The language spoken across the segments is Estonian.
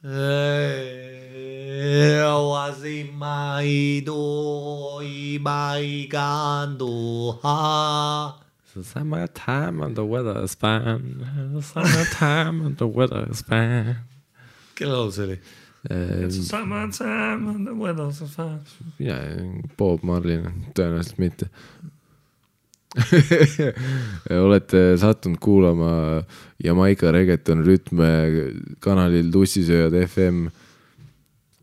The summertime and the weather is fine. The summertime and the weather is fine. Kelle laul see oli? It's the summertime and the weather is fine. Ja, Bob Marlin, tõenäoliselt mitte. Olete sattunud kuulama Jamaica Reggaeton rütme kanalil Tussisööjad FM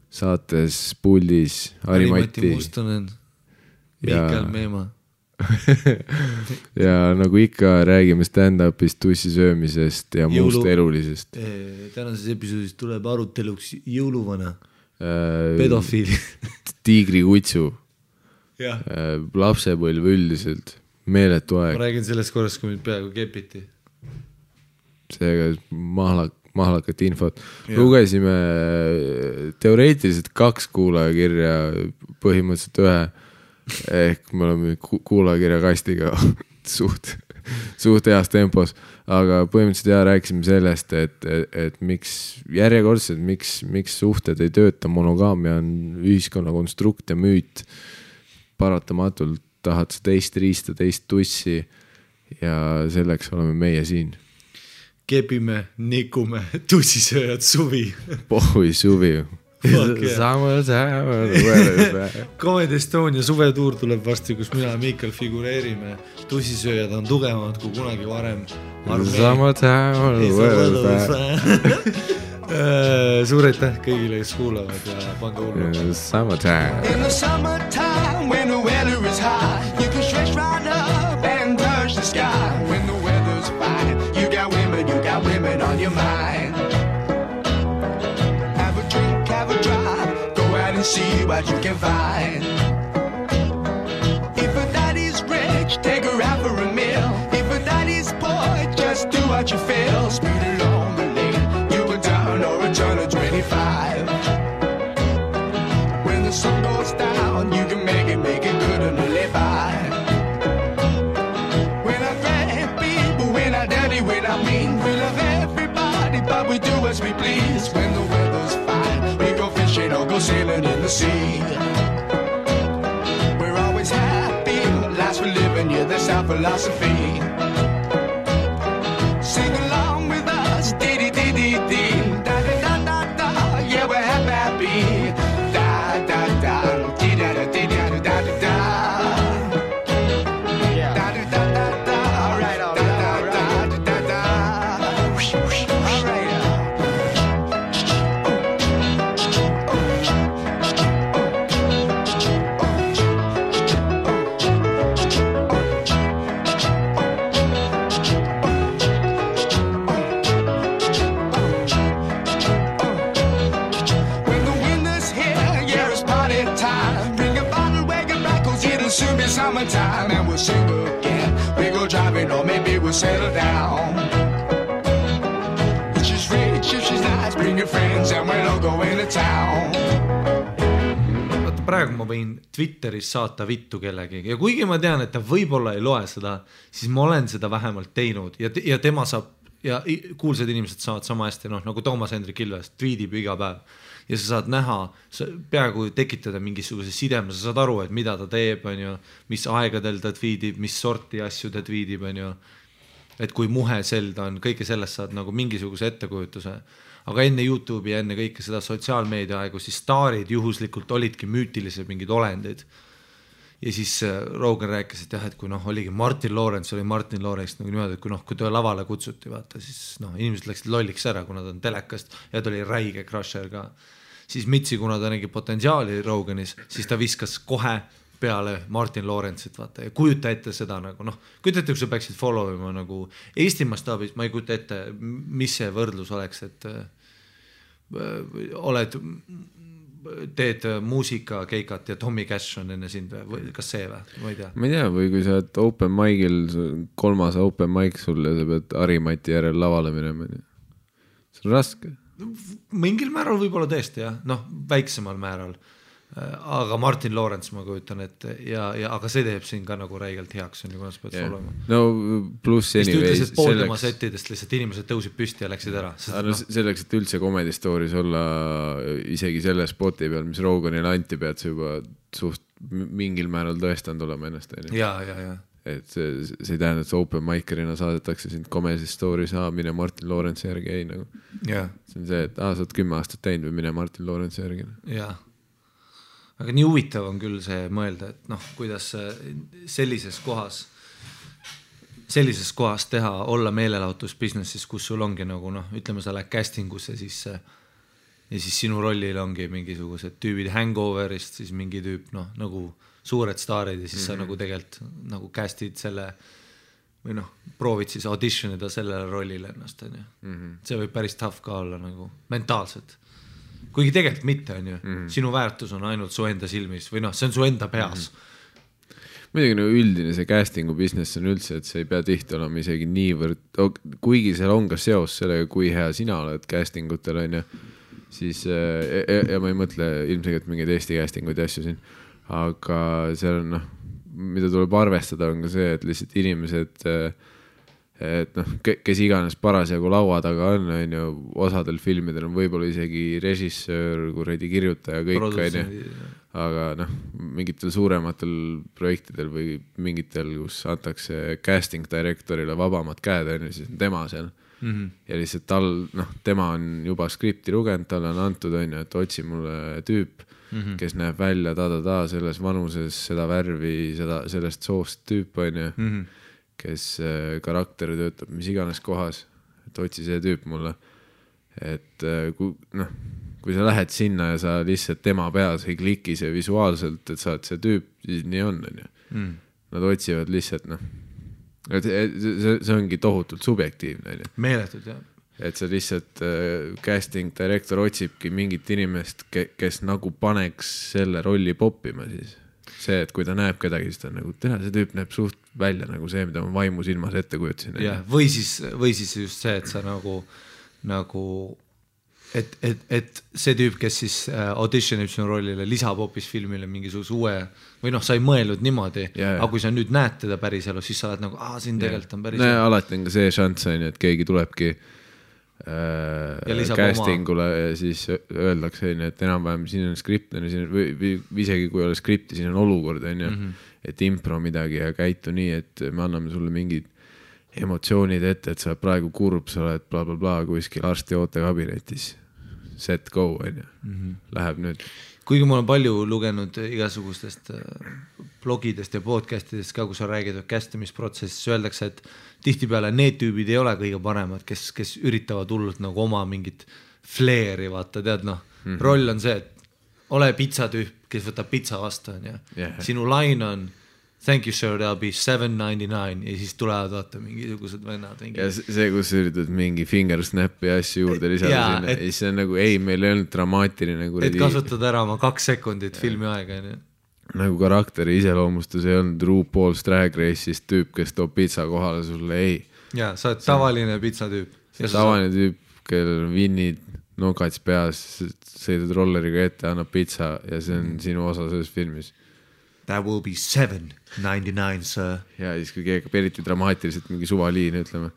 saates puldis Harimati Mustonen, Mikael Meema. Ja nagu ikka räägime stand-upist, tussisöömisest ja muust elulisest. Tänases episoodis tuleb aruteluks jõuluvana, pedofiili, tiigrikutsu, lapsepõlv üldiselt, meeletu aeg. Ma räägin sellest korrast, kui mind peaaegu kepiti. Seega mahlakat infot. Lugesime teoreetiliselt 2 kuulajakirja, põhimõtteliselt 1. Ehk me oleme kuulajakirja kastiga suht heas tempos, aga põhimõtteliselt rääkisime sellest, et miks järjekordselt, miks suhted ei tööta, monogaamia on ühiskonna konstrukt ja müüt, paratamatult tahad sa teist riista, teist tussi ja selleks oleme meie siin. Kepime, nikume, tussisööjad suvi. Pohhui suvi. Comedy Estonia suvetuur tuleb varsti, kus mina ja Mikael figureerime. Tussisööjad on tugevamad kui kunagi varem. Suur aitäh kõigile, kes kuulavad ja pange hullu. Summertime. In the summertime when the weather is high, you can stretch right up and touch the sky. When the weather's fine, you got women on your mind. Have a drive, go out and see what you can find. If a daddy's rich, take her out for a meal. If a daddy's poor, just do what you feel. Speed along the lane, you go down or a turn of 25. When the sun goes down, you can make it good and live by. We're not great people, we're not dirty, we're not mean. We love everybody, but we do as we please. When the weather's fine, we go fishing or go sailing in the sea. We're always happy, last we're living, yeah, that's our philosophy. Sing along with us, dee-dee-dee-dee-dee, da-da-da-da-da, yeah, we're happy, da-da-da, dee-da-da-dee-da-da-da-da. Summertime and we'll sing again. We go driving or maybe we'll settle down. If she's rich, if she's nice, bring your friends and we'll all go into town. Vaata, praegu ma võin Twitteris saata vittu kellegi ja kuigi ma tean, et ta võib-olla ei loe seda, siis ma olen seda vähemalt teinud ja tema saab ja kuulsad inimesed saavad sama hästi, nagu Toomas Hendrik Ilves tweetib iga päev. Ja sa saad näha, peaaegu tekitada mingisuguse sideme, sa saad aru, et mida ta teeb, mis aegadel ta tweetib, mis sorti asju ta tweetib, et kui muhe ta on, kõike sellest saad nagu mingisuguse ettekujutuse. Aga enne YouTube'i ja enne kõike seda sotsiaalmeedia aegu, siis staarid juhuslikult olidki müütilised mingid olendid. Ja siis Rogan rääkis, et jah, et kui oligi Martin Lawrence, oli Martin Lawrence nagu niimoodi, et kui ta lavale kutsuti, vaata, siis inimesed läksid lolliks ära, kuna ta on telekast ja ta oli räige crusher ka. Siis Mitsi, kuna ta nägi potentsiaali Roganis, siis ta viskas kohe peale Martin Lawrence'it, vaata, ja kujuta ette seda nagu, kujuta ette, kui sa peaksid followima nagu Eesti mastaabis, ma ei kujuta ette, mis see võrdlus oleks, et teed muusikakeikat ja Tommy Cash on enne sind või kas see või? Ma ei tea. Ma ei tea, või kui sa oled open mic'il, 3. open mic sul ja sa pead Harimati järel lavale minema. See on raske. Mingil määral võib-olla tõesti, jah. Väiksemal määral. aga Martin Lawrence ma kujutan, et aga see teeb siin ka nagu räigelt heaks, on ju, kuidas peaks olema. No pluss anyways. Ütles, et pool tema settidest lihtsalt inimesed tõusid püsti ja läksid ära. Selleks, et üldse Comedy Stories olla isegi selle spoti peal, mis Roganile anti, pead sa juba suht mingil määral tõestanud olema ennast. Ja. Et see ei tähenda, et open micerina saadetakse sind Comedy Stories, mine Martin Lawrence järgi, ei nagu. See on see, et sa oled 10 aastat teinud või mine Martin Lawrence järgi. Jaa. Aga nii huvitav on küll see mõelda, et noh, kuidas sellises kohas teha, olla meelelahutusbusinessis, kus sul ongi nagu noh, ütleme sa lähed castingusse ja siis sinu rollil ongi mingisugused tüübid Hangoverist, siis mingi tüüp noh, nagu suured staarid ja siis sa nagu tegelikult nagu castid selle või noh, proovid siis auditionida sellele rollile ennast, on ju. See võib päris tough ka olla nagu mentaalselt. Kuigi tegelikult mitte, on ju. Sinu väärtus on ainult su enda silmis või noh, see on su enda peas. Muidugi no üldine see castingu business on üldse, et see ei pea tihti olema isegi niivõrd, kuigi seal on ka seos sellega, kui hea sina oled castingutel, on ju, siis ja ma ei mõtle ilmselgelt mingeid Eesti castinguid ja asju siin, aga seal on noh, mida tuleb arvestada on ka see, et lihtsalt inimesed, et noh, kes iganes parasjagu laua taga on ju, osadel filmidel on võib-olla isegi režissöör, kuradi kirjutaja, kõik on ju, aga noh, mingitel suurematel projektidel või mingitel, kus antakse casting directorile vabamad käed, on ju, siis on tema seal. Ja lihtsalt tal, noh, tema on juba skripti lugenud, tal on antud, on ju, et otsi mulle tüüp, kes näeb välja selles vanuses, seda värvi, sellest soost tüüp, on ju, kes karakteri töötab mis iganes kohas, et otsi see tüüp mulle, et kui sa lähed sinna ja sa lihtsalt tema peas ei kliki see visuaalselt, et sa oled see tüüp, siis nii on ju. Nad otsivad lihtsalt, noh, see ongi tohutult subjektiivne. Meeletud, jah. Et see lihtsalt casting director otsibki mingit inimest, kes nagu paneks selle rolli poppima siis. See, et kui ta näeb kedagi, siis ta nagu, see tüüp näeb suht välja nagu see, mida ma vaimu silmas ette kujutasin. Ja, või siis just see, et sa nagu et see tüüp, kes siis auditionib sinu rollile, lisab hoopis filmile mingisuguse uue, või noh, sa ei mõelnud niimoodi, aga kui sa nüüd näed teda päris elu, siis sa oled nagu, siin tegelikult on päris elu. Alati on ka see šanss, et keegi tulebki castingule ja siis öeldakse, et enam-vähem siin on skript, või isegi kui ei ole skripti, siin on olukord, et impro midagi ja käitu nii, et me anname sulle mingid emotsioonid ette, et sa oled praegu kurb, sa oled bla bla bla kuskil arsti ootekabinetis, set go, läheb nüüd. Kuigi ma olen palju lugenud igasugustest blogidest ja podcastidest ka, kus on räägitud castimisprotsessis, öeldakse, et tihtipeale need tüübid ei ole kõige paremad, kes üritavad hullult nagu oma mingit flairi, vaata, tead noh, roll on see, et ole pizzatüüp, kes võtab pizza vastu, on ju. Sinu line on thank you sir, that'll be $7.99 ja siis tulevad vaata mingisugused vennad. Ja see, kus üritad mingi finger snap'i asju juurde lisada sinna, ja siis on nagu, meil ei olnud dramaatiline. Et kasutad ära oma 2 sekundit filmi aega. Nagu karakteri iseloomustus ei olnud RuPaul's Drag Race'ist tüüp, kes toob pizza kohale sulle, ei. Ja, sa oled tavaline pizzatüüp. Tavaline tüüp, kellel on vinnid, nokats peas, sõidad rolleriga ette, annab pizza ja see on sinu osa selles filmis. That will be $7.99, sir. Ja siis kui keegi eriti dramaatiliselt mingi suvaliin, ütleme.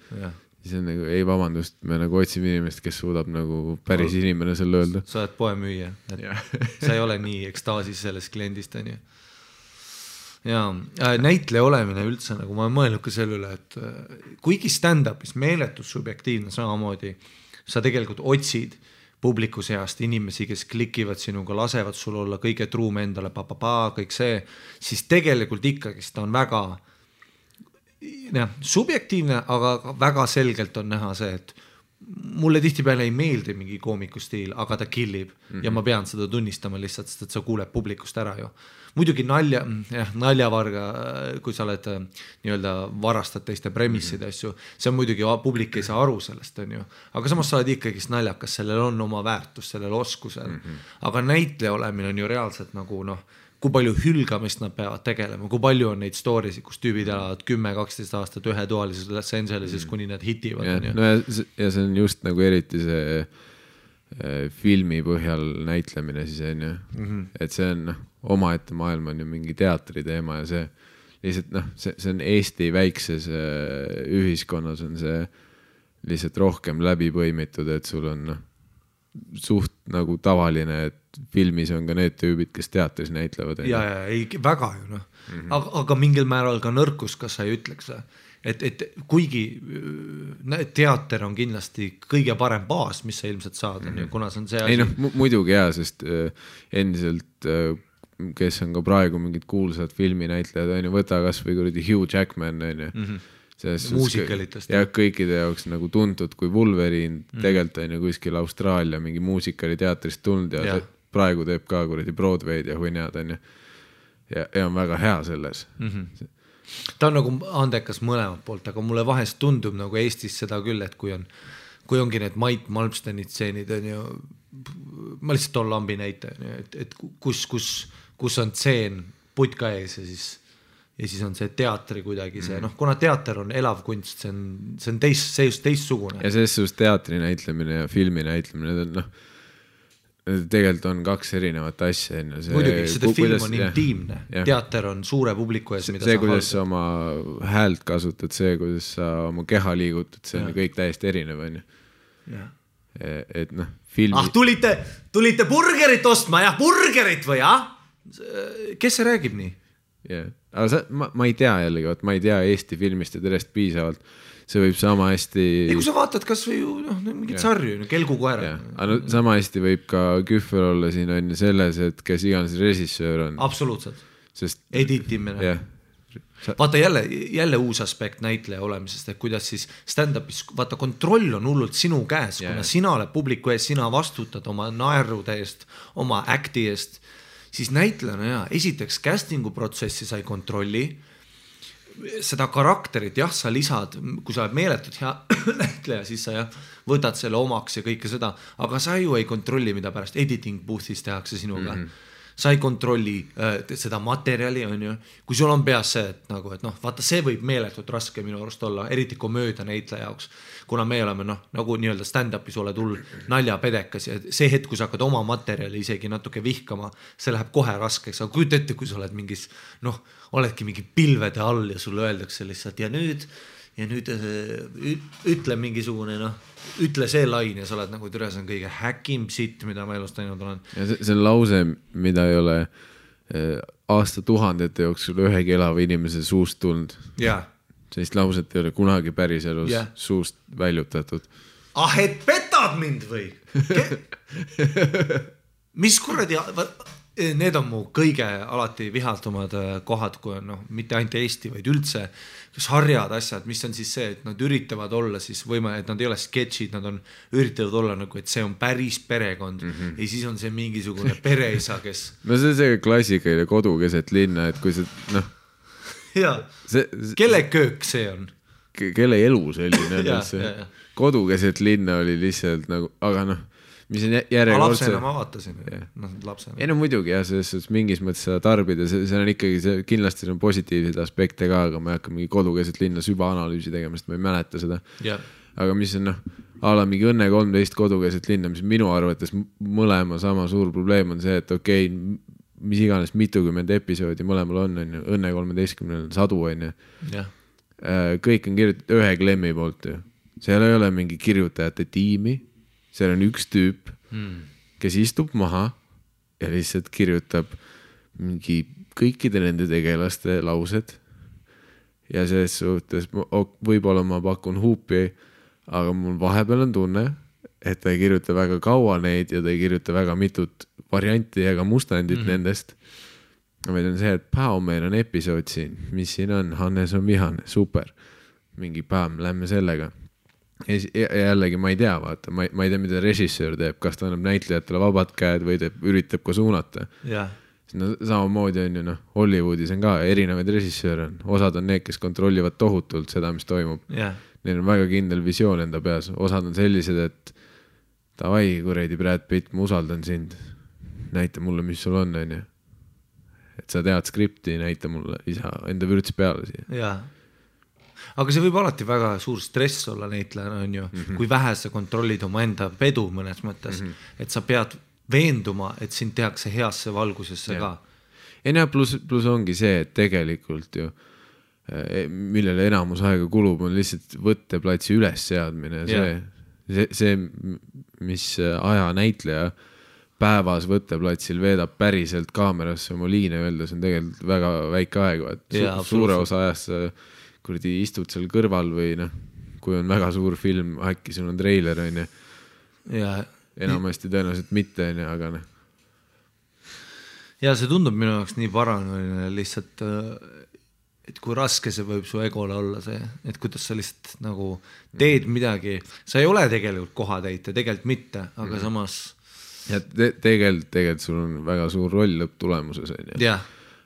Siis on nagu, ei vabandust, me nagu otsime inimest, kes suudab nagu päris inimene selle öelda. Sa oled poemüüja. Sa ei ole nii ekstaasis sellest kliendist, on ju. Ja näitleja olemine üldse, nagu ma olen mõelnud ka selle üle, et kuigi stand-upis meeletus subjektiivne samamoodi, sa tegelikult otsid publiku seast inimesi, kes klikivad sinuga, lasevad sul olla kõige truum endale, kõik see, siis tegelikult ikkagi ta on väga subjektiivne, aga väga selgelt on näha see, et mulle tihtipeale ei meeldi mingi koomiku stiil, aga ta killib ja ma pean seda tunnistama lihtsalt, sest et sa kuuleb publikust ära ju. Muidugi naljavarga, kui sa oled nii-öelda varastad teiste premissid asju, see on muidugi, publik ei saa aru sellest, on ju. Aga samas sa oled ikkagi naljakas, sellel on oma väärtus, sellel oskusel. Aga näitleja olemine on ju reaalselt nagu kui palju hülgamist nad peavad tegelema, kui palju on neid story'sid, kus tüübid elavad 10-12 aastat ühetoalises Los Angeleses, kuni nad hitivad. Ja see on just nagu eriti see filmi põhjal näitlemine siis on ju, et see on omaette maailm on ju mingi teatri teema ja see lihtsalt see on Eesti väikses ühiskonnas on see lihtsalt rohkem läbi põimitud, et sul on suht nagu tavaline, et filmis on ka need tüübid, kes teatris näitlevad. Ja ei, väga ju aga mingil määral ka nõrkus, kas sa ei ütleks, et kuigi teater on kindlasti kõige parem baas, mis sa ilmselt saad, kuna see on see asi. Ei muidugi hea, sest endiselt, kes on ka praegu mingid kuulsad filminäitlejad, on ju, võta kas või kuradi Hugh Jackman, on ju. Muusikalitest. Ja kõikide jaoks nagu tuntud kui Wolverine, tegelikult on ju kuskil Austraalia mingi muusikali teatrist tulnud ja praegu teeb ka kuradi Broadway'd ja huinjad, on ju. Ja on väga hea selles. Ta on nagu andekas mõlemad poolt, aga mulle vahest tundub nagu Eestis seda küll, et kui ongi need Mait Malmsteni tseenid, on ju, ma lihtsalt toon lambi näite, et kus on tseen putka ees ja siis on see teatri kuidagi see, kuna teater on elav kunst, see on teistsugune. Ja selles suhtes teatri näitlemine ja filmi näitlemine, tegelikult on kaks erinevat asja. Muidugi, seda film on intiimne, teater on suure publiku ees, mida see, kuidas sa oma häält kasutad, see, kuidas sa oma keha liigutad, see on kõik täiesti erinev, on ju. Et filmi... tulite burgerit ostma, burgerit või, Kes see räägib nii? Aga ma ei tea jällegi, ma ei tea Eesti filmist ja terest piisavalt. See võib sama hästi... Ei, kui sa vaatad kas või mingit sarju, Kelgukoera. Sama hästi võib ka Kühver olla siin on selles, et kes iganes režissöör on. Absoluutselt. Editimine. Vaata jälle uus aspekt näitleja olemisest, et kuidas siis stand-upis, vaata kontroll on hullult sinu käes, kuna sina oled publiku ees, sina vastutad oma naerude eest, oma acti eest, siis näitlejana esiteks castingu protsessi sai kontrolli, seda karakterit, sa lisad, kui sa oled meeletud hea näitleja, siis sa võtad selle omaks ja kõike seda, aga sa ju ei kontrolli, mida pärast editing booth'is tehakse sinuga. Sa ei kontrolli seda materjali, on ju. Kui sul on peas see, et vaata, see võib meeletult raske minu arust olla, eriti komöödia näitleja jaoks, kuna me oleme nagu nii-öelda stand-upis oled hull naljapedekas ja see hetk, kui sa hakkad oma materjali isegi natuke vihkama, see läheb kohe raskeks, aga kujuta ette, kui sa oled mingis, oledki mingi pilvede all ja sulle öeldakse lihtsalt ja nüüd ütle mingisugune, ütle see lain ja sa oled nagu türa, see on kõige häkim sitt, mida ma elust teinud olen. Ja see on lause, mida ei ole aastatuhandete jooksul ühegi elava inimese suust tulnud. Sellist lauset ei ole kunagi päris elus suust väljutatud. Et petad mind või? Mis kuradi... Need on mu kõige alati vihatumad kohad, kui on mitte ainult Eesti, vaid üldse sarjad asjad, mis on siis see, et nad üritavad olla siis et nad ei ole sketšid, nad üritavad olla nagu, et see on päris perekond ja siis on see mingisugune pereisa, kes... see on see klassikaline kodu keset linna, et kui see, kelle köök see on? Kelle elu selline on? Kodu keset linna oli lihtsalt nagu, aga mis on järjekordse... Lapsena ma vaatasin. Lapsena. Ei muidugi selles mingis mõttes seda tarbida, see on ikkagi, kindlasti on positiivseid aspekte ka, aga ma ei hakka mingi kodukeset linna sübaanalüüsi tegema, sest ma ei mäleta seda. Aga mis on ala mingi Õnne 13 kodukeset linna, mis minu arvates mõlema sama suur probleem on see, et okei, mis iganes mitukümmend episoodi mõlemal on Õnne 13 sadu on ju. Kõik on kirjutatud ühe klemmi poolt ju. Seal ei ole mingi kirjutajate tiimi. Seal on üks tüüp, kes istub maha ja lihtsalt kirjutab mingi kõikide nende tegelaste laused. Ja selles suhtes võib-olla ma pakun huupi, aga mul vahepeal on tunne, et ta ei kirjuta väga kaua neid ja ta ei kirjuta väga mitut varianti ega mustandit nendest. Meil on see, et meil on episood siin, mis siin on, Hannes on vihane, super. Mingi lähme sellega. Ja jällegi ma ei tea, vaata, ma ei tea, mida režissöör teeb, kas ta annab näitlejatele vabad käed või üritab ka suunata. Samamoodi on ju, Hollywoodis on ka erinevaid režissööre on. Osad on need, kes kontrollivad tohutult seda, mis toimub. Neil on väga kindel visioon enda peas. Osad on sellised, et davai, kuredi Brad Pitt, ma usaldan sind. Näita mulle, mis sul on ju. Et sa tead skripti, näita mulle isa enda vürts peale siia. aga see võib alati väga suur stress olla näitlejana, on ju, kui vähe sa kontrollid oma enda pedu mõnes mõttes, et sa pead veenduma, et sind tehakse heasse valgusesse ka. Ja plus ongi see, et tegelikult ju, millele enamus aega kulub, on lihtsalt võtteplatsi üles seadmine. See, mis aja näitleja päevas võtteplatsil veedab päriselt kaamerasse oma liine öeldes, on tegelikult väga väike aeg. Suure osa ajast sa kuradi istud seal kõrval või kui on väga suur film, äkki sul on treiler, on ju. Enamasti tõenäoliselt mitte, aga Ja see tundub minu jaoks nii paranoiline lihtsalt, et kui raske see võib su egole olla see, et kuidas sa lihtsalt nagu teed midagi, sa ei ole tegelikult kohatäite, tegelikult mitte, aga samas ja tegelikult sul on väga suur roll lõpptulemuses, on ju.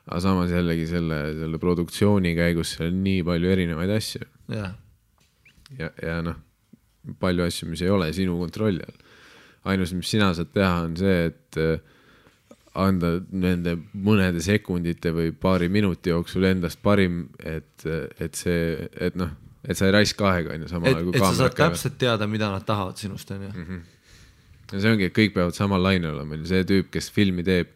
Aga samas jällegi selle produktsiooni käigus seal on nii palju erinevaid asju. Ja palju asju, mis ei ole sinu kontrolli all. Ainus, mis sina saad teha, on see, et anda nende mõnede sekundite või paari minuti jooksul endast parim, et sa ei raiska aega, on ju, samal et sa saad täpselt teada, mida nad tahavad sinust, on ju. Ja see ongi, et kõik peavad samal lainel olema. See tüüp, kes filmi teeb,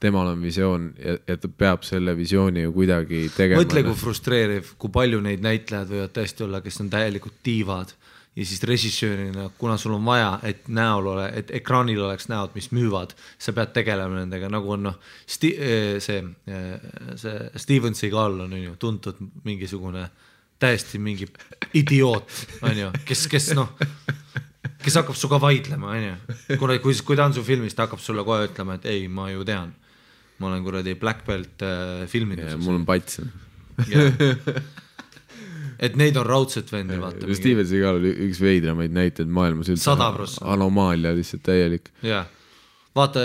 temal on visioon ja ta peab selle visiooni ju kuidagi tegema. Mõtle, kui frustreeriv, kui palju neid näitlejad võivad tõesti olla, kes on täielikult tiivad ja siis režissöörina, kuna sul on vaja, et ekraanil oleks näod, mis müüvad, sa pead tegelema nendega, nagu on see Steven Seagal on ju tuntud mingisugune täiesti mingi idioot, on ju, kes hakkab suga vaidlema, on ju. Kui ta on su filmis, ta hakkab sulle kohe ütlema, et ei, ma ju tean. Ma olen kuradi Black Belt filmides. Mul on pats. Et neid on raudselt vendi, vaata. Steven Seagal oli üks veidramaid näiteid maailmas üldse. 100%. Anomaalia lihtsalt täielik. Vaata,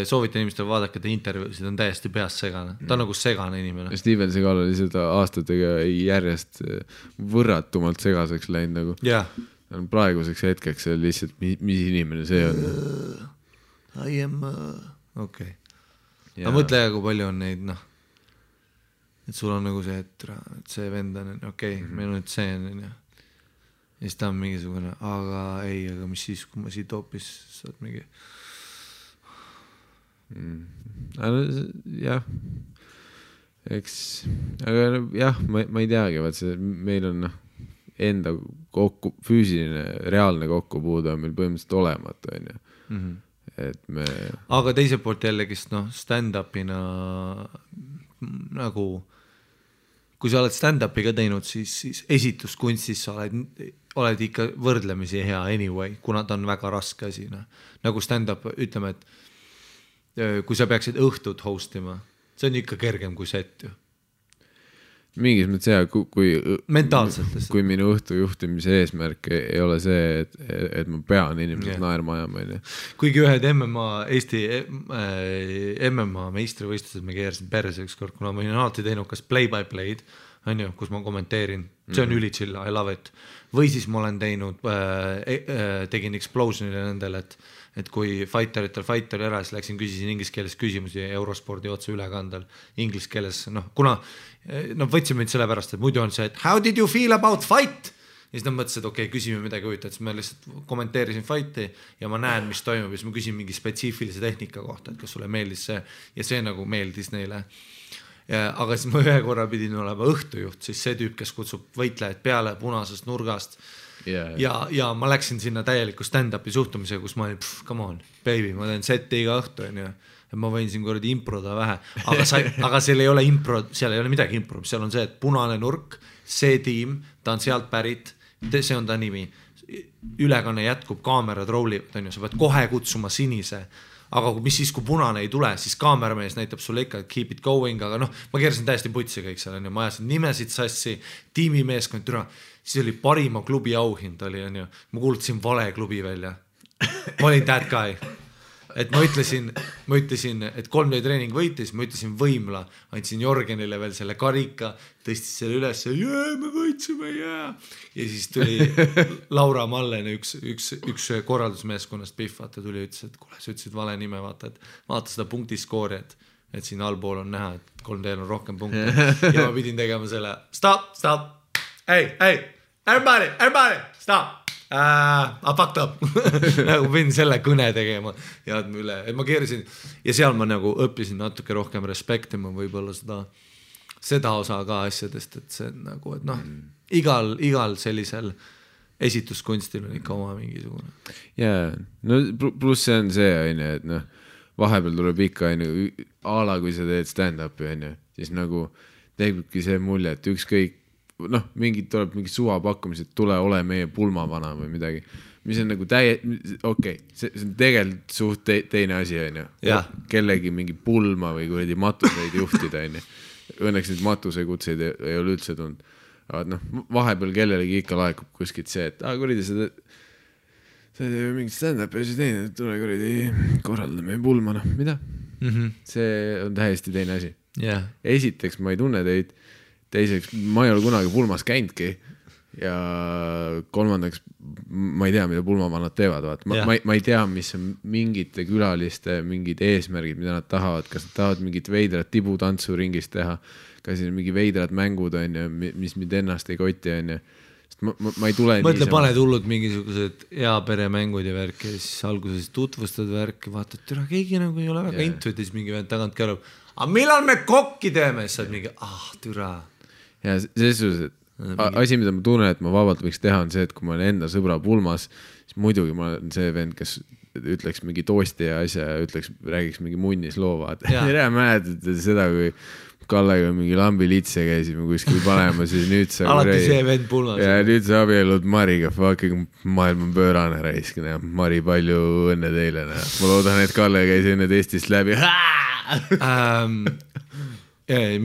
soovita inimestele vaadake ta intervjuusid, on täiesti peast segane. Ta on nagu segane inimene. Steven Seagal oli seda aastatega järjest võrratumalt segaseks läinud nagu. Praeguseks hetkeks see lihtsalt, mis inimene see on. I am... Okei. Ma mõtle, kui palju on neid, et sul on nagu see, et see vend on, meil on nüüd see on, ja siis ta on mingisugune, aga mis siis, kui ma siit hoopis saad mingi... Jah. Eks, aga jah, ma ei teagi, vaat see, meil on enda füüsiline, reaalne kokkupuude on meil põhimõtteliselt olematu, on ju. Et me... Aga teiselt poolt jällegist, stand-upina nagu, kui sa oled stand-upi ka teinud, siis esituskunstis sa oled ikka võrdlemisi hea anyway, kuna ta on väga raske asi. Nagu stand-up, ütleme, et kui sa peaksid õhtut hostima, see on ikka kergem kui set ju. Mingis mõttes hea, kui minu õhtu juhtimise eesmärk ei ole see, et ma pean inimesed naerma ajama. Kuigi ühed Eesti MMA meistrivõistlused me keerasin perse ükskord, kuna ma olin alati teinud kas play-by-play'd, on ju, kus ma kommenteerin, see on ülichill, I love it. Või siis ma olen teinud, tegin explosionile nendel, et kui fighter ära, siis läksin, küsisin inglise keeles küsimusi Eurospordi otse ülekandel inglise keeles, kuna võtsime mind selle pärast, et muidu on see, et how did you feel about fight? Ja siis nad mõtlesid, et küsime midagi huvitavat, siis ma lihtsalt kommenteerisin fighti ja ma näen, mis toimub ja siis ma küsin mingi spetsiifilise tehnika kohta, et kas sulle meeldis see ja see nagu meeldis neile. Aga siis ma ühe korra pidin olema õhtujuht, siis see tüüp, kes kutsub võitlejaid peale punasest nurgast ja ma läksin sinna täieliku stand-upi suhtumisega, kus ma olin, come on, baby, ma teen seti iga õhtu, et ma võin siin korradi improda vähe, aga seal ei ole seal ei ole midagi impro, seal on see, et punane nurk, see tiim, ta on sealt pärit, see on ta nimi, ülekanne jätkub, kaamerad rollivad, sa pead kohe kutsuma sinise, aga mis siis, kui punane ei tule, siis kaameramees näitab sulle ikka, et keep it going, aga ma keerasin täiesti putsi kõik seal, ma ajasin nimesid sassi, tiimimeeskond, siis oli parima klubi auhind, ma kuulutasin vale klubi välja, ma olin that guy. Et ma ütlesin, et 3D treening võitis, ma ütlesin võimla, andsin Jorgenile veel selle karika, tõstis selle üles, me võitsime, ja siis tuli Laura Mallen, üks korraldusmeeskonnast Pihv, vaata tuli ja ütles, et kuule, sa ütlesid vale nime, vaata seda punktiskoori, et siin allpool on näha, et 3D on rohkem punkte ja ma pidin tegema selle, stop, hey, everybody, stop. I fucked up. Nagu pidin selle kõne tegema ja üle, et ma keerisin ja seal ma nagu õppisin natuke rohkem respektima võib-olla seda osa ka asjadest, et see nagu, et noh, igal sellisel esituskunstil on ikka oma mingisugune. Jaa, no pluss see on see, et noh, vahepeal tuleb ikka ala, kui sa teed stand-upi, siis nagu teebki see mulje, et ükskõik, noh, tuleb mingi suvapakkumised, tule ole meie pulmavana või midagi, mis on nagu okei, see on tegelikult suht teine asi, kellegi mingi pulma või kuradi matuseid juhtida, õnneks neid matusekutseid ei ole üldse tulnud. Aga noh, vahepeal kellelegi ikka laekub kuskilt see, et kuradi sa teed mingit stand-upi ja siis teine, tule kuradi korraldame pulma, noh, mida? See on täiesti teine asi. Esiteks ma ei tunne teid, teiseks ma ei ole kunagi pulmas käinudki ja kolmandaks ma ei tea, mida pulmavanad teevad. Ma ei tea, mis on mingite külaliste mingid eesmärgid, mida nad tahavad, kas nad tahavad mingit veidrat tibutantsu ringis teha, kas siin mingi veidrad mängud on ja mis mind ennast ei koti on ja ma ei tule mõtle, paned hullud mingisugused peremängud ja värki ja siis alguses tutvustad värki, vaatad, türa, keegi nagu ei ole väga intuitis mingi vend tagant kärub, aga millal me kokki teeme, siis saad mingi, türa. Ja selles suhtes, et asi, mida ma tunnen, et ma vabalt võiks teha, on see, et kui ma olen enda sõbra pulmas, siis muidugi ma olen see vend, kes ütleks mingi toosti ja asja ja räägiks mingi munnis loo, vaata. Tere mäletad seda, kui Kallega mingi lambilitse käisime kuskil panema, siis nüüd sa alati see vend pulmas. Ja nüüd sa abielud Mariga, fucking maailm on pöörane raiskine. Mari, palju õnne teile. Ma loodan, et Kalle käis enne Eestist läbi.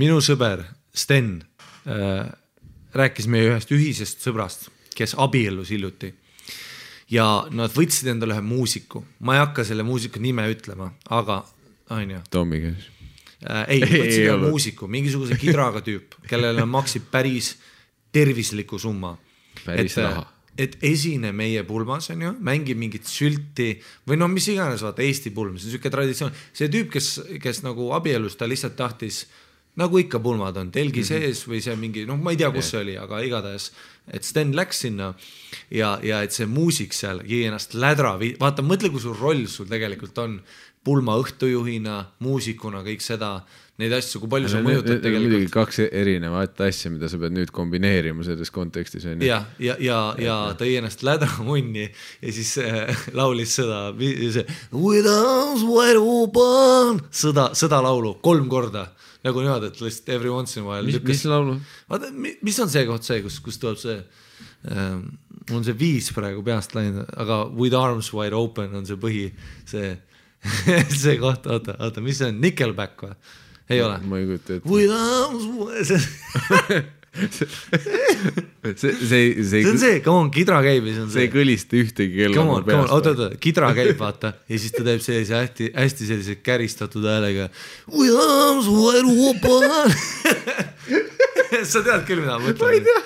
Minu sõber Sten rääkis meie ühest ühisest sõbrast, kes abiellus hiljuti. Ja nad võtsid endale ühe muusiku. Ma ei hakka selle muusiku nime ütlema, aga Tommi käis. Ei, võtsid muusiku, mingisuguse kidraga tüüp, kellele maksib päris tervisliku summa. Päris raha. Et esine meie pulmas on ju, mängib mingit sülti või no mis iganes, vaata Eesti pulm, see on selline traditsioon. See tüüp, kes nagu abielus, ta lihtsalt tahtis, nagu ikka pulmad on, telgi sees või see mingi, noh ma ei tea, kus see oli, aga igatahes, et Sten läks sinna ja et see muusik seal jäi ennast lädra, vaata, mõtle, kui sul roll sul tegelikult on pulma õhtujuhina, muusikuna, kõik seda, neid asju, kui palju sa mõjutad tegelikult. Muidugi kaks erinevat asja, mida sa pead nüüd kombineerima selles kontekstis. Ja tõi ennast lädra munni ja siis laulis seda With arms wide open sõda laulu 3 korda. Nagu niimoodi, et lihtsalt every once in a while. Mis laulu? Vaata, mis on see koht see, kus tuleb see on see 5 praegu peast läinud, aga With arms wide open on see põhi, see koht, oota, mis see on, Nickelback või? Ei ole? Ma ei kujuta ette. With arms wide see on see, come on, kidra käib ja see on see. See ei kõlista ühtegi kella come on, oota, kidra käib, vaata ja siis ta teeb sellise hästi sellise käristatud häälega With arms wide open sa tead küll, mida ma mõtlen? Ma ei tea.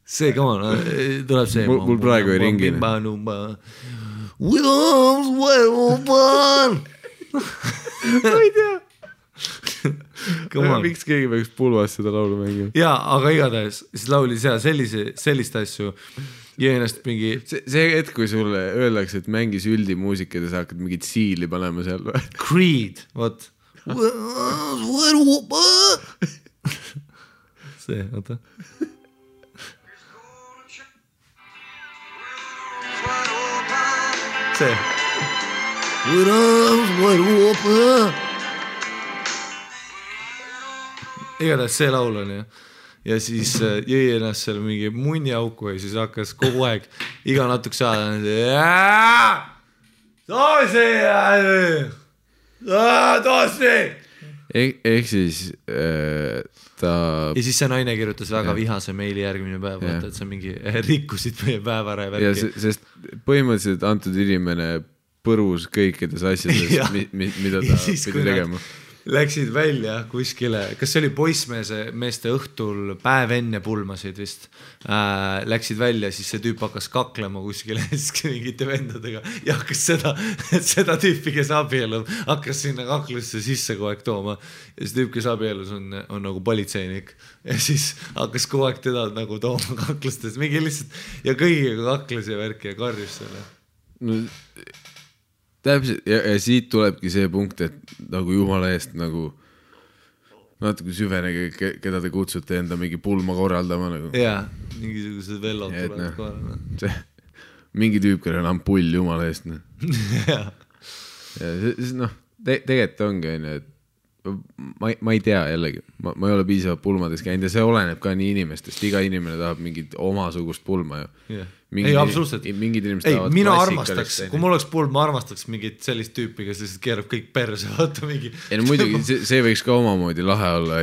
See, come on, tuleb see. Mul praegu ei ringi. With arms wide open. Ma ei tea. Miks keegi peaks pulvas seda laulu mängima? Jaa, aga igatahes, siis lauli seal sellist asju ja ennast mingi... See hetk, kui sulle öeldakse, et mängis üldimuusika ja sa hakkad mingit siili panema seal või? Creed, what? With arms wide open. See, oota. See. With arms wide open. Igatahes see laul on ja siis jõi ennast seal mingi munniauku ja siis hakkas kogu aeg iga natuke saada toosi ehk siis ta ja siis see naine kirjutas väga vihase meili järgmine päev, vaata, et sa mingi rikkusid meie päevara ja värki. Sest põhimõtteliselt antud inimene põrus kõikides asjades, mida ta pidi tegema. läksid välja kuskile, kas see oli poissmeeste õhtul päev enne pulmasid vist, läksid välja, siis see tüüp hakkas kaklema kuskile mingite vendadega ja hakkas seda tüüpi, kes abielub, hakkas sinna kaklusse sisse kogu aeg tooma ja see tüüp, kes abielus on nagu politseinik ja siis hakkas kogu aeg teda nagu tooma kaklustes, mingi lihtsalt ja kõigiga kakles ja värki ja karjus selle. No, täpselt ja siit tulebki see punkt, et nagu jumala eest nagu natuke süvenege, keda te kutsute enda mingi pulma korraldama nagu. Jaa, mingisugused vellod tulevad korraldama. Mingi tüüp, kellel on ampull jumala eest. Ja see, tegelikult ongi, et ma ei tea jällegi, ma ei ole piisavalt pulmades käinud ja see oleneb ka nii inimestest, iga inimene tahab mingit omasugust pulma ju. Yeah. Ei, absoluutselt. Mingid inimesed tahavad mina armastaks, kui mul oleks pulm, ma armastaks mingit sellist tüüpi, kes lihtsalt keerab kõik perse, vaata mingi. Ja no muidugi, see võiks ka omamoodi lahe olla,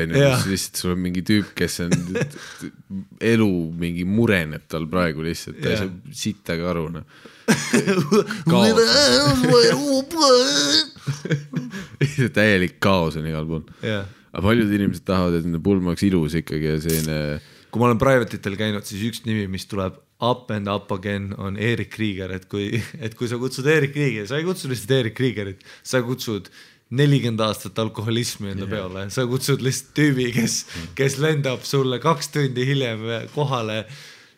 lihtsalt sul on mingi tüüp, kes on elu mingi mureneb tal praegu lihtsalt, ta ei saa sittaga aru. Täielik kaos on igal pool. Aga paljud inimesed tahavad, et nende pulm oleks ilus ikkagi ja selline. Kui ma olen private'itel käinud, siis üks nimi, mis tuleb up and up again on Erik Krieger, et kui sa kutsud Erik Krieger, sa ei kutsu lihtsalt Erik Kriegerit, sa kutsud 40 aastat alkoholismi enda peale, sa kutsud lihtsalt tüübi, kes lendab sulle 2 tundi hiljem kohale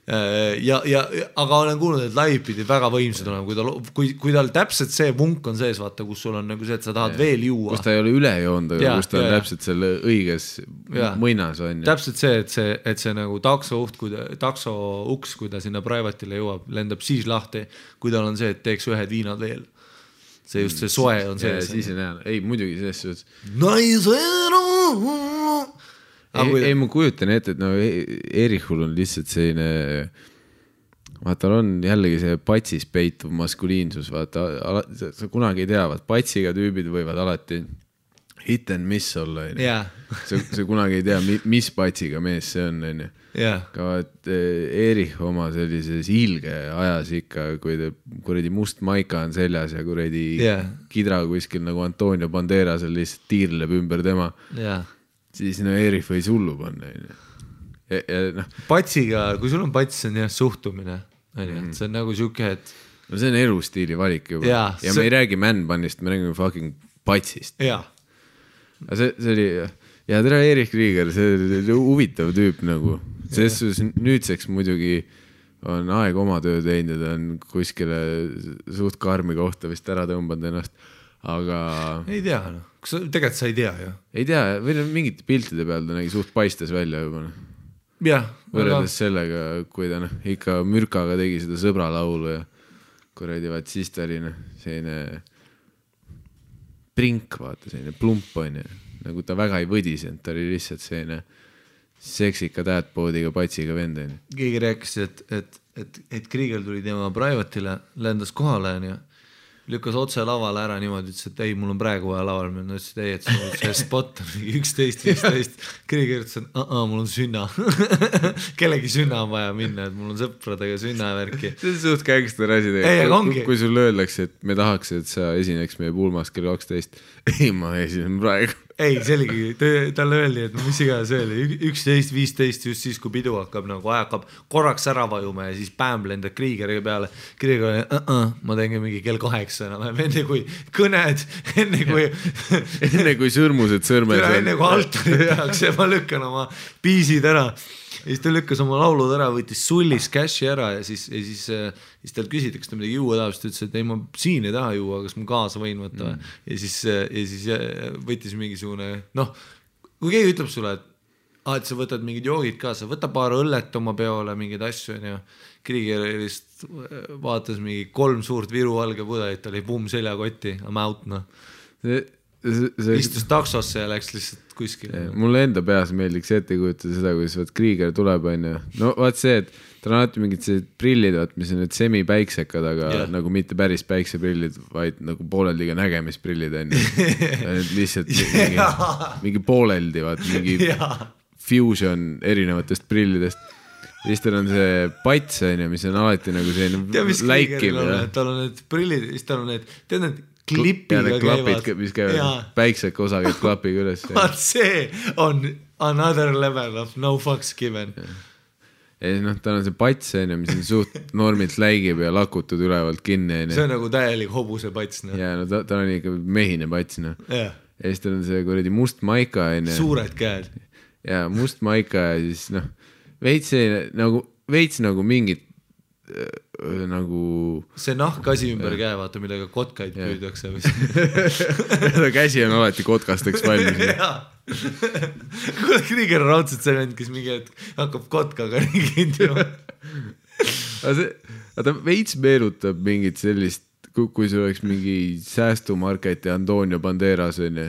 aga olen kuulnud, et live pidi väga võimsad olema, kui tal täpselt see vunk on sees, vaata, kus sul on nagu see, et sa tahad veel juua. Kus ta ei ole üle joond, aga kus ta on täpselt selle õiges mõinas on. Täpselt see, et see nagu takso uks, kui ta sinna private'ile jõuab, lendab siis lahti, kui tal on see, et teeks ühed viinad veel. See just see soe on sees. Siis on hea. Ei, muidugi selles suhtes. Ei, ma kujutan ette, et no Erihul on lihtsalt selline, vaata, on jällegi see patsis peituv maskuliinsus, vaata, sa kunagi ei tea, vaat patsiga tüübid võivad alati hit and miss olla, sa kunagi ei tea, mis patsiga mees see on, ka vaat Erih oma sellises ilge ajas ikka, kui kuredi must maika on seljas ja kuredi kidra kuskil nagu Antonio Banderasel lihtsalt tiirleb ümber tema siis Erih võis hullu panna. Patsiga, kui sul on pats, see on jah suhtumine. See on nagu siuke, et... No see on elustiili valik juba. Ja me ei räägi man-bannist, me räägime fucking patsist. Jaa. See oli... Ja tere Erik Krieger, see oli huvitav tüüp nagu. Selles nüüdseks muidugi on aeg oma töö teinud ja ta on kuskile suht karmi kohta vist ära tõmbanud ennast. Aga... Ei tea, tegelikult sa ei tea ju. Ei tea, või mingite piltide peal ta nägi suht paistes välja juba. Jah. Võrreldes sellega, kui ta ikka mürkaga tegi seda sõbra laulu ja kuradi vaat siis ta oli selline prink, vaata, selline plump on ja nagu ta väga ei võdisenud, ta oli lihtsalt selline seksika täätpoodiga patsiga vend. Keegi rääkis, et Krieger tuli tema private'ile, lendas kohale ja lükkas otse lavale ära niimoodi, ütles, et ei, mul on praegu vaja laval minna, ütles, et ei, et see spot on 11-15. Krieger ütles, et mul on sünna. Kellegi sünna on vaja minna, et mul on sõpradega sünna värki. See on suht kängster asi. Kui sul öeldakse, et me tahaks, et sa esineks meie pulmas kell 12. Ei, ma esinen praegu. Ei, selgi, talle öeldi, et mis iga see oli 11-15 just siis, kui pidu hakkab nagu hakkab korraks ära vajuma ja siis pämm lendab Kriegeriga peale. Kriiger oli, ma teen mingi kell 8 enam, enne kui kõned, enne kui sõrmused sõrmed. Enne kui altarit tehakse, ma lükkan oma piisid ära. Ja siis ta lükkas oma laulud ära, võttis sullis cashi ära ja siis tal küsiti, kas ta midagi juua tahab, siis ta ütles, et ei, ma siin ei taha juua, kas ma kaasa võin võtta. Ja siis võttis mingisugune, kui keegi ütleb sulle, et sa võtad mingid joogid kaasa, võta paar õllet oma peole, mingid asju, ja Krieger vaatas mingi 3 suurt Viru valge pudelit, ta oli pumm seljakotti, I'm out, istus taksosse ja läks lihtsalt kuskil. Mulle enda peas meeldiks ette kujutada seda, kuidas Krieger tuleb, no vaat see, et tal on alati mingid sellised prillid, mis on need semi-päiksekad, aga nagu mitte päris päikseprillid, vaid nagu pooleldiga nägemisprillid on lihtsalt mingi pooleldi, mingi fusion erinevatest prillidest. Siis tal on see pats, mis on alati nagu selline läikiv. Tal on need prillid, siis tal on need, tead need klipiga käivad. mis käivad, päikseka osa käib klapiga üles. Vaat see on another level of no fucks given. Ja siis tal on see pats, mis on suht normilt läigib ja lakutud ülevalt kinni. See on nagu täielik hobuse pats. Ja ta on ikka mehine pats. Ja siis tal on see kuradi must maika. Suured käed. Ja must maika ja siis veits nagu mingit nagu see nahkasi ümber käe, vaata, millega kotkaid püüdakse. Käsi on alati kotkasteks valmis. Kuule, Krieger on raudselt see vend, kes mingi hakkab kotkaga ringind ju. Ta veits meenutab mingit sellist, kui see oleks mingi säästumarket ja Antonio Banderas on ju.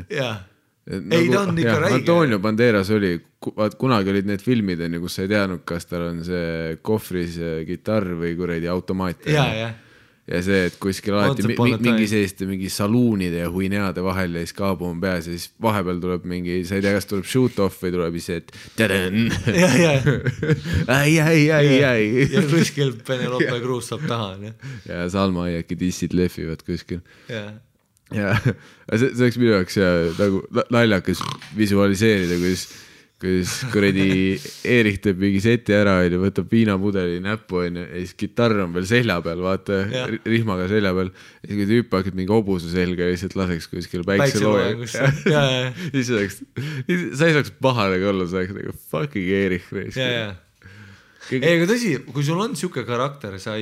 Ei, ta on ikka räige. Antonio Banderas oli, kunagi olid need filmid, kus sa ei teadnud, kas tal on see kohvris kitarr või kuradi automaat. Ja see, et kuskil alati mingi selliste mingi saluunide ja huineade vahel ja siis kaabu on peas ja siis vahepeal tuleb mingi, sa ei tea, kas tuleb shoot-off või tuleb ise, et tadän. Ja kuskil Penelope Cruz saab taha. Ja Salma Aiaki dissid lehvivad kuskil. Ja see oleks minu jaoks nagu naljakas visualiseerida, kus kuradi Eerik teeb mingi seti ära ja võtab viinapudeli näppu ja siis kitarr on veel selja peal, vaata, rihmaga selja peal ja kui tüüp hakkad mingi hobuse selga ja lihtsalt laseks kuskil päikselooja. Sa ei saaks pahane olla, sa oleks nagu fucking Eerik. Ei, aga tõsi, kui sul on siuke karakter, kui sa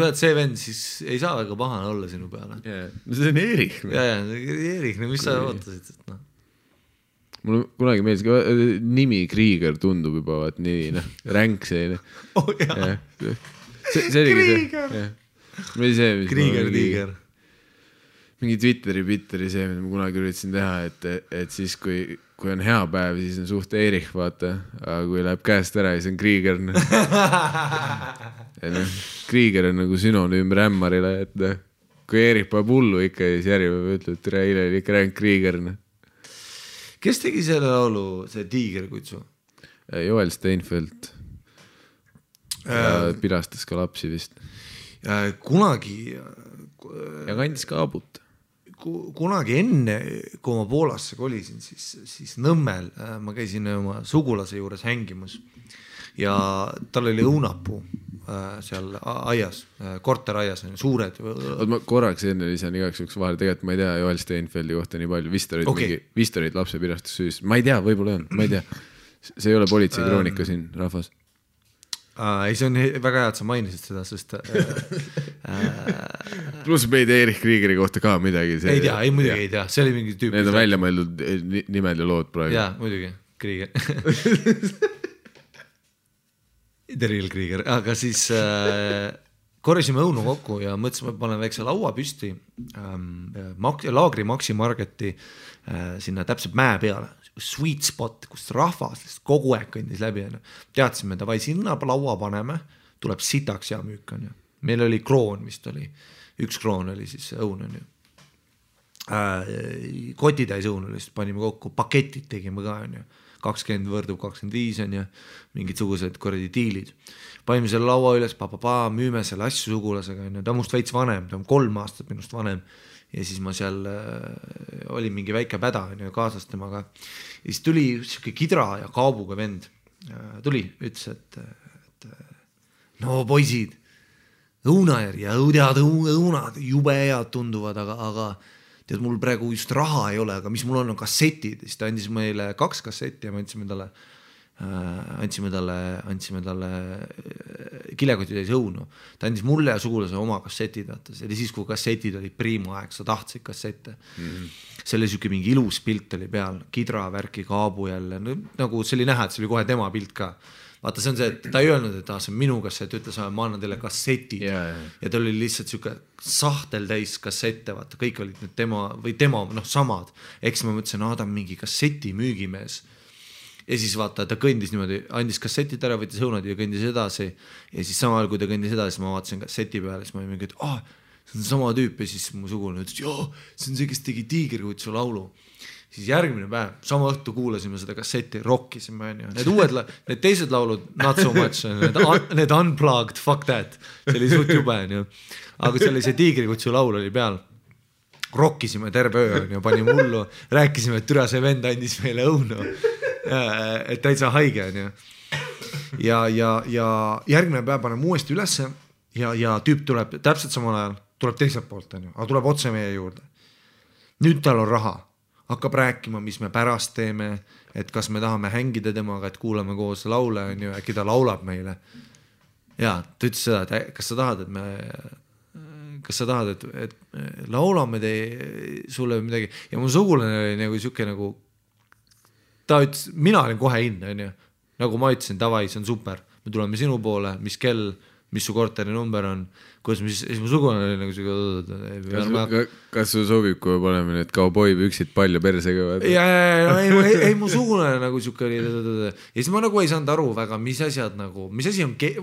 oled see vend, siis ei saa väga pahane olla sinu peale. See on Eerik. Eerik, mis sa ootasid? Mul kunagi meeldis, nimi Krieger tundub juba, vaat nii, ränk selline. Krieger. Mingi Twitteri see, mida ma kunagi üritasin teha, et siis kui on hea päev, siis on suht Eerik, vaata, aga kui läheb käest ära, siis on Krieger. Krieger on nagu sünonüüm rämmarile, et kui Eerik paneb hullu ikka, siis järjepääv ütleb, et eile oli ikka ränk Krieger. Kes tegi selle laulu, see Tiigerkutsu? Joel Steinfeld. Pilastas ka lapsi vist. Kunagi... Ja kandis ka abut. Kunagi enne, kui ma Poolasse kolisin, siis Nõmmel ma käisin oma sugulase juures hängimus ja tal oli õunapuu seal aias, korteraias on suured. Ma korraks enne lisan igaks juks vahel, tegelikult ma ei tea Joel Steinfeldi kohta nii palju, vist olid lapsepirastus, ma ei tea, võib-olla on, ma ei tea, see ei ole politsei kroonika siin rahvas. Ei, see on väga hea, et sa mainisid seda, sest pluss me ei tea Eerik Kriegeri kohta ka midagi. Ei tea, ei muidugi ei tea, see oli mingi tüüp. Need on välja mõeldud nimed ja lood praegu. Jaa, muidugi, Krieger. The real Krieger, aga siis korjasime õunu kokku ja mõtlesime, et panen väikse laua püsti Laagri Maxi Marketi sinna täpselt mäe peale, sweet spot, kus rahvas kogu aeg kõndis läbi. Teadsime, et sinna laua paneme, tuleb sitaks ja müük. Meil oli kroon, vist oli, 1 kroon oli siis õun. Kotitäis õun oli, panime kokku, paketid tegime ka, 20 võrdub 25 on ja mingid sugused korredi diilid. Panime selle laua üles, müüme selle asju sugulasega. Ta on must veits vanem, ta on 3 aastat minust vanem. Ja siis ma seal oli mingi väike päda kaasas temaga. Ja siis tuli siuke kidra ja kaabuga vend. Tuli, ütles, et no poisid, õunajär ja õunad jube head tunduvad, aga tead, mul praegu just raha ei ole, aga mis mul on kassetid. Siis ta andis meile 2 kassetti ja me andsime talle kilekotitäis õunu. Ta andis mulle ja sugulase oma kassetid. See oli siis, kui kassetid olid priima aeg, sa tahtsid kassette. See oli siuke mingi ilus pilt oli peal, kidra värki kaabu jälle. Nagu see oli näha, et see oli kohe tema pilt ka. Vaata, see on see, et ta ei öelnud, et see on minu kassett, ütles, ma annan teile kassetid. Ja ta oli lihtsalt siuke sahtel täis kassette, vaata, kõik olid need tema samad. Eks ma mõtlesin, ta on mingi kasseti müügimees. Ja siis vaata, ta kõndis niimoodi, andis kassetid ära, võttis õunad ja kõndis edasi. Ja siis samal, kui ta kõndis edasi, ma vaatasin kasseti peale, siis ma olin mingi, et see on sama tüüp. Ja siis mu sugulane ütles, see on see, kes tegi Tiigerkutsu laulu. Siis järgmine päev, sama õhtu kuulasime seda kasseti, rockisime. Need teised laulud, not so much, need unplugged, fuck that. See oli suht jube. Aga see oli see Tiigerkutsu laul oli peal. rokkisime terve öö ja panime hullu, rääkisime, et türa see vend andis meile õunu, et täitsa haige on ju. Ja järgmine päev paneme uuesti ülesse ja tüüp tuleb täpselt samal ajal, tuleb teiselt poolt on ju, aga tuleb otse meie juurde. Nüüd tal on raha, hakkab rääkima, mis me pärast teeme, et kas me tahame hängida temaga, et kuulame koos laule on ju, äkki ta laulab meile. Ja ta ütles seda, et kas sa tahad, et laulame sulle midagi ja mu sugulane oli nagu siuke nagu ta ütles, mina olin kohe in on ju, nagu ma ütlesin, davai, see on super, me tuleme sinu poole, mis kell, mis su korteri number on, kuidas siis mu sugulane oli nagu siuke kas su sobib, kui me paneme need kauboipüksid palju persega? ei mu sugulane nagu siuke oli ja siis ma nagu ei saanud aru väga, mis asi on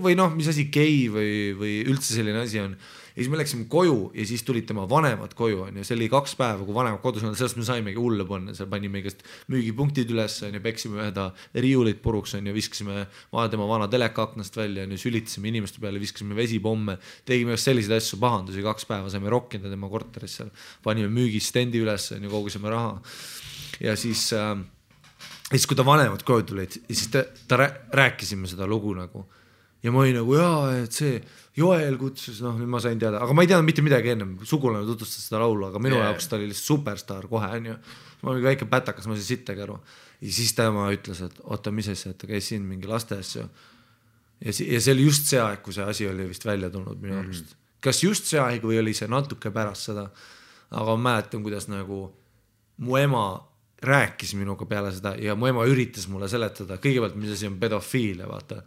või noh, mis asi gei või üldse selline asi on. Ja siis me läksime koju ja siis tulid tema vanemad koju on ja see oli 2 päeva, kui vanemad kodus on, sellest me saimegi hulle panna, seal panime igast müügipunktid üles on ja peksime üheda riiulit puruks on ja viskasime tema vana teleka aknast välja on ja sülitasime inimeste peale, viskasime vesipomme, tegime selliseid asju, pahandusi, 2 päeva saime rokkida tema korteris seal, panime müügistendi üles on ja kogusime raha ja siis kui ta vanemad koju tulid ja siis ta rääkisime seda lugu nagu ja ma olin nagu et see Joel kutsus, noh nüüd ma sain teada, aga ma ei teadnud mitte midagi ennem, sugulane tutvustas seda laulu, aga minu jaoks ta oli lihtsalt superstar kohe on ju, ma olin väike pätakas, ma sain sittagi aru ja siis tema ütles, et oota, mis asja, et ta käis siin mingi laste asju ja see oli just see aeg, kui see asi oli vist välja tulnud minu arust, kas just see aeg või oli see natuke pärast seda, aga ma mäletan, kuidas nagu mu ema rääkis minuga peale seda ja mu ema üritas mulle seletada, kõigepealt mis asi on pedofiilia, vaata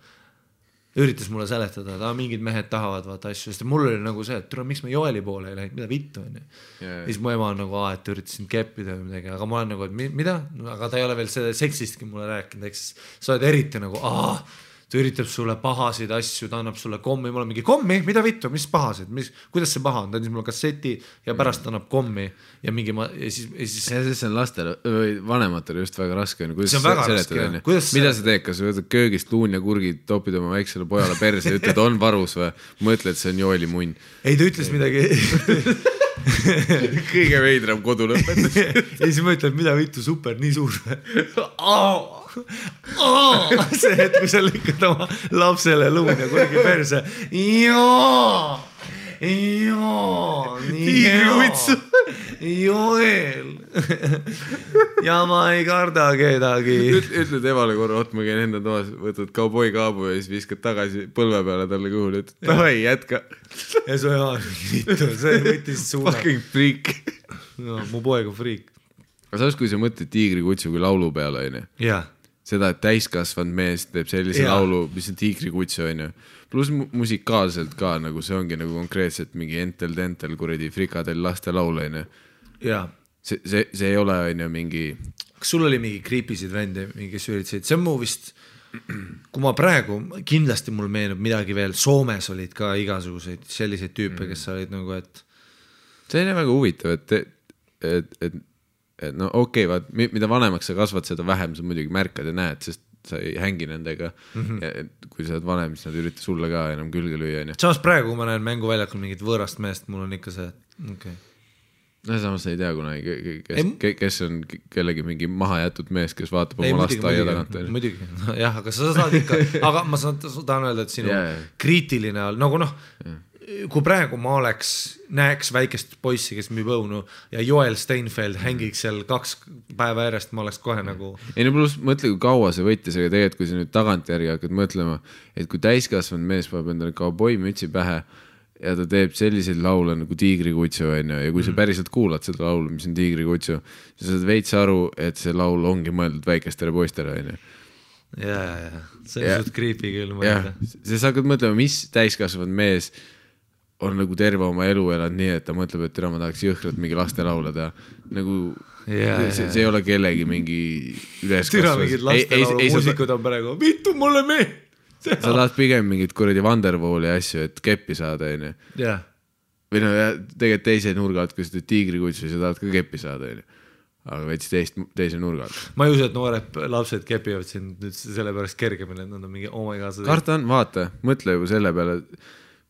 üritas mulle seletada, et mingid mehed tahavad vaata asju, sest mul oli nagu see, et tule, miks me Joeli poole ei läinud, mida vittu on ju. Ja siis mu ema on nagu, et üritasin keppida või midagi, aga ma olen nagu, et mida? Aga ta ei ole veel seda seksistki mulle rääkinud, eks sa oled eriti nagu, ta üritab sulle pahasid asju, ta annab sulle kommi, mul on mingi kommi, mida vittu, mis pahasid, kuidas see paha on, ta andis mulle kasseti ja pärast annab kommi ja mingi ja siis see on lastele või vanematele just väga raske, see on väga raske, mida sa teed, kas võtad köögist luun ja kurgid, topid oma väiksele pojale perse ja ütled, on varus või mõtled, see on Joeli munn? Ei, ta ütles midagi kõige veidram kodu lõpetus ja siis ma ütlen, mida vittu, super, nii suur see hetk, kui sa lükkad oma lapsele luun ja kurgi perse Joel ja ma ei karda kedagi. Ütled emale korra, ma käin enda toas, võtad kauboi kaabu ja siis viskad tagasi põlve peale talle kõhule, ütled, davai, jätka. Ja su ema see võttis suuna. Fucking freak. No, mu poeg on freak. Aga saas, kui sa mõtled Tiigrikutsu kui laulu peale, on ju? Jaa. Seda, et täiskasvanud mees teeb sellise laulu, mis on Tiigrikutsu, on ju. Plus musikaalselt ka, nagu see ongi nagu konkreetselt mingi entel-tentel kuradi frikadel laste laul, on ju. Jaa. See ei ole, on ju, mingi... Kas sul oli mingi kriipisid vende, mingi süüritseid? See on mu vist, kui ma praegu, kindlasti mul meenub midagi veel, Soomes olid ka igasuguseid selliseid tüüpe, kes olid nagu, et... See on väga huvitav, et no okei, vaat, mida vanemaks sa kasvad, seda vähem sa muidugi märkad ja näed, sest sa ei hängi nendega ja kui sa oled vanem, siis nad ürita sulle ka enam külge lüüa. Samas praegu, kui ma näen mänguväljakul mingit võõrast meest, mul on ikka see, okay. No samas ei tea kunagi, kes on kellegi mingi mahajätud mees, kes vaatab oma last aia tagant. Muidugi, jah, aga sa saad ikka, aga ma tahan öelda, et sinu kriitiline all, nagu noh, kui praegu ma näeks väikest poissi, kes müüb õunu ja Joel Steinfeld hängiks seal 2 päeva järjest, ma oleks kohe nagu... Ei no pluss mõtle, kui kaua see võttis, aga tegelikult kui sa nüüd tagantjärgi hakkad mõtlema, et kui täiskasvanud mees paneb endale kauboi mütsi pähe ja ta teeb selliseid laule nagu Tiigrikutsu ja kui sa päriselt kuulad seda laulu, mis on Tiigrikutsu, sa saad veits aru, et see laul ongi mõeldud väikestele poistele. Ja, see on suht creepy küll mõelda. Sa hakkad mõtlema, mis täiskasvanud mees on nagu terve oma elu elanud nii, et ta mõtleb, et ma tahaks jõhkralt mingi laste laulada. Nagu see ei ole kellegi mingi üleskasvas. Türa mingid laste laulu muusikud on praegu, vittu mulle mee! Sa tahad pigem mingit kuradi Wonderwalli asju, et keppi saada, on ju. Jah. Või no tegelikult teise nurga alt, kui sa teed Tiigrikutsu, sa tahad ka keppi saada, on ju. Aga veits teise nurga alt. Ma ei usu, et noored lapsed kepivad siin nüüd selle pärast kergemini, et nad on mingi, oh my god. Karta on, vaata, mõtle juba selle peale,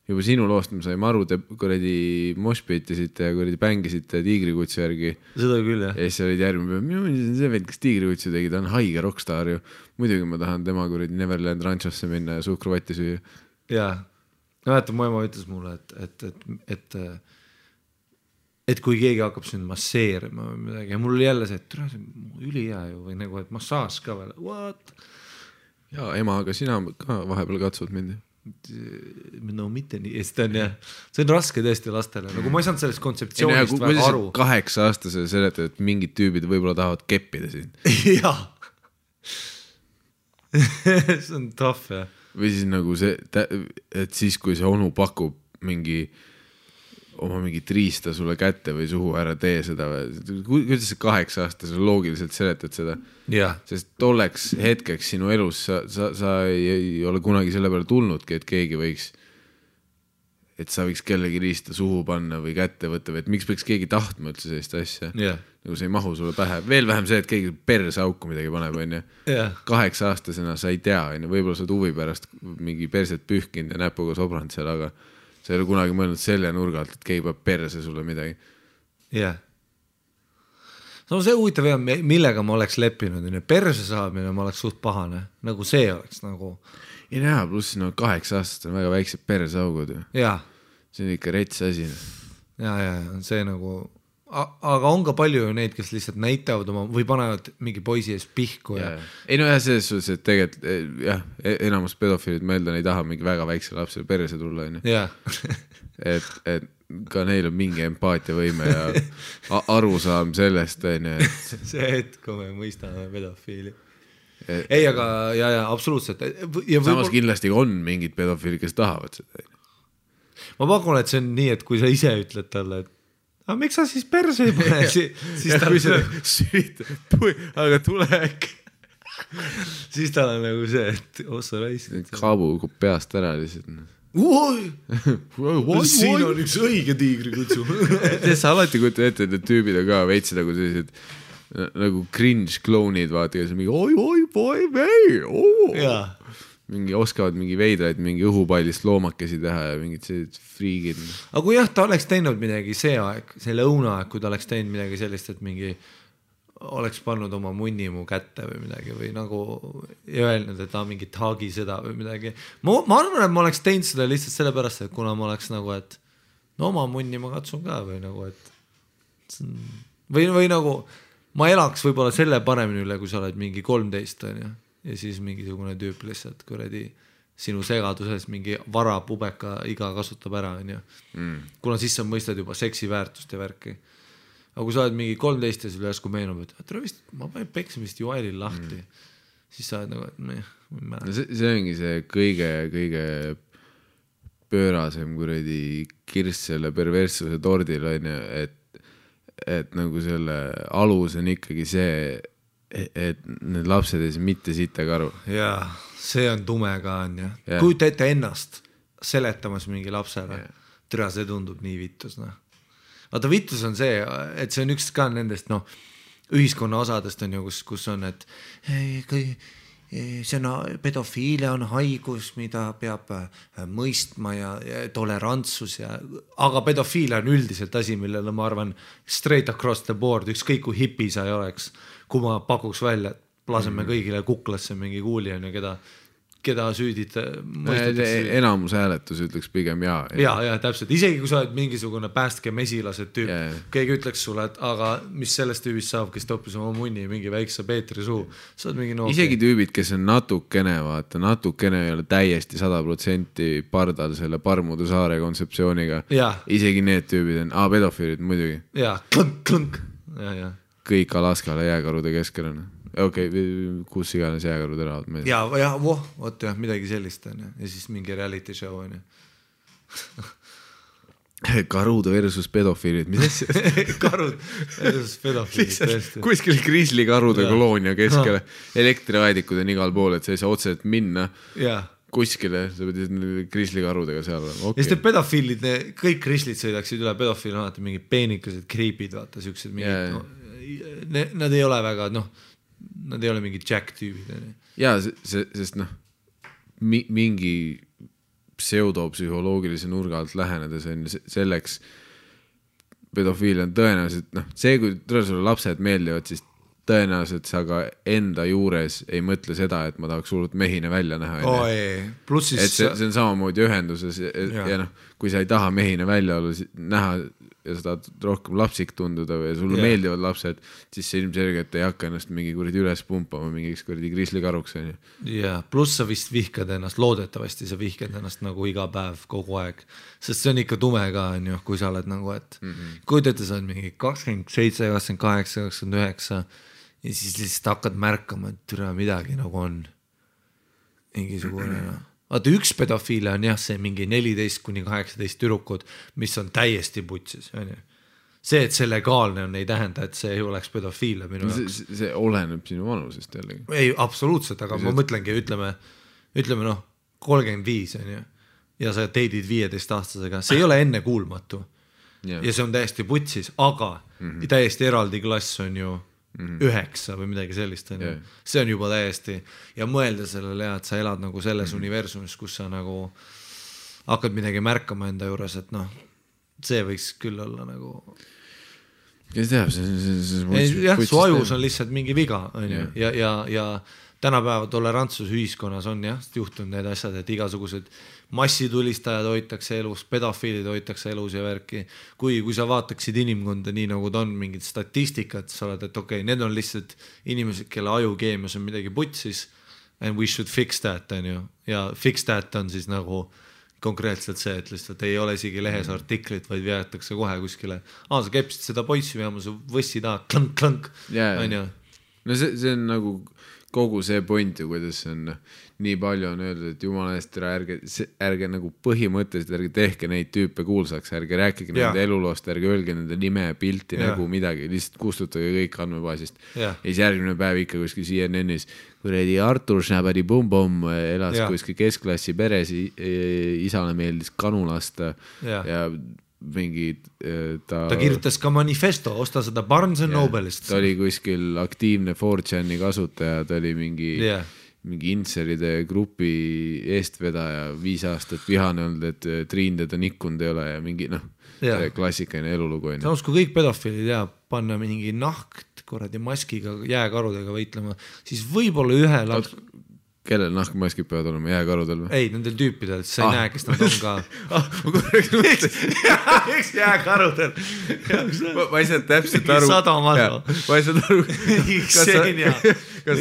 juba sinu loost me saime aru, te kuradi moshpitisite ja kuradi bängisite tiigrikutsu järgi. Seda küll, jah. Ja siis olid järgmine päev, see veel, kes tiigrikutsu tegi, ta on haige rockstar ju. Muidugi ma tahan tema kuradi Neverland Ranchosse minna ja suhkruvatti süüa. Jaa. Mäletan, mu ema ütles mulle, et kui keegi hakkab sind masseerima või midagi ja mul oli jälle see, et see on ülihea ju või nagu, et massaaž ka veel. What? Jaa, ema, aga sina ka vahepeal katsud mind. No mitte nii, see on raske tõesti lastele, nagu ma ei saanud sellest kontseptsioonist väga aru. 8-aastase seletad, et mingid tüübid võib-olla tahavad keppida sind. Jaa. See on tough, jah. Või siis nagu see, et siis kui see onu pakub oma mingit riista sulle kätte või suhu ära tee seda või, kuidas see 8-aastase loogiliselt seletad seda? Yeah. Sest tolleks hetkeks sinu elus sa ei ole kunagi selle peale tulnudki, et keegi võiks, et sa võiks kellegi riista suhu panna või kätte võtta või et miks peaks keegi tahtma üldse sellist asja. Yeah. Nagu see ei mahu sulle pähe. Veel vähem see, et keegi perse auku midagi paneb, on ju. Yeah. 8-aastasena sa ei tea, on ju, võib-olla sa huvi pärast mingi perset pühkinud ja näpuga sobranud seal, aga sa ei ole kunagi mõelnud selle nurga alt, et keegi peab perse sulle midagi. Jah. No see huvitav jah, millega ma oleks leppinud. Perse saamine ma oleks suht pahane. Nagu see oleks nagu... Ei näha, pluss 8-aastased on väga väiksed perseaugud. Jaa. See on ikka rets asi. Jaa, see nagu... Aga on ka palju ju neid, kes lihtsalt näitavad oma või panevad mingi poisi ees pihku. Ja... Ei no jah, selles suhtes, et tegelikult jah, enamus pedofiilid meelda ei taha mingi väga väikse lapse perse tulla. Yeah. et ka neil on mingi empaatiavõime ja arusaam sellest. See hetk, kui me mõistame pedofiili. Ei, aga ja absoluutselt. Ja samas kindlasti on mingid pedofiilid, kes tahavad seda. Ma pakun, et see on nii, et kui sa ise ütled talle, et aga miks sa siis perse ei pane? Siis ta kui sa süütad, aga tule äkki. Siis ta on nagu see, et ossa raisid. Kaabu peast ära lihtsalt. Siin on üks õige tiigrikutsu. Sa alati kujuta ette, et need tüübid on ka veitsi nagu sellised nagu cringe klounid, vaata, kes on mingi oi, boy, vei, Jaa. Mingi oskavad mingi veidraid, mingi õhupallist loomakesi teha ja mingid sellised friigid. Aga kui jah, ta oleks teinud midagi see aeg, see lõunaaeg, kui ta oleks teinud midagi sellist, et mingi oleks pannud oma munni mu kätte või midagi või nagu öelnud, et ta mingi taagi seda või midagi. Ma arvan, et ma oleks teinud seda lihtsalt sellepärast, et kuna ma oleks nagu, et no oma munni ma katsun ka või nagu, et või nagu ma elaks võib-olla selle paremini üle, kui sa oled mingi 13 on ju. Ja siis mingisugune tüüp lihtsalt kuradi sinu segaduses mingi vara pubeka iga kasutab ära, on ju. Kuna siis sa mõistad juba seksi väärtust ja värki. Aga kui sa oled mingi 13 ja sul järsku meenub, et ma panen peksimist Joelil lahti, siis sa oled nagu, et see ongi see kõige pöörasem kuradi kirss selle perverssuse tordil, on ju, et nagu selle alus on ikkagi see, et need lapsed ei saa mitte sittagi aru. Jaa, see on tume ka on ju. Kujuta ette ennast seletamas mingi lapsele. Türa, see tundub nii vittus. Vaata, vittus on see, et see on üks ka nendest ühiskonna osadest on ju, kus on, et see on pedofiilia on haigus, mida peab mõistma ja tolerantsus aga pedofiilia on üldiselt asi, millele ma arvan straight across the board, ükskõik kui hipi sa ei oleks, kui ma pakuks välja, et laseme kõigile kuklasse mingi kuuli on ja keda süüdid enamus hääletus ütleks pigem jaa. Ja, täpselt. Isegi kui sa oled mingisugune päästke mesilased tüüp, keegi ütleks sulle, et aga mis sellest tüübist saab, kes toppis oma munni mingi väikse Peetri suu. Isegi tüübid, kes on natukene, vaata, natukene ei ole täiesti 100% pardal selle Parmude saare kontseptsiooniga. Isegi need tüübid on, pedofiilid muidugi. Jaa, klõnk. Kõik Alaskale jääkarude keskel on. Okei, kus iganes jääkarud elavad. Vot jah, midagi sellist on ja siis mingi reality show on ju. Karud versus pedofiilid, mis asja? Karud versus pedofiilid. Kuskil grizzlykarude koloonia keskele, elektriaedikud on igal pool, et sa ei saa otseselt minna kuskile, sa pead grizzlykarudega seal. Ja siis te pedofiilid, kõik grizzlid sõidaksid üle, pedofiil on alati mingi peenikesed kriipid, vaata, siuksed mingid, nad ei ole väga, nad ei ole mingi Jack tüübid. Jaa, sest mingi pseudopsühholoogilise nurga alt lähenedes on selleks pedofiil on tõenäoliselt, see kui sulle lapsed meeldivad, siis tõenäoliselt sa ka enda juures ei mõtle seda, et ma tahaks hullult mehine välja näha. Plus siis... Et see on samamoodi ühenduses ja kui sa ei taha mehine välja olla, näha ja sa tahad rohkem lapsik tunduda või sulle meeldivad lapsed, siis see ilmselgelt ei hakka ennast mingi kuradi üles pumpama mingiks kuradi grislikaruks. Ja plus sa vist vihkad ennast, loodetavasti sa vihkad ennast nagu iga päev kogu aeg, sest see on ikka tume ka, kui sa oled nagu, et kujutate sa on mingi 27, 28, 29 ja siis lihtsalt hakkad märkama, et türa midagi nagu on mingisugune vaata üks pedofiile on see mingi 14-18 tüdrukud, mis on täiesti putsis. See, et see legaalne on, ei tähenda, et see ei oleks pedofiile minu jaoks. See oleneb sinu vanusest jällegi. Ei, absoluutselt, aga ma mõtlengi, ütleme 35 on ja sa teidid 15-aastasega, see ei ole enne kuulmatu. Ja see on täiesti putsis, aga täiesti eraldi klass on ju 9 või midagi sellist see on juba täiesti ja mõelda sellele et sa elad nagu selles universumis, kus sa nagu hakkad midagi märkama enda juures, et see võiks küll olla nagu kes teab, su ajus on lihtsalt mingi viga ja tänapäeva tolerantsus ühiskonnas on juhtunud need asjad, et igasugused massitulistajad hoitakse elus, pedofiilid hoitakse elus ja värki. Kui sa vaataksid inimkonda nii nagu ta on mingid statistikat, sa oled, et okei, need on lihtsalt inimesed, kelle ajukeemias on midagi putsis and we should fix that ja fix that on siis nagu konkreetselt see, et lihtsalt ei ole isegi lehes artiklit, vaid veetakse kohe kuskile sa kepsid seda poissi veama, sa võssi taha klank no see on nagu kogu see point ju, kuidas see on nii palju on öeldud, et jumala eest ärge nagu põhimõtteliselt ärge tehke neid tüüpe kuulsaks, ärge rääkige nende eluloost, ärge öelge nende nime, pilti, nägu, midagi, lihtsalt kustutage kõik andmebaasist ja siis järgmine päev ikka kuskil CNN-is kuredi Artur Schnabadi Bum-Bum elas kuskil keskklassi peres, isale meeldis kanu lasta ja mingi ta kirjutas ka manifesto, osta seda Barnes & Nobelist. Ta oli kuskil aktiivne 4chan'i kasutaja, ta oli mingi inseride grupi eestvedaja 5 aastat vihane olnud, et Triin teda nikkunud ei ole ja mingi klassikaline elulugu. Samas kui kõik pedofiilid panna mingi nahkt korradi maskiga jääkarudega võitlema, siis võib-olla ühe laps... Kellel nahkmaskid peavad olema jääkarudel või? Ei, nendel tüüpidel, sa ei näe, kes nad on ka. Ma korraks mõtlesin. Eks jääkarudel. Ma ei saa täpselt aru. Ma ei saa aru. Kas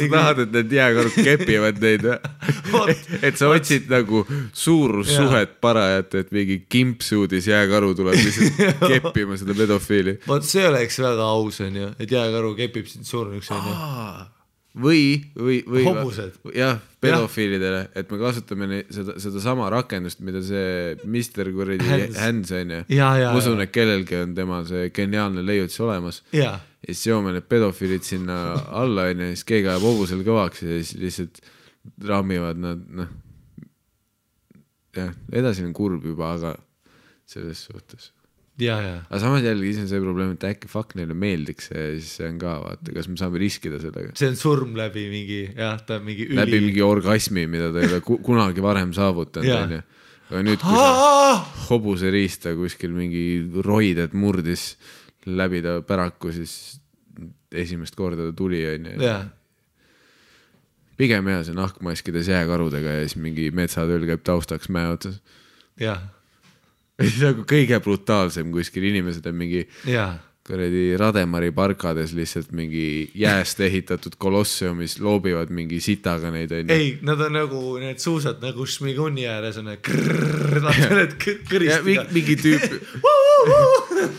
sa tahad, et need jääkarud kepivad neid? Et sa otsid nagu suurussuhet parajat, et mingi kimpsuudis jääkaru tuleb lihtsalt keppima seda pedofiili. See oleks väga aus, et jääkaru kepib sind suuruks. Või hobused. Jah, pedofiilidele, et me kasutame seda sama rakendust, mida see Mr. Hands on ja usun, et kellelgi on tema see geniaalne leiutis olemas ja siis joome need pedofiilid sinna alla ja siis keegi ajab hobusel kõvaks ja siis lihtsalt rammivad nad edasi on kurb juba, aga selles suhtes aga samas jällegi ise on see probleem, et äkki fuck neile meeldiks ja siis see on ka, vaata, kas me saame riskida sellega. See on surm läbi mingi, ta on mingi läbi mingi orgasmi, mida ta ei ole kunagi varem saavutanud. Aga nüüd, kui sa hobuse riista kuskil mingi roided murdis läbi ta päraku, siis esimest korda ta tuli. Pigem see nahkmaskides jääkarudega ja siis mingi metsatööl käib taustaks mäe otsas. Nagu kõige brutaalsem kuskil inimesed on mingi Rademari parkades lihtsalt mingi jääst ehitatud kolosseumis loobivad mingi sitaga neid. Ei, nad on nagu need suusad nagu Šmiguni ääres on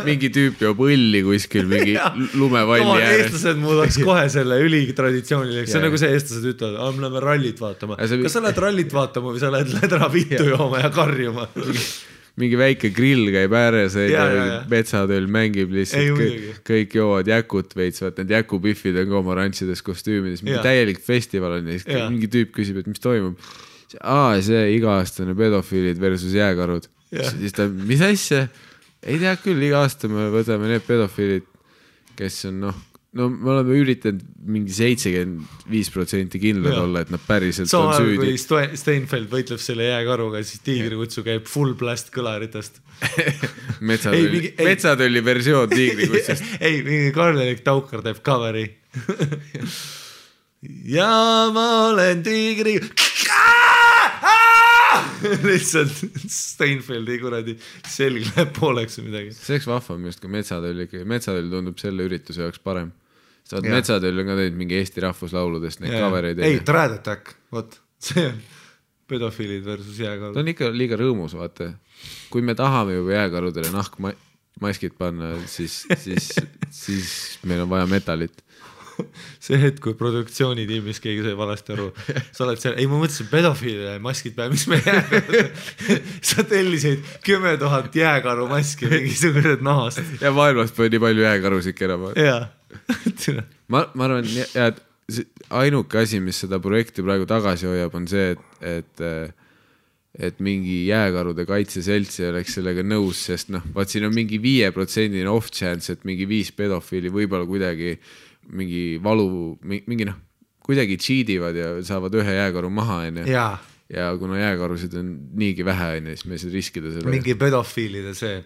mingi tüüp joob õlli kuskil mingi lumevalli ääres. Eestlased muudaks kohe selle ülitraditsiooniliseks. See on nagu see eestlased ütlevad, me läheme rallit vaatama. Kas sa lähed rallit vaatama või sa lähed ledra vittu jooma ja karjuma? Mingi väike grill käib ääres metsatööl mängib lihtsalt kõik joovad jäkut veits, vaat need jäkupiffid on ka oma rantsides kostüümides mingi täielik festival on ja mingi tüüp küsib, et mis toimub see iga-aastane pedofiilid versus jääkarud siis ta, mis asja? Ei tea küll, iga aasta me võtame need pedofiilid, kes on no me oleme üritanud mingi 75% kindlad olla, et nad päriselt on süüdi. Kui Steinfeld võitleb selle jääkaruga, siis tiigrikutsu käib full blast kõlaritest. Metsatölli versioon tiigrikutsust. Ei, mingi Karl-Erik Taukar teeb coveri. Ja ma olen tiigri... lihtsalt Steinfeldi kuradi selg läheb pooleks või midagi. See oleks vahvam just, kui Metsatöll tundub selle ürituse jaoks parem. Metsatöll on ka teinud mingi Eesti rahvuslauludest neid covereid. Ei, Dread Attack, võt, see on pedofiilid versus jääkarud. Ta on ikka liiga rõõmus, vaata. Kui me tahame juba jääkarudele nahkmaskid panna, siis meil on vaja metalit. See hetk, kui produktsioonitiimis keegi sai valesti aru, sa oled seal, ei ma mõtlesin pedofiilile maskid peale, mis me jääkarud, sa tellisid 10 000 jääkaru maski mingisugused nahast. Ja maailmast pole nii palju jääkarusid kerama. Ma arvan, et ainuke asi, mis seda projekti praegu tagasi hoiab, on see, et mingi jääkarude kaitseselts ei oleks sellega nõus, sest vaat siin on mingi 5% off chance, et mingi 5 pedofiili võib-olla kuidagi mingi valu, mingi kuidagi cheativad ja saavad ühe jääkaru maha, ja kuna jääkarusid on niigi vähe, siis me ei saa riskida selle. Mingi pedofiilide see,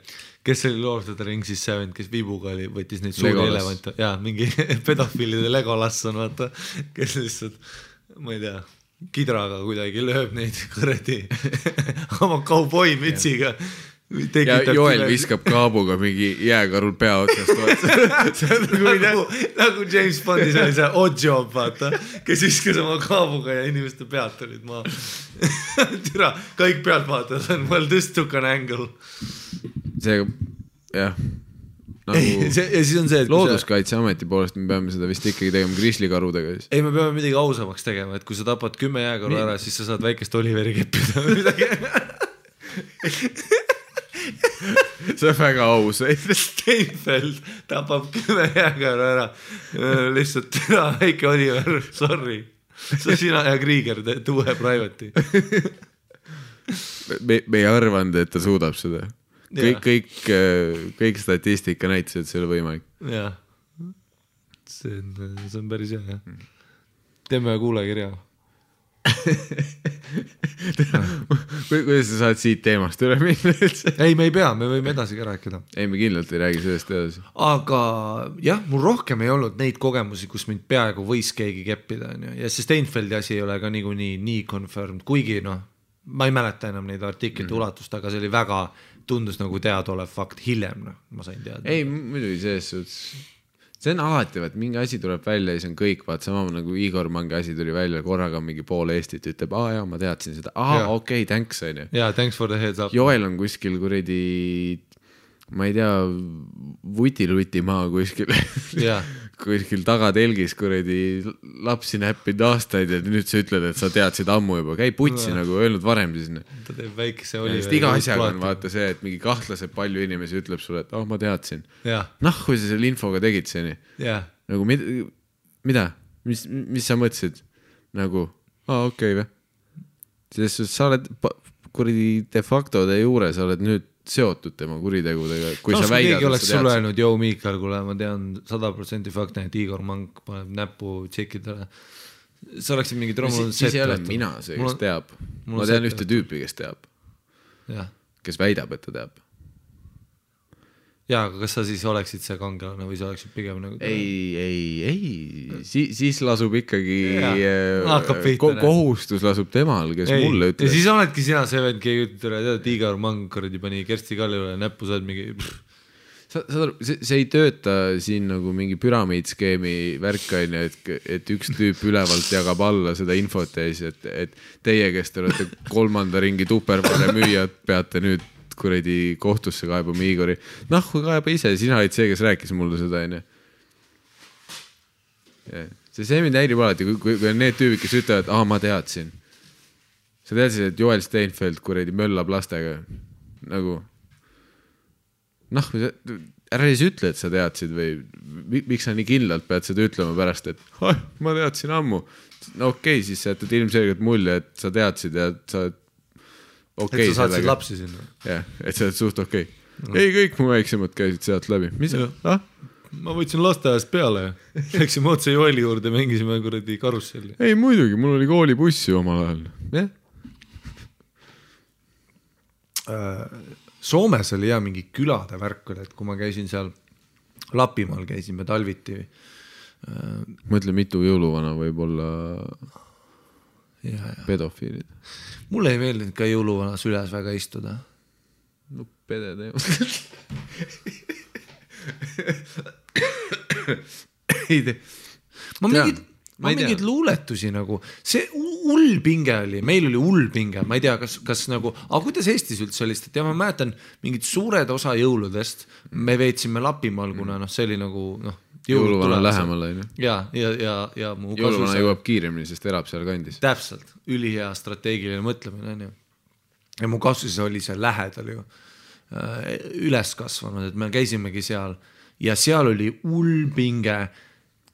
kes oli Lord of the Rings'is 7, kes vibuga oli, võttis neid suuri elevante, mingi pedofiilide Legolas on, vaata, kes lihtsalt, ma ei tea, kidraga kuidagi lööb neid kõredi oma kauboi mütsiga. Ja Joel viskab kaabuga mingi jääkarul pea otsast. Nagu James Bondis oli see oddjob, vaata, kes viskas oma kaabuga ja inimeste pealt olid maa. Türa, kõik pealt vaatavad, on well this took an angle. See, jah. Ja siis on see, looduskaitseameti poolest me peame seda vist ikkagi tegema grizzlikarudega. Ei, me peame midagi ausamaks tegema, et kui sa tapad 10 jääkaru ära, siis sa saad väikest Oliveri keppida või midagi. See on väga aus. Steinfeld tapab 10 jääkaru ära. Lihtsalt väike Oliver, sorry. Sa sina ja Krieger teed uue private'i. Me ei arvanud, et ta suudab seda. Kõik statistika näitas, et see oli võimalik. Jah. See on päris hea. Teeme kuulekirja. Kuidas sa saad siit teemast üle minna üldse? Ei, me ei pea, me võime edasi ka rääkida. Ei, me kindlalt ei räägi sellest edasi. Aga jah, mul rohkem ei olnud neid kogemusi, kus mind peaaegu võis keegi keppida. Ja see Steinfeldi asi ei ole ka nii confirmed, kuigi ma ei mäleta enam neid artiklite ulatust, aga see oli väga, tundus nagu teadolev fakt hiljem, ma sain teada. Ei, muidugi selles see on alati, et mingi asi tuleb välja ja see on kõik, vaat sama nagu Igor Mangi asi tuli välja, korraga mingi pool Eestit ütleb, jaa, ma teadsin seda, okei, thanks, on ju. Jaa, thanks for the heads up. Joel on kuskil kuradi, ma ei tea, vuti-luti maa kuskil tagatelgis kuradi lapsi näppinud aastaid ja nüüd sa ütled, et sa teadsid ammu juba, käi putsi nagu öelnud varem siis. Ta teeb väikese oli. Iga asjaga on vaata see, et mingi kahtlased palju inimesi ütleb sulle, et ma teadsin. Kui sa selle infoga tegid see nii. Nagu mida? Mis sa mõtlesid? Nagu, okei või? Sest sa oled kuradi de facto de juures, sa oled nüüd seotud tema kuritegudega. Kui sa väidad, keegi oleks sulle öelnud, joo Miikal, kuule, ma tean 100% fakti, et Igor Mang paneb näpu tšekidele. Sa oleksid mingi trommunud siis ei ole mina see, kes teab. Ma tean ühte tüüpi, kes teab. Kes väidab, et ta teab. Jaa, aga kas sa siis oleksid see kangelane või sa oleksid pigem nagu... Ei, siis lasub ikkagi kohustus lasub temal, kes mulle ütles. Ja siis oledki sina see vend, keegi ütleb, et Igor Mang pani Kersti Kallile näppu, sa oled mingi... See ei tööta siin nagu mingi püramiidskeemi värkaine, et üks tüüp ülevalt jagab alla seda infot ja siis, et teie, kes te olete 3. ringi tupervale müüjad, peate nüüd kuradi kohtusse kaebama Igori. Kui kaeba ise, sina olid see, kes rääkis mulle seda, enne. See mind häirib alati, kui on need tüübid, kes ütlevad, ma teadsin. Sa teadsid, et Joel Steinfeld kuradi möllab lastega. Nagu, ära siis ütle, et sa teadsid või miks sa nii kindlalt pead seda ütlema pärast, et ma teadsin ammu. Okei, siis sa jätad ilmselgelt mulje, et sa teadsid ja sa et sa saadsid lapsi sinna. Jah, et sa oled suht okei. Ei, kõik mu väiksemad käisid sealt läbi. Mis? ma võtsin lasteajast peale ja läksime otse Joeli juurde, mängisime kuradi karusselli. Ei muidugi, mul oli koolibussi omal ajal. Jah. Soomes oli mingi külade värk, et kui ma käisin seal Lapimaal, käisime talviti. Mõtle, mitu jõuluvana võib olla pedofiilid. Mulle ei meeldinud ka jõuluvana süles väga istuda. No pede teema. Ma mingid luuletusi nagu, see hullpinge oli, meil oli hullpinge, ma ei tea, kas nagu, aga kuidas Eestis üldse oli, et ma mäletan mingid suured osa jõuludest, me veetsime Lapimaal, kuna see oli nagu jõuluvana lähemal. Ja mu jõuluvana jõuab kiiremini, sest elab seal kandis. Täpselt, ülihea strateegiline mõtlemine. Ja mu kasvus oli see lähedal ju üles kasvanud, et me käisimegi seal ja seal oli hullpinge,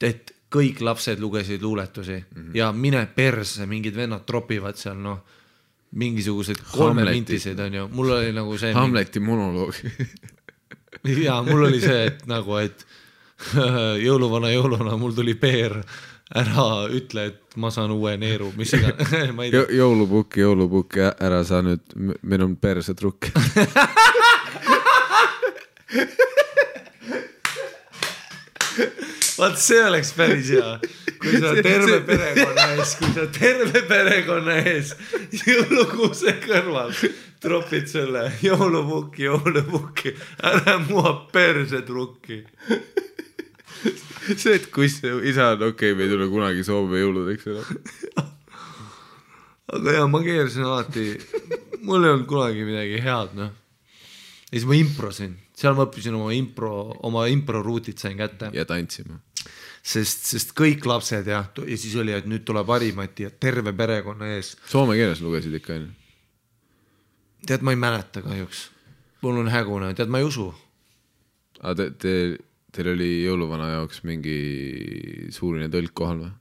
et kõik lapsed lugesid luuletusi ja mine perse, mingid vennad tropivad seal, mingisugused 3 mintiseid on ju, mul oli nagu see Hamleti monoloog. ja mul oli see, et nagu, et jõuluvana, mul tuli peer, ära ütle, et ma saan uue neeru, mis iga jõulupukki, ära saa nüüd, meil on perse trukk. Vaat see oleks päris hea, kui sa terve perekonna ees jõulukuuse kõrval tropid selle jõulupukki, ära mua perse trukki. See, et kus isa on okei, me ei tule kunagi Soome jõuludeks enam. Aga jah, ma keersin alati, mul ei olnud kunagi midagi head, Ja siis ma improsin, seal ma õppisin oma impro ruutid sain kätte. Ja tantsima. Sest kõik lapsed ja siis oli, et nüüd tuleb Harimati ja terve perekonna ees. Soome keeles lugesid ikka enne? Tead, ma ei mäleta kahjuks. Mul on hägune, tead, ma ei usu. Aga teil oli jõuluvana jaoks mingi suurine tõlk kohal või?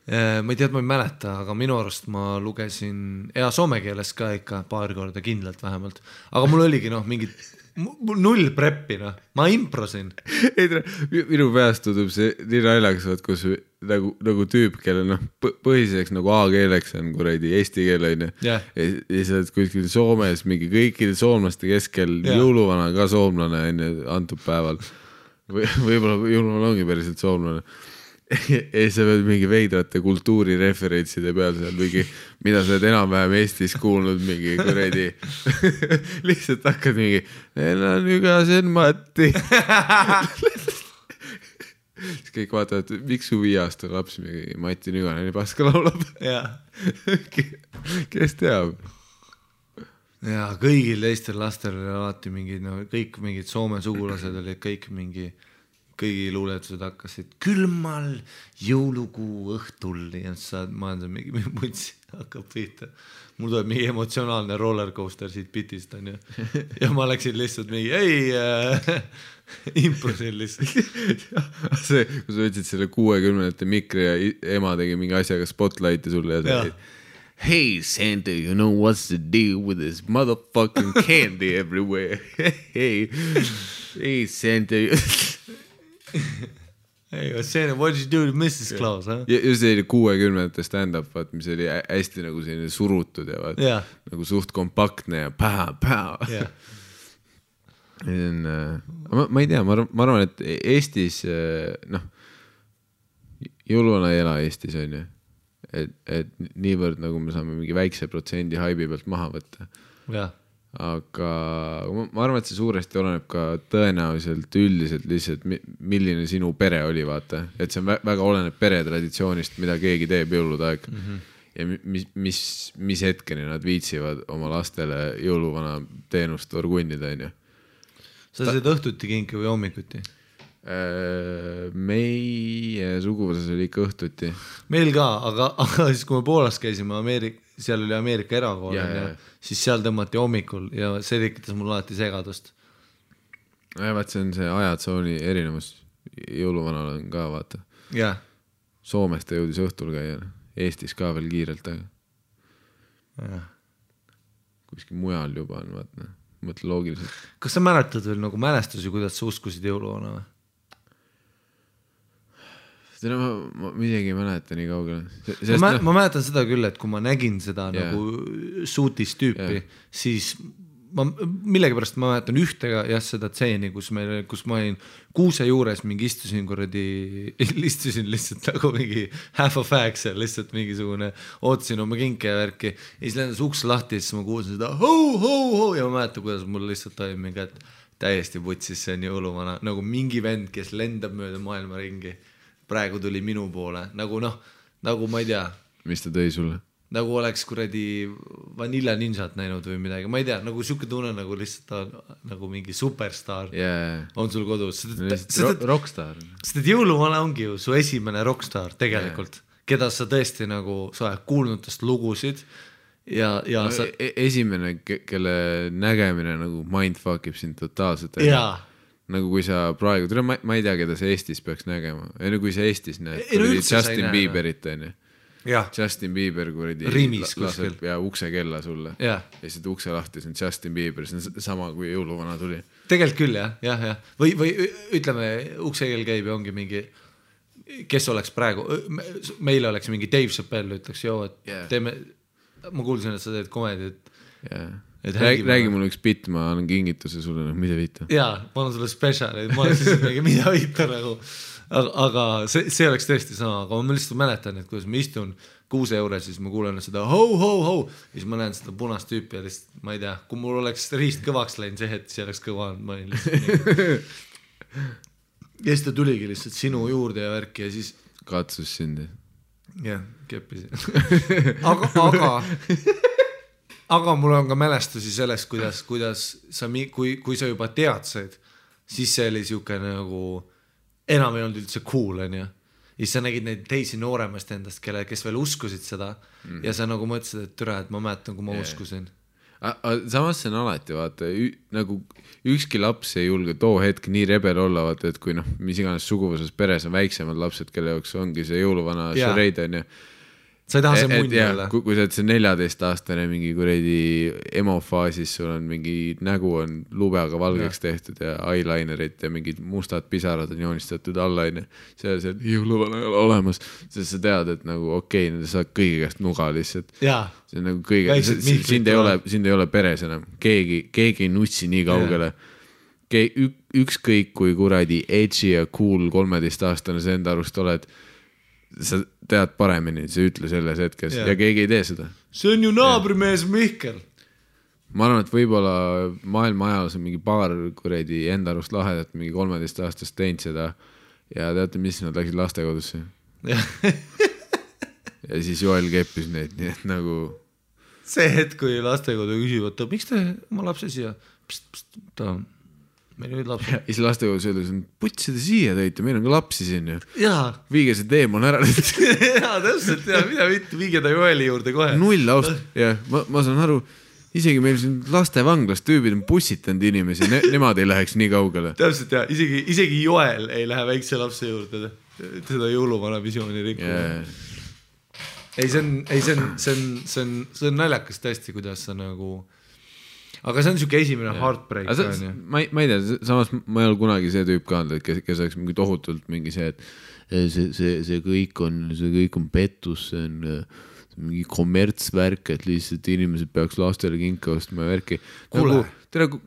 Ma ei tea, ma ei mäleta, aga minu arust ma lugesin soome keeles ka ikka paar korda kindlalt vähemalt. Aga mul oligi mingid null preppi, ma improsin. Minu peast tundub see nii naljakas, kus nagu tüüp, kelle põhiseks nagu A-keeleks on kuradi eesti keele. Ja sa oled kuskil Soomes mingi kõikide soomlaste keskel jõuluvana ka soomlane antud päeval. Võib-olla jõuluvana ongi päriselt soomlane. Ja sa pead mingi veidrate kultuurireferentside peal seal mingi, mida sa oled enam-vähem Eestis kuulnud mingi kuredi lihtsalt hakkad mingi neil on ügasen Matti siis kõik vaatavad, miks su 5 aasta laps mingi Mati Nüganen paska laulab kes teab ja kõigil teistel lastel oli alati mingi, kõik mingid Soome sugulased olid kõik mingi kõigi luuletused hakkasid külmal jõulukuu õhtul ja ma olen mingi mutsi hakkab pihta. Mul tuleb mingi emotsionaalne rollercoaster siit pitist on ju. Ja ma läksin lihtsalt mingi improsin lihtsalt. See, kui sa võtsid selle 60-ndate mikri ja ema tegi mingi asjaga spotlighti sulle ja sa hey Santa, you know what's the deal with this motherfucking candy everywhere? Hey Santa. Hey, what did you do to Mrs. Claus? Huh? Ja see oli 60-ndate stand-up, mis oli hästi nagu selline surutud ja nagu suht kompaktne ja päha. Ma ei tea, ma arvan, et Eestis, jõuluvana ei ela Eestis on ju, et niivõrd nagu me saame mingi väikse protsendi haibi pealt maha võtta. Aga ma arvan, et see suuresti oleneb ka tõenäoliselt üldiselt lihtsalt, milline sinu pere oli, vaata. Et see on väga oleneb pere traditsioonist, mida keegi teeb jõulude aeg. Ja mis hetkeni nad viitsivad oma lastele jõuluvana teenust orgunnida, on ju. Sa said õhtuti kinki või hommikuti? Meie suguvõsas oli ikka õhtuti. Meil ka, aga siis kui me Poolas käisime, seal oli Ameerika erakool siis seal tõmmati hommikul ja see tekitas mul alati segadust. Vaat see on see ajatsooni erinevus. Jõuluvanal on ka, vaata. Soomest ta jõudis õhtul käia. Eestis ka veel kiirelt, aga kuskil mujal juba on, vaata. mõtle loogiliselt. Kas sa mäletad veel nagu mälestusi, kuidas sa uskusid jõuluvana või? Seda ma midagi ei mäleta nii kaugele. Ma mäletan seda küll, et kui ma nägin seda nagu suutis tüüpi, siis millegipärast ma mäletan ühtega seda tseeni, kus ma olin kuuse juures mingi istusin lihtsalt nagu mingi half a fag seal, lihtsalt mingisugune ootasin oma kinke ja värki ja siis lendas uks lahti ja siis ma kuulsin seda ho ja ma mäletan, kuidas mul lihtsalt oli mingi, et täiesti putsis, see on jõuluvana, nagu mingi vend, kes lendab mööda maailma ringi. Praegu tuli minu poole, nagu ma ei tea. Mis ta tõi sulle? Nagu oleks kuradi Vanilla Ninjat näinud või midagi, ma ei tea, nagu siuke tunne nagu lihtsalt nagu mingi superstar on sul kodus. Rockstar. Sest et jõuluvana ongi ju su esimene rockstar tegelikult, keda sa tõesti nagu, sa oled kuulnud tast lugusid ja sa... Esimene, kelle nägemine nagu mindfuckib sind totaalselt. Nagu kui sa praegu, ma ei tea, keda sa Eestis peaks nägema, kui sa Eestis näed, Justin Bieberit on ju. Justin Bieber laseb ukse kella sulle ja seda ukse lahti, see on Justin Bieber, see on sama kui jõuluvana tuli. Tegelikult küll jah. Või ütleme, ukse kell käib ja ongi mingi, kes oleks praegu, meile oleks mingi Dave Chappelle ütleks, et teeme, ma kuulsin, et sa teed komedit. Räägi mulle üks bitt, ma annan kingituse sulle, mida viita. Jaa, ma annan sulle speciali, ma oleks siis mingi mida viita nagu. Aga see oleks tõesti sama, aga ma lihtsalt mäletan, et kuidas ma istun kuuse juures, siis ma kuulen seda ho, ja siis ma näen seda punast tüüpi ja lihtsalt, ma ei tea, kui mul oleks riist kõvaks läinud see hetk, siis oleks kõva olnud, ma olin lihtsalt ja siis ta tuligi lihtsalt sinu juurde ja värki ja siis katsus sind. Jah, keppisin aga mul on ka mälestusi sellest, kuidas sa, kui sa juba teadsid, siis see oli siuke nagu enam ei olnud üldse cool, on ju. Ja sa nägid neid teisi nooremast endast, kes veel uskusid seda ja sa nagu mõtlesid, et türa, et ma mäletan, kui ma uskusin. Samas see on alati, vaata, nagu ükski laps ei julge too hetk nii rebel olla, vaata, et kui mis iganes suguvuses peres on väiksemad lapsed, kelle jaoks ongi see jõuluvana šareid, on ju. Sa ei taha see munni olla. Kui sa oled see 14-aastane mingi kuredi emofaasis, sul on mingi nägu on lubeaga valgeks tehtud ja eyelinerit ja mingid mustad pisarad on joonistatud alla, see jõuluvana ei ole olemas, sest sa tead, et nagu okei, sa saad kõigi käest nuga lihtsalt. See on nagu kõige, sind ei ole peres enam, keegi ei nutsi nii kaugele. Ükskõik kui kuradi edgy ja cool 13-aastane see enda arust oled, sa tead paremini, sa ütle selles hetkes ja keegi ei tee seda. See on ju naabrimees Mihkel. Ma arvan, et võib-olla maailma ajal on mingi paar kuredi enda arust lahedat mingi 13-aastast teinud seda ja teate, mis nad läksid lastekodusse. Ja siis Joel keppis neid, nii et nagu see hetk, kui lastekodu küsivad, miks te oma lapse siia? Ta on meil olid lapsi. Ja siis lastekodus öeldes on, putsida siia tõite, meil on ka lapsi siin ju. Viige see teemon ära. Täpselt, mida mitte, viige ta Joeli juurde kohe. Null aust, ma saan aru, isegi meil siin lastevanglas tüübid on pussitanud inimesi, nemad ei läheks nii kaugele. Täpselt isegi Joel ei lähe väikse lapse juurde seda jõuluvana visiooni rikkuma. See on naljakas tõesti, kuidas sa nagu aga see on siuke esimene heartbreak. Ma ei tea, samas ma ei ole kunagi see tüüp ka olnud, kes oleks mingi tohutult mingi see, et see kõik on pettus, see on mingi kommertsvärk, et lihtsalt inimesed peaks lastele kinka ostma ja värki.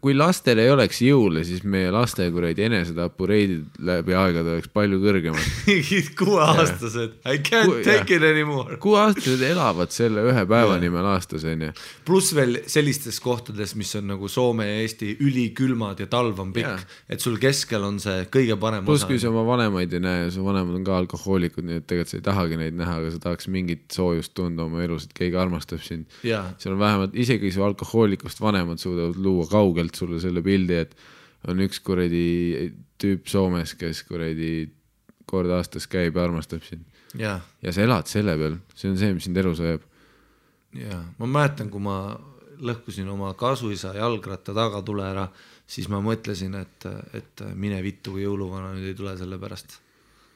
Kui lastel ei oleks jõule, siis meie laste kuradi enesetapureidid läbi aegade oleks palju kõrgemad. 6-aastased, I can't take it anymore. 6-aastased elavad selle ühe päeva nimel aastas, on ju. Plus veel sellistes kohtades, mis on nagu Soome ja Eesti ülikülmad ja talv on pikk, et sul keskel on see kõige parem osa. Plus kui sa oma vanemaid ei näe, su vanemad on ka alkohoolikud, nii et tegelikult sa ei tahagi neid näha, aga sa tahaks mingit soojust tunda oma elus, et keegi armastab sind. Seal on vähemalt, isegi su alkohoolikust vanemad suudavad luua kaugelt sulle selle pildi, et on üks kuradi tüüp Soomes, kes kuradi kord aastas käib ja armastab sind. Ja sa elad selle peal, see on see, mis sind elus ajab. Ma mäletan, kui ma lõhkusin oma kasuisa jalgratta tagatule ära, siis ma mõtlesin, et mine vittu, kui jõuluvana nüüd ei tule selle pärast.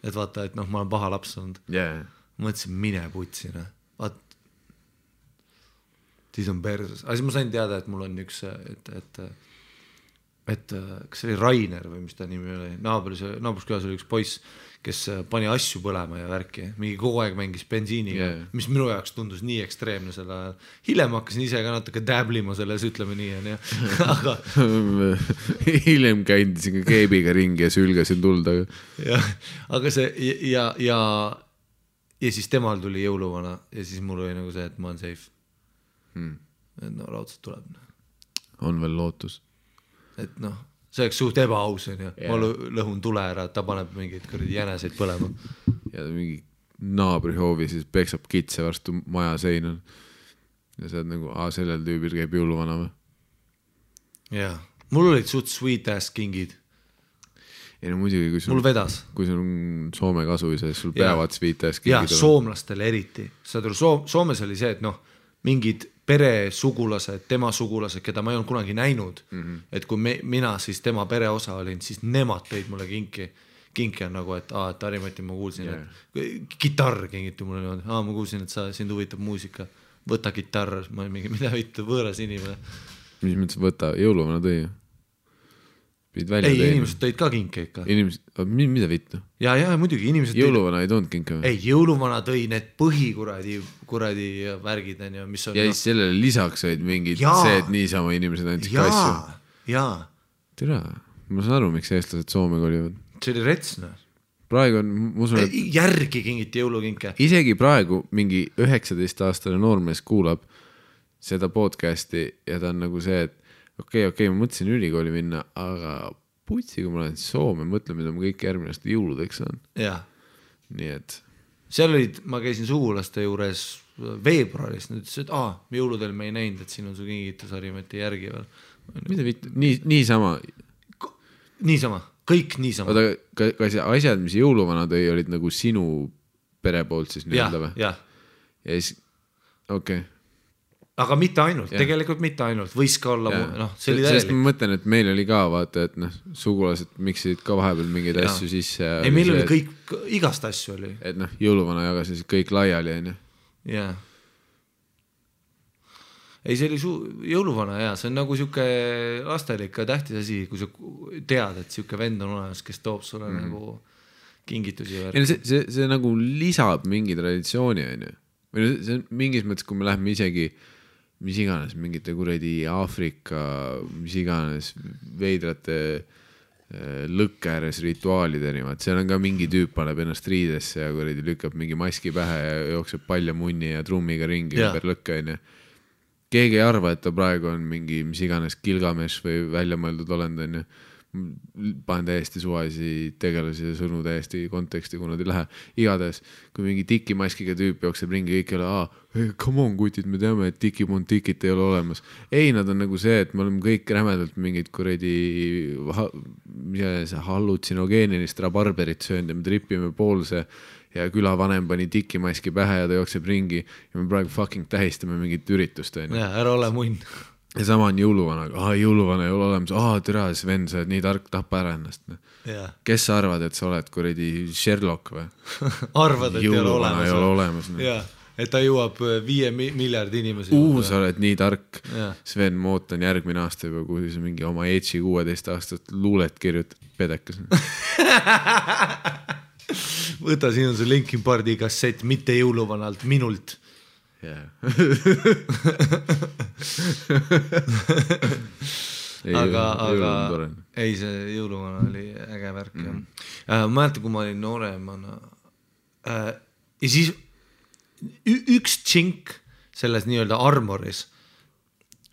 Et vaata, et ma olen paha laps olnud. Mõtlesin, mine putsina. siis on perses. Aga siis ma sain teada, et mul on üks, et kas see oli Rainer või mis ta nimi oli, naabruskülas oli üks poiss, kes pani asju põlema ja värki, mingi kogu aeg mängis bensiiniga, mis minu jaoks tundus nii ekstreemne selle ajal. Hiljem hakkasin ise ka natuke däblima selles, ütleme nii, on ju. Aga hiljem käindisin ka keebiga ringi ja sülgasin tuld, aga see ja siis temal tuli jõuluvana ja siis mul oli nagu see, et ma olen safe. Et no raudselt tuleb. On veel lootus. Et noh, see oleks suht ebaaus on ju, ma lõhun tule ära, ta paneb mingeid kõrdi jäneseid põlema. Ja mingi naabrihoovi siis peksab kitse varstu maja seinal. Ja sa oled nagu, sellel tüübil käib jõuluvana või? Jaa, mul olid suht sweet ass kingid. Ei no muidugi, mul vedas. Kui sul on Soome kasuisa, siis sul peavad sweet ass kingid. Ja soomlastele eriti. Soomes oli see, et noh, mingid pere sugulased, tema sugulased, keda ma ei olnud kunagi näinud, et kui mina siis tema pere osa olin, siis nemad tõid mulle kinki on nagu, et Harimati ma kuulsin, et kitarr kingiti mulle niimoodi, ma kuulsin, et sind huvitab muusika, võta kitarr, ma olin mingi, mida võita võõras inimene. Mis mõttes võta, jõuluvana tõi? Ei, inimesed tõid ka kinke ikka. Mida vittu? Ja muidugi inimesed jõuluvana ei toonud kinke või? Ei, jõuluvana tõi need põhikuradi värgid, mis on... Ja siis sellele lisaks olid mingid see, et niisama inimesed andsid kasju. Jaa. Tere, ma saan aru, miks eestlased Soome kolivad. See oli retsna. Praegu on, ma usun, et... Järgi kingiti jõulukinke. Isegi praegu mingi 19-aastane noormees kuulab seda podcasti ja ta on nagu see, et okei, ma mõtlesin ülikooli minna, aga putsi, kui ma lähen Soome, mõtlen, mida ma kõik järgmine aasta jõuludeks saan. Jaa. Nii et... Seal olid, ma käisin sugulaste juures veebruaris, nüüd ütles, et jõuludel me ei näinud, et siin on su kingitus Harimati järgi veel. Mida vittu? Niisama? Niisama, kõik niisama. Oota, kas asjad, mis jõuluvana tõi, olid nagu sinu pere poolt siis nii-öelda või? Jah. Ja siis, okei. Aga mitte ainult, tegelikult mitte ainult, võis ka olla, see oli täielik. Sest ma mõtlen, et meil oli ka, vaata, et sugulased miksisid ka vahepeal mingeid asju sisse. Ei, meil oli kõik, igast asju oli. Et jõuluvana jagasid kõik laiali, on ju. Jaa. Ei, see oli jõuluvana, see on nagu siuke lastele ikka tähtis asi, kui sa tead, et siuke vend on olemas, kes toob sulle nagu kingitusi. See nagu lisab mingi traditsiooni, on ju. Või see on mingis mõttes, kui me läheme isegi mis iganes, mingite kuradi Aafrika, mis iganes veidrate lõkke ääres rituaalideni, seal on ka mingi tüüp paneb ennast riidesse ja kuradi lükkab mingi maski pähe ja jookseb palja munni ja trummiga ringi ümber lõkke, on ju. Keegi ei arva, et ta praegu on mingi mis iganes Gilgamesh või väljamõeldud olend, on ju. Panen täiesti suvaisi tegelasi ja sõnu täiesti konteksti, kui nad ei lähe. Igades, kui mingi tikimaskiga tüüp jookseb ringi, kõik ei ole, come on kutid, me teame, et tikit ei ole olemas. Ei, nad on nagu see, et me oleme kõik rämedalt mingid kuradi hallutsinogeenilist rabarberit söönud ja me tripime poolse ja külavanem pani tikimaski pähe ja ta jookseb ringi ja me praegu fucking tähistame mingit üritust. Ja, ära ole munn. Ja sama on jõuluvana, jõuluvana ei ole olemas, tere, Sven, sa oled nii tark, tapa ära ennast. Kes sa arvad, et sa oled kuradi Sherlock või? Arvad, et jõuluvana ei ole olemas. Jaa, et ta jõuab 5 miljardi inimesi. Sa oled nii tark. Sven, ma ootan järgmine aasta juba, kui sa mingi oma Edge'i 16 aastat luulet kirjutad, pedekas. Võta, siin on see Linkin Parki kassett, mitte jõuluvanalt, minult. aga ei, see jõuluvana oli äge värk. Ma mäletan, kui ma olin nooremana ja siis üks tšink selles nii-öelda armoris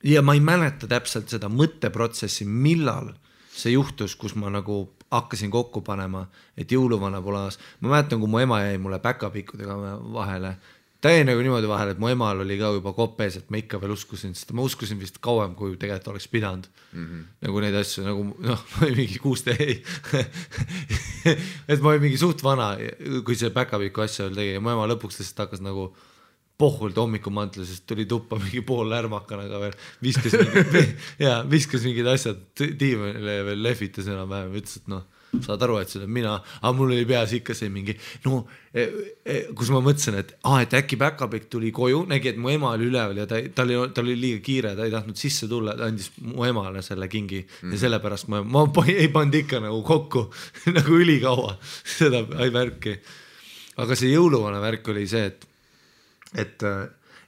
ja ma ei mäleta täpselt seda mõtteprotsessi, millal see juhtus, kus ma nagu hakkasin kokku panema, et jõuluvana pole aas. Ma mäletan, kui mu ema jäi mulle päkapikkudega vahele. Ta jäi nagu niimoodi vahel, et mu emal oli ka juba kopes, et ma ikka veel uskusin, sest ma uskusin vist kauem, kui tegelikult oleks pidanud. Nagu neid asju, nagu ma olin mingi 16, et ma olin mingi suht vana, kui see päkapiku asja veel tegi ja mu ema lõpuks lihtsalt hakkas nagu pohvult hommikumantle, sest tuli tuppa mingi pool lärmakanaga veel, viskas mingid asjad tiimile veel lehvitas enam vähem, ütles, et saad aru, et see olen mina, aga mul oli peas ikka see mingi, no kus ma mõtlesin, et äkki päkapikk tuli koju, nägi, et mu ema oli üleval ja tal oli liiga kiire, ta ei tahtnud sisse tulla, ta andis mu emale selle kingi ja sellepärast ma ei pannud ikka nagu kokku nagu ülikaua seda värki. Aga see jõuluvana värk oli see,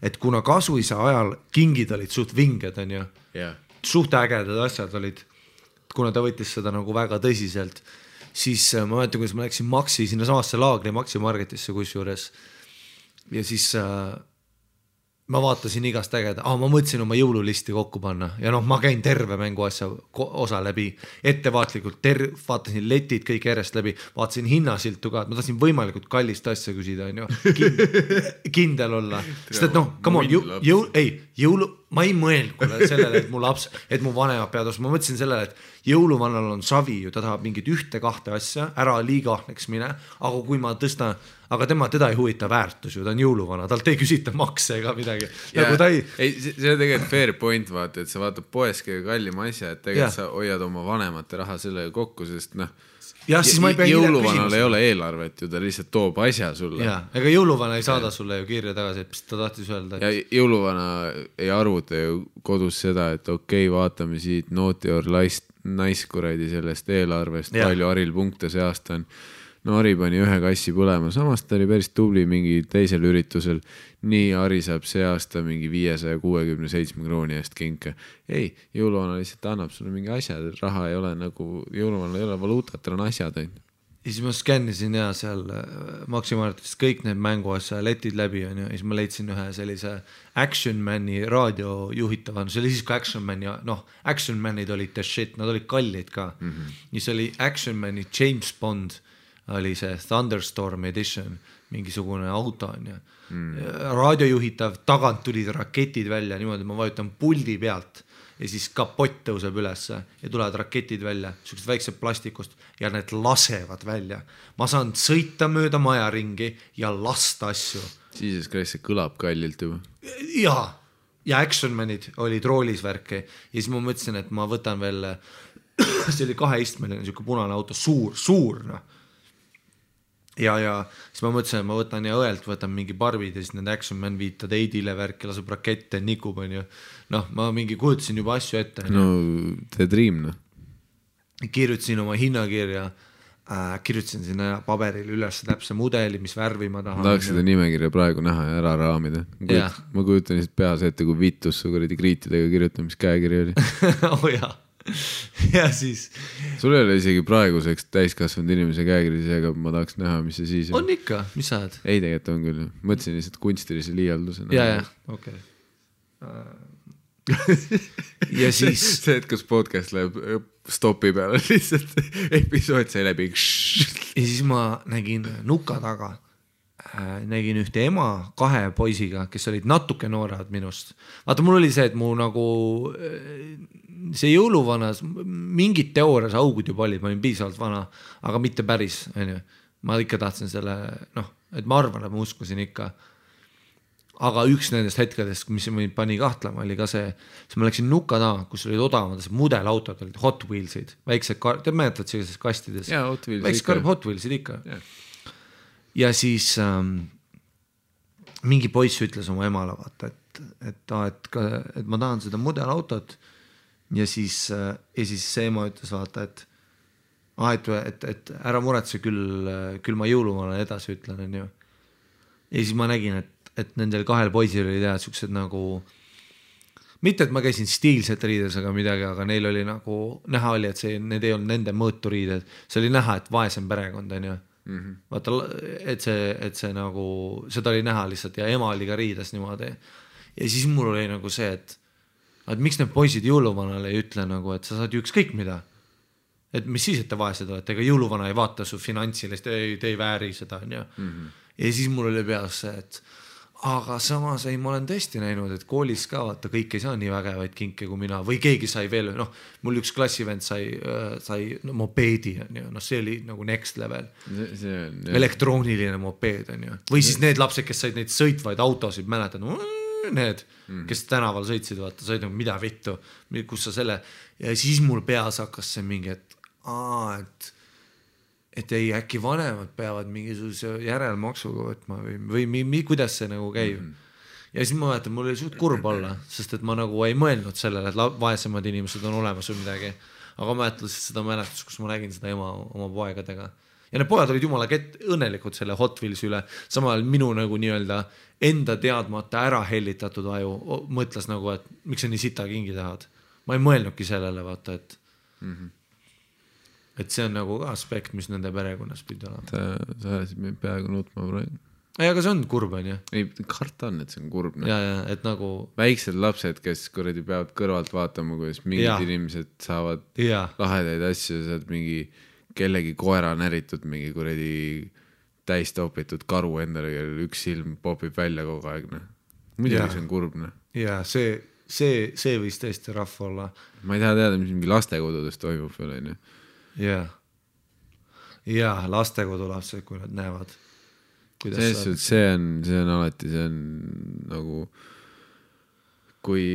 et kuna kasuisa ajal kingid olid suht vinged, on ju, suht ägedad asjad olid, kuna ta võttis seda nagu väga tõsiselt, siis ma mäletan, kuidas ma läksin Maxi sinna samasse laagri Maxi Marketisse kusjuures ja siis ma vaatasin igast ägeda, ma mõtlesin oma jõululisti kokku panna ja noh, ma käin terve mänguasja osa läbi, ettevaatlikult vaatasin letid kõik järjest läbi, vaatasin hinnasiltu ka, et ma tahtsin võimalikult kallist asja küsida, on ju, kindel olla, sest et noh, come on, ma ei mõelnud sellele, et mu laps, et mu vanemad peavad ostma, ma mõtlesin sellele, et jõuluvannal on savi ju, ta tahab mingit 1-2 asja, ära liiga ahneks mine, aga kui ma tõstan, aga teda ei huvita väärtus ju, ta on jõuluvana, talt ei küsita makse ega midagi. Nagu see on tegelikult fair point, vaata, et sa vaatad poes kõige kallima asja, et tegelikult sa hoiad oma vanemate raha sellega kokku, sest noh, jõuluvanal ei ole eelarvet ju, ta lihtsalt toob asja sulle. Ega jõuluvana ei saada sulle ju kirja tagasi, et ta tahtis öelda. Ja jõuluvana ei arvuta ju kodus seda, et okei, vaatame siit Naughty or Nice kuradi sellest eelarvest, palju Haril punkte see aasta on. No Harri pani 1 kassi põlema, samas ta oli päris tubli mingi teisel üritusel. Nii Harri saab see aasta mingi 567 krooni eest kinke. Ei, jõuluvana lihtsalt annab sulle mingi asjad, raha ei ole nagu, jõuluvana ei ole valuutat, tal on asjad. Ja siis ma skännisin ja seal Maxi Marketist kõik need mänguasja letid läbi on, ja siis ma leidsin ühe sellise Action Mani raadio juhitava, see oli siis ka Action Mani, noh, Action Manid olid the shit, nad olid kallid ka. Siis oli Action Mani James Bond, oli see Thunderstorm Edition, mingisugune auto on ja raadio juhitav, tagant tulid raketid välja, niimoodi ma vajutan puldi pealt ja siis kapott tõuseb ülesse ja tulevad raketid välja, sellised väiksed plastikust ja need lasevad välja. Ma saan sõita mööda maja ringi ja lasta asju. Siis see kõlab kallilt juba. Ja Action Manid olid roolis värki ja siis ma mõtlesin, et ma võtan veel, see oli 2-istmeline selline punane auto, suur noh. Ja siis ma mõtlesin, et ma võtan ja õelt võtan mingi barbid ja siis need Action Man viitad Eidile värki, laseb rakette, nikub on ju. Noh, ma mingi kujutasin juba asju ette. No, the dream, noh. Kirjutasin oma hinnakirja, kirjutasin sinna paberil üles täpse mudeli, mis värvi ma tahan. Tahaks seda nimekirja praegu näha ja ära raamida. Ma kujutan lihtsalt peas ette, kui vitus su kuradi kriitidega kirjutamiskäekiri oli. Ja siis sul ei ole isegi praeguseks täiskasvanud inimese käekirjas, aga ma tahaks näha, mis see siis on ikka, mis sa oled? Ei, tegelikult on küll, mõtlesin lihtsalt kunstilise liialduse okei. Ja siis see, et kas podcast läheb stopi peale lihtsalt episood sai läbi ja siis ma nägin nuka taga nägin ühte ema 2 poisiga, kes olid natuke noorad minust. Vaata, mul oli see, et mu nagu see jõuluvanas mingid teoorias augud juba olid, ma olin piisavalt vana, aga mitte päris, ma ikka tahtsin selle, noh, et ma arvan, et ma uskusin ikka. Aga üks nendest hetkedest, mis mind pani kahtlema, oli ka see, siis ma läksin nuka taha, kus olid odavamad mudelautod, olid Hot Wheelsid, väiksed, te mäletad sellises kastides? Väiksed Hot Wheelsid ikka. Ja siis mingi poiss ütles oma emale, vaata, et ma tahan seda mudelautot ja siis see ema ütles, vaata, et ära muretse küll ma jõuluvana edasi ütlen, on ju. Ja siis ma nägin, et nendel 2 poisil oli teha sellised nagu, mitte et ma käisin stiilset riides aga midagi, aga neil oli nagu, näha oli, et need ei olnud nende mõõturiided, see oli näha, et vaesem perekond, on ju. Vaata, et see nagu, seda oli näha lihtsalt ja ema oli ka riides niimoodi. Ja siis mul oli nagu see, et miks need poisid jõuluvanale ei ütle nagu, et sa saad ju ükskõik mida. Et mis siis, et te vaesed olete, ega jõuluvana ei vaata su finantsilist, te ei vääri seda. Ja siis mul oli peas see, et aga samas ma olen tõesti näinud, et koolis ka vaata, kõik ei saa nii vägevaid kinke kui mina või keegi sai veel, noh, mul üks klassivend sai mopeedi, see oli nagu next level. Elektrooniline mopeed, või siis need lapsed, kes said neid sõitvaid autosid, mäletad, need, kes tänaval sõitsid, vaata, said nagu mida vittu, kus sa selle, ja siis mul peas hakkas see mingi, et ei, äkki vanemad peavad mingisuguse järelmaksuga võtma või kuidas see nagu käib. Ja siis ma mäletan, mul oli suht kurb olla, sest et ma nagu ei mõelnud sellele, et vaesemad inimesed on olemas või midagi. Aga mäletan seda mäletust, kus ma nägin seda ema oma poegadega. Ja need pojad olid jumala õnnelikud selle Hot Wheelsi üle. Samal minu nagu nii-öelda enda teadmata ära hellitatud aju mõtles nagu, et miks sa nii sita kingi tahad. Ma ei mõelnudki sellele, vaata, et see on nagu ka aspekt, mis nende perekonnas pidi olema. Sa ajasid meid peaaegu nutma praegu. Ei, aga see on kurb, on ju? Ei, karta on, et see on kurb. Ja, et nagu... Väiksed lapsed, kes kuradi peavad kõrvalt vaatama, kuidas mingid inimesed saavad lahedaid asju, saad mingi kellegi koera näritud, mingi kuradi täistopitud karu endale, üks silm popib välja kogu aeg. Muidugi see on kurb. Ja, see võis tõesti rahva olla. Ma ei taha teada, mis mingi lastekodudes toimub veel, on ju. Ja, lastekodu lapsed, kui nad näevad. See on alati, see on nagu kui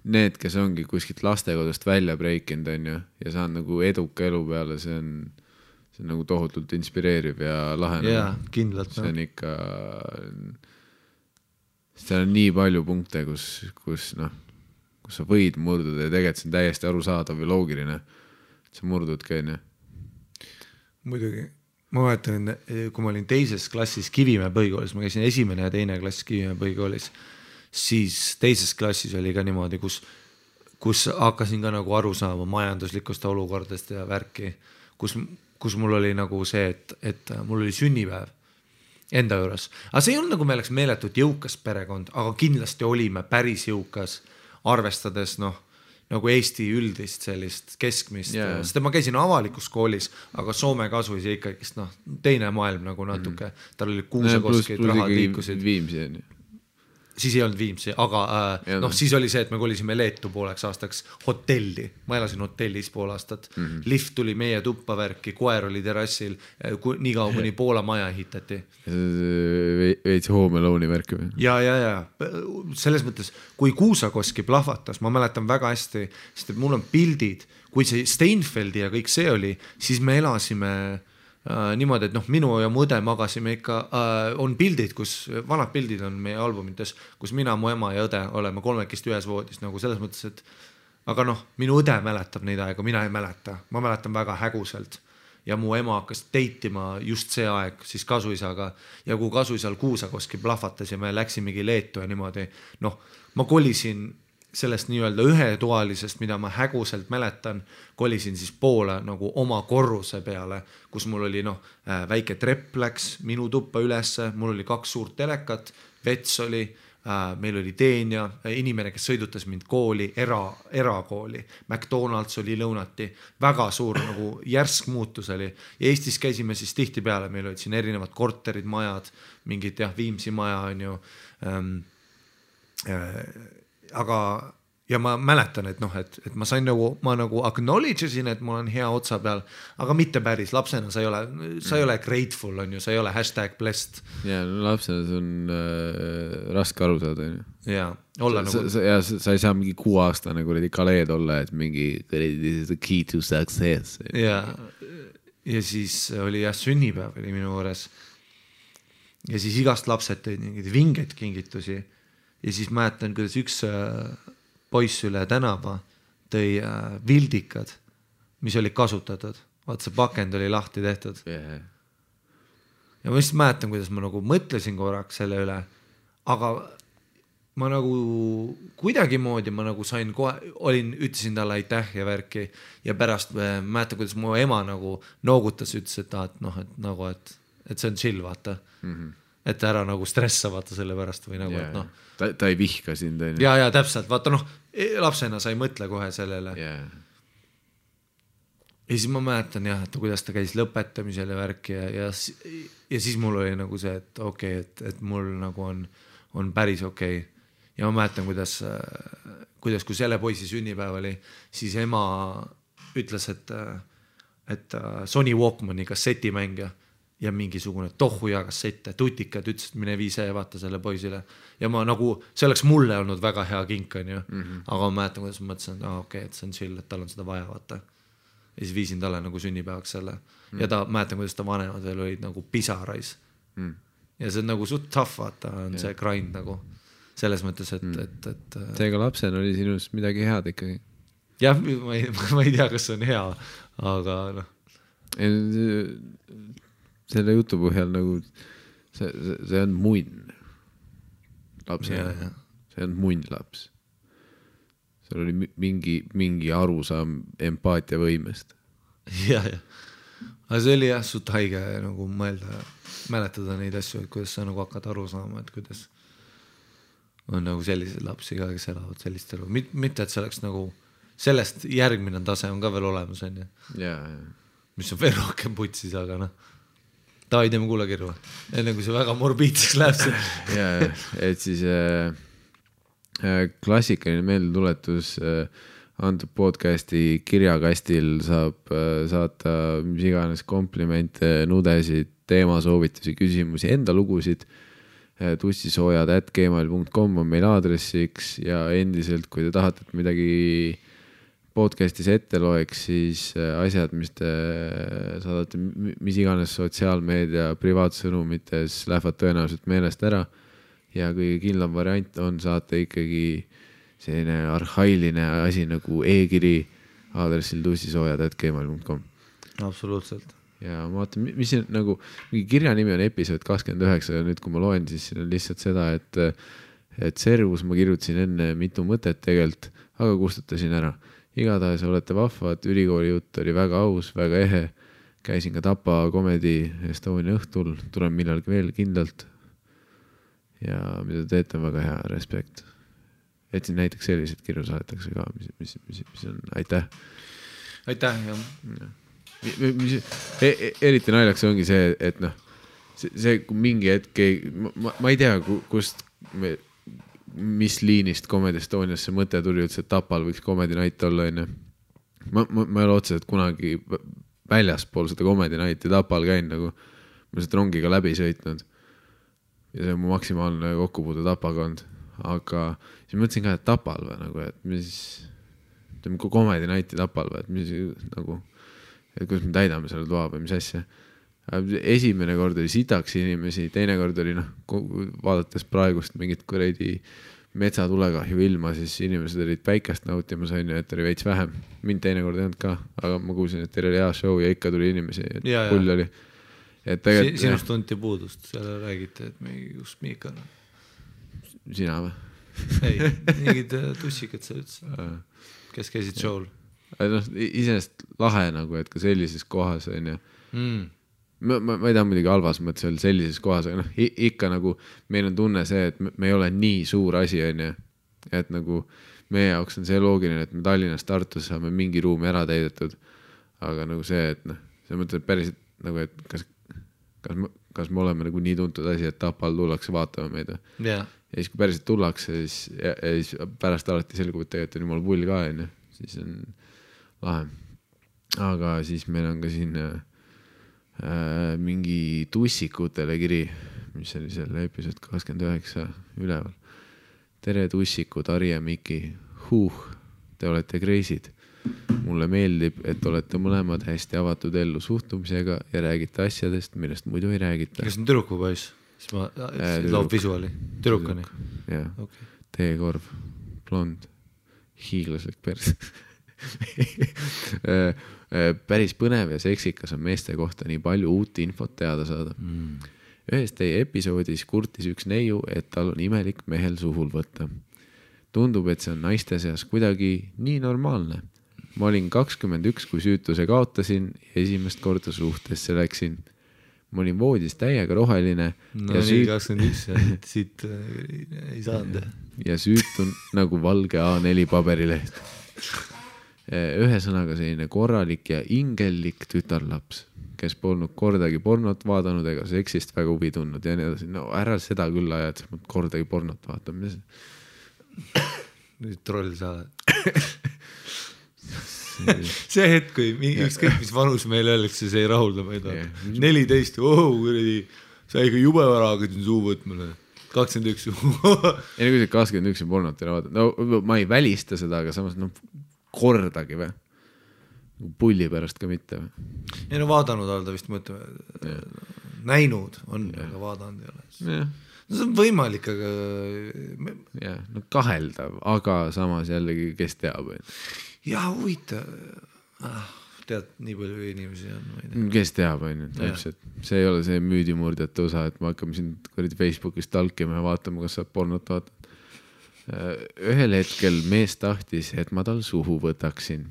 need, kes ongi kuskilt lastekodust välja breikinud on ju ja saan nagu eduka elu peale, see on nagu tohutult inspireeriv ja lahe. Jaa, kindlalt. See on ikka seal on nii palju punkte, kus sa võid murduda ja tegelikult see on täiesti arusaadav ja loogiline. Sa murdudki on ju. Muidugi. Ma mäletan, kui ma olin teises klassis Kivimäe põhikoolis, ma käisin esimene ja teine klass Kivimäe põhikoolis, siis teises klassis oli ka niimoodi, kus hakkasin ka nagu aru saama majanduslikust olukordest ja värki, kus mul oli nagu see, et mul oli sünnipäev enda juures. Aga see ei olnud nagu me oleks meeletult jõukas perekond, aga kindlasti olime päris jõukas, arvestades nagu Eesti üldist sellist keskmist, sest ma käisin avalikus koolis, aga Soome kasuis ja ikkagist teine maailm nagu natuke, tal oli kuusekoskid, rahad liikusid. Viimsi on ju. Siis ei olnud Viimsi, aga siis oli see, et me kolisime Leetu pooleks aastaks hotelli. Ma elasin hotellis pool aastat. Lift tuli meie tuppa värki, koer oli terrassil, nii kaua kuni Poola maja ehitati. Veits Home Alone'i värki või? Ja. Selles mõttes, kui Kuusakoski plahvatas, ma mäletan väga hästi, sest et mul on pildid, kui see Steinfeldi ja kõik see oli, siis me elasime niimoodi, et minu ja mu õde magasime ikka, on pildid, vanad pildid on meie albumites, kus mina, mu ema ja õde oleme kolmekesti ühes voodis, nagu selles mõttes, et aga minu õde mäletab neid aega, mina ei mäleta, ma mäletan väga häguselt ja mu ema hakkas teitima just see aeg siis kasuisaga ja kui kasuisal Kuusakoski plahvatas ja me läksimegi Leetu ja niimoodi, ma kolisin sellest nii-öelda ühetoalisest, mida ma häguselt mäletan, kolisin siis poole nagu oma korruse peale, kus mul oli väike trepp läks minu tuppa ülesse, mul oli 2 suurt telekat, vets oli, meil oli teenja, inimene, kes sõidutas mind kooli, erakooli, McDonald's oli lõunati, väga suur nagu järsk muutus oli ja Eestis käisime siis tihti peale, meil olid siin erinevad korterid, majad, mingid Viimsi maja on ju, aga ja ma mäletan, et ma sain ma nagu acknowledge'sin, et mul on hea otsa peal, aga mitte päris, lapsena sa ei ole grateful, on ju, sa ei ole #blessed. Ja lapsena see on raske aru saada. Ja, olla nagu... Sa ei saa mingi 6-aastane kuradi kaleed olla, et mingi this is the key to success. Ja siis oli sünnipäev oli minu juures. Ja siis igast lapsed tõid mingid vingeid kingitusi. Ja siis mäletan, kuidas üks poiss üle tänava tõi vildikad, mis olid kasutatud. Vaat see pakend oli lahti tehtud. Ja ma just mäletan, kuidas ma nagu mõtlesin korraks selle üle, aga ma nagu kuidagimoodi ma nagu sain ütlesin talle aitäh ja värki ja pärast mäletan, kuidas mu ema nagu noogutas, ütles, et see on chill, vaata. Et ära nagu stressa vaata selle pärast või nagu, et ta ei vihka sind. Ja täpselt, vaata lapsena sa ei mõtle kohe sellele. Ja siis ma mäletan et kuidas ta käis lõpetamisel ja värki ja siis mul oli nagu see, et okei, et mul nagu on päris okei. Ja ma mäletan, kuidas kui selle poisi sünnipäev oli, siis ema ütles, et Sony Walkmani kassetimängija ja mingisugune tohuja kassette, tutikad ütles, et mine viise ja vaata selle poisile. Ja ma nagu, see oleks mulle olnud väga hea kink, on ju. Aga ma mäletan, kuidas ma mõtlesin, et okei, et see on chill, et tal on seda vaja, vaata. ja siis viisin talle nagu sünnipäevaks selle ja ta, mäletan, kuidas ta vanemad veel olid nagu pisarais ja see on nagu suht tough, vaata, on see grind nagu selles mõttes, et seega lapsena oli sinust midagi head ikkagi. Jah, ma ei tea, kas see on hea, aga noh. Selle jutu põhjal nagu see on munn lapsena. See on munn laps. Seal oli mingi arusaam empaatia võimest. Ja. Aga see oli jah suht haige nagu mäletada neid asju, et kuidas sa nagu hakkad aru saama, et kuidas on nagu sellised lapsi ka, kes elavad sellist elu. Mitte, et see oleks nagu sellest järgmine tase on ka veel olemas, on ju. Mis on veel rohkem putsis, aga noh. Tavai, teeme kuulakirju. Enne kui see väga morbiidseks läheb see. Et siis klassikaline meeldetuletus antud podcasti kirjakastil saab saata mis iganes komplimente, nudesid, teemasoovitusi, küsimusi, enda lugusid. tussisoojad@gmail.com on meil aadressiks ja endiselt, kui te tahate, et midagi podcastis ette loeks, siis asjad, mis te saadate, mis iganes sotsiaalmeedia privaatsõnumites lähevad tõenäoliselt meelest ära ja kõige kindlam variant on saata ikkagi selline arhailine asi nagu e-kiri aadressil tussisoojad@gmail.com. Absoluutselt. Ja ma vaatan, mis siin nagu, mingi kirja nimi on episood 29 ja nüüd, kui ma loen, siis siin on lihtsalt seda, et servus ma kirjutasin enne mitu mõtet tegelt, aga kustutasin ära. Igatahes olete vahvad, ülikooli jutt oli väga aus, väga ehe. Käisin ka Tapa Comedy Estonia õhtul, tulen millalgi veel kindlalt. Ja mida teete on väga hea, respekt. Et siin näiteks sellised kirju saadetakse ka, mis on, aitäh. Aitäh, jah. Eriti naljaks ongi see, et noh, see mingi hetk, ma ei tea, kust mis liinist Comedy Estonias see mõte tuli üldse, et Tapal võiks Comedy Night olla, enne. Ma ei ole otseselt kunagi väljaspool seda Comedy Nighti Tapal käin, nagu ma seda rongiga läbi sõitnud ja see on mu maksimaalne kokkupuude Tapaga olnud, aga siis mõtlesin ka, et Tapal või nagu, et mis Comedy Nighti Tapal või, et mis nagu et kuidas me täidame selle toa või mis asja. Esimene kord oli sitaks inimesi, teine kord oli vaadates praegust mingit kuradi metsatulekahju ilma, siis inimesed olid päikest nautimas, et oli veits vähem. Mind teine kord ei olnud ka, aga ma kuulsin, et teil oli hea show ja ikka tuli inimesi, et pull oli. Sinust tunti puudust, seal räägite, et kus Miika on? Sina või? Ei, mingid tussikad sa üldse, kes käisid show'l? Iseenest lahe nagu, et ka sellises kohas on ja ma ei taha muidugi halvas mõttes öelda sellises kohas, aga ikka nagu meil on tunne see, et me ei ole nii suur asi on ja et nagu meie jaoks on see loogiline, et me Tallinnas Tartus saame mingi ruumi ära täidetud, aga nagu see, et see mõtleb päriselt nagu, et kas me oleme nagu nii tuntud asi, et Tapal tullakse vaatama meid ja siis kui päriselt tullakse, siis pärast alati selgub, et tegelikult on jumal pull ka on ja siis on lahe. Aga siis meil on ka siin mingi tussikutele kiri, mis oli selle episood 29 üleval. Tere tussikud, Ari ja Miki. Te olete kreisid. Mulle meeldib, et olete mõlemad hästi avatud ellu suhtumisega ja räägite asjadest, millest muidu ei räägita. Kas on türuku poiss? Siis ma loob visuaali. Türukani? Jah. Teekorv, blond, hiiglaslik pers. Päris põnev ja seksikas on meeste kohta nii palju uut infot teada saada. Ühes teie episoodis kurtis üks neiu, et tal on imelik mehel suhul võtta. Tundub, et see on naiste seas kuidagi nii normaalne. Ma olin 21, kui süütuse kaotasin ja esimest korda suhtesse läksin. Ma olin voodis täiega roheline. No nii 21, siit ei saanud. Ja süütun nagu valge A4 paberileht. Ühesõnaga selline korralik ja ingellik tütarlaps, kes polnud kordagi pornot vaadanud ega seksist väga huvi tundnud ja nii edasi. No ära seda küll aja, et sa kordagi pornot vaatama. Nüüd troll sa see hetk, kui ükskõik mis vanus meil öeldakse, see ei rahulda meid. 14, sa ikka jube vara hakkasin suu võtmale. 21 ei, kui see 21 pornot ei vaadanud. No ma ei välista seda, aga samas kordagi või? pulli pärast ka mitte. Ei no vaadanud olda vist mõtleme, näinud on, aga vaadanud ei ole. No see on võimalik, aga... Ja, no kaheldav, aga samas jällegi, kes teab. Jah, huvitav. Tead, nii palju inimesi on. Kes teab, täpselt. See ei ole see müüdimurdjate osa, et me hakkame siin Facebookis talkima ja vaatama, kas saab pornot vaatama. Ühel hetkel mees tahtis, et ma tal suhu võtaksin,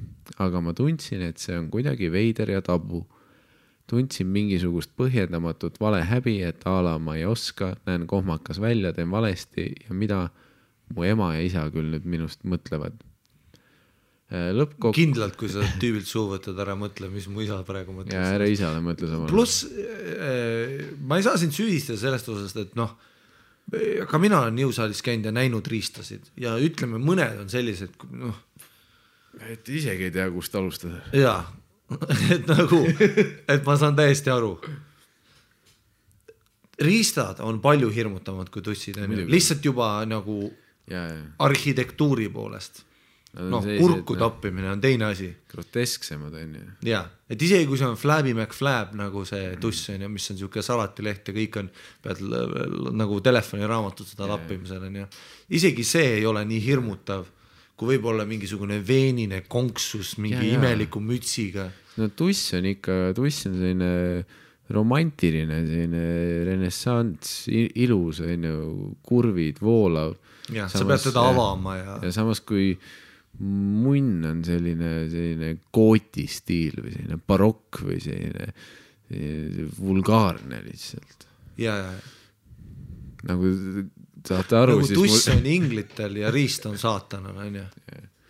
aga ma tundsin, et see on kuidagi veider ja tabu. Tundsin mingisugust põhjendamatut vale häbi, et ala ma ei oska, näen kohmakas välja, teen valesti ja mida mu ema ja isa küll nüüd minust mõtlevad. Kindlalt, kui sa tüübilt suhu võtad, ära mõtle, mis mu isa praegu mõtles. Ja ära isale mõtle samal. Plus, ma ei saa sind süüdistada sellest osast, et noh, ka mina olen jõusaalis käinud ja näinud riistasid ja ütleme, mõned on sellised, noh. Et isegi ei tea, kust alustada. Jaa, et nagu, et ma saan täiesti aru. Riistad on palju hirmutavad kui tussid, lihtsalt juba nagu arhitektuuri poolest. No, kurku tappimine on teine asi. Grotesksemad on ju. Jaa, et isegi kui see on Flabby McFlab nagu see tuss on ja mis on siuke salatileht ja kõik on, pead nagu telefoniraamatut seda lappimisel on ja isegi see ei ole nii hirmutav, kui võib olla mingisugune veenine konksus mingi imeliku mütsiga. No tuss on selline romantiline, selline renessants, ilus, kurvid, voolav. Ja, sa pead teda avama ja samas kui munn on selline kooti stiil või selline barokk või selline vulgaarne lihtsalt. Ja. Nagu saate aru. Nagu tuss on inglitel ja riist on saatanal, on ju?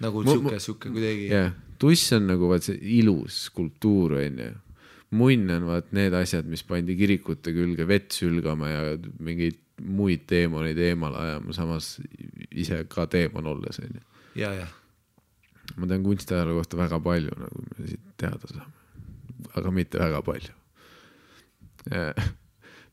Nagu siuke kuidagi. Ja, tuss on nagu vaat see ilus skulptuur, on ju. Munn on vaat need asjad, mis pandi kirikute külge vett sülgama ja mingeid muid teemoneid eemal ajama, samas ise ka teemon olles, on ju. Ja. Ma tean kunstiajaloo kohta väga palju, nagu me siit teada saame, aga mitte väga palju.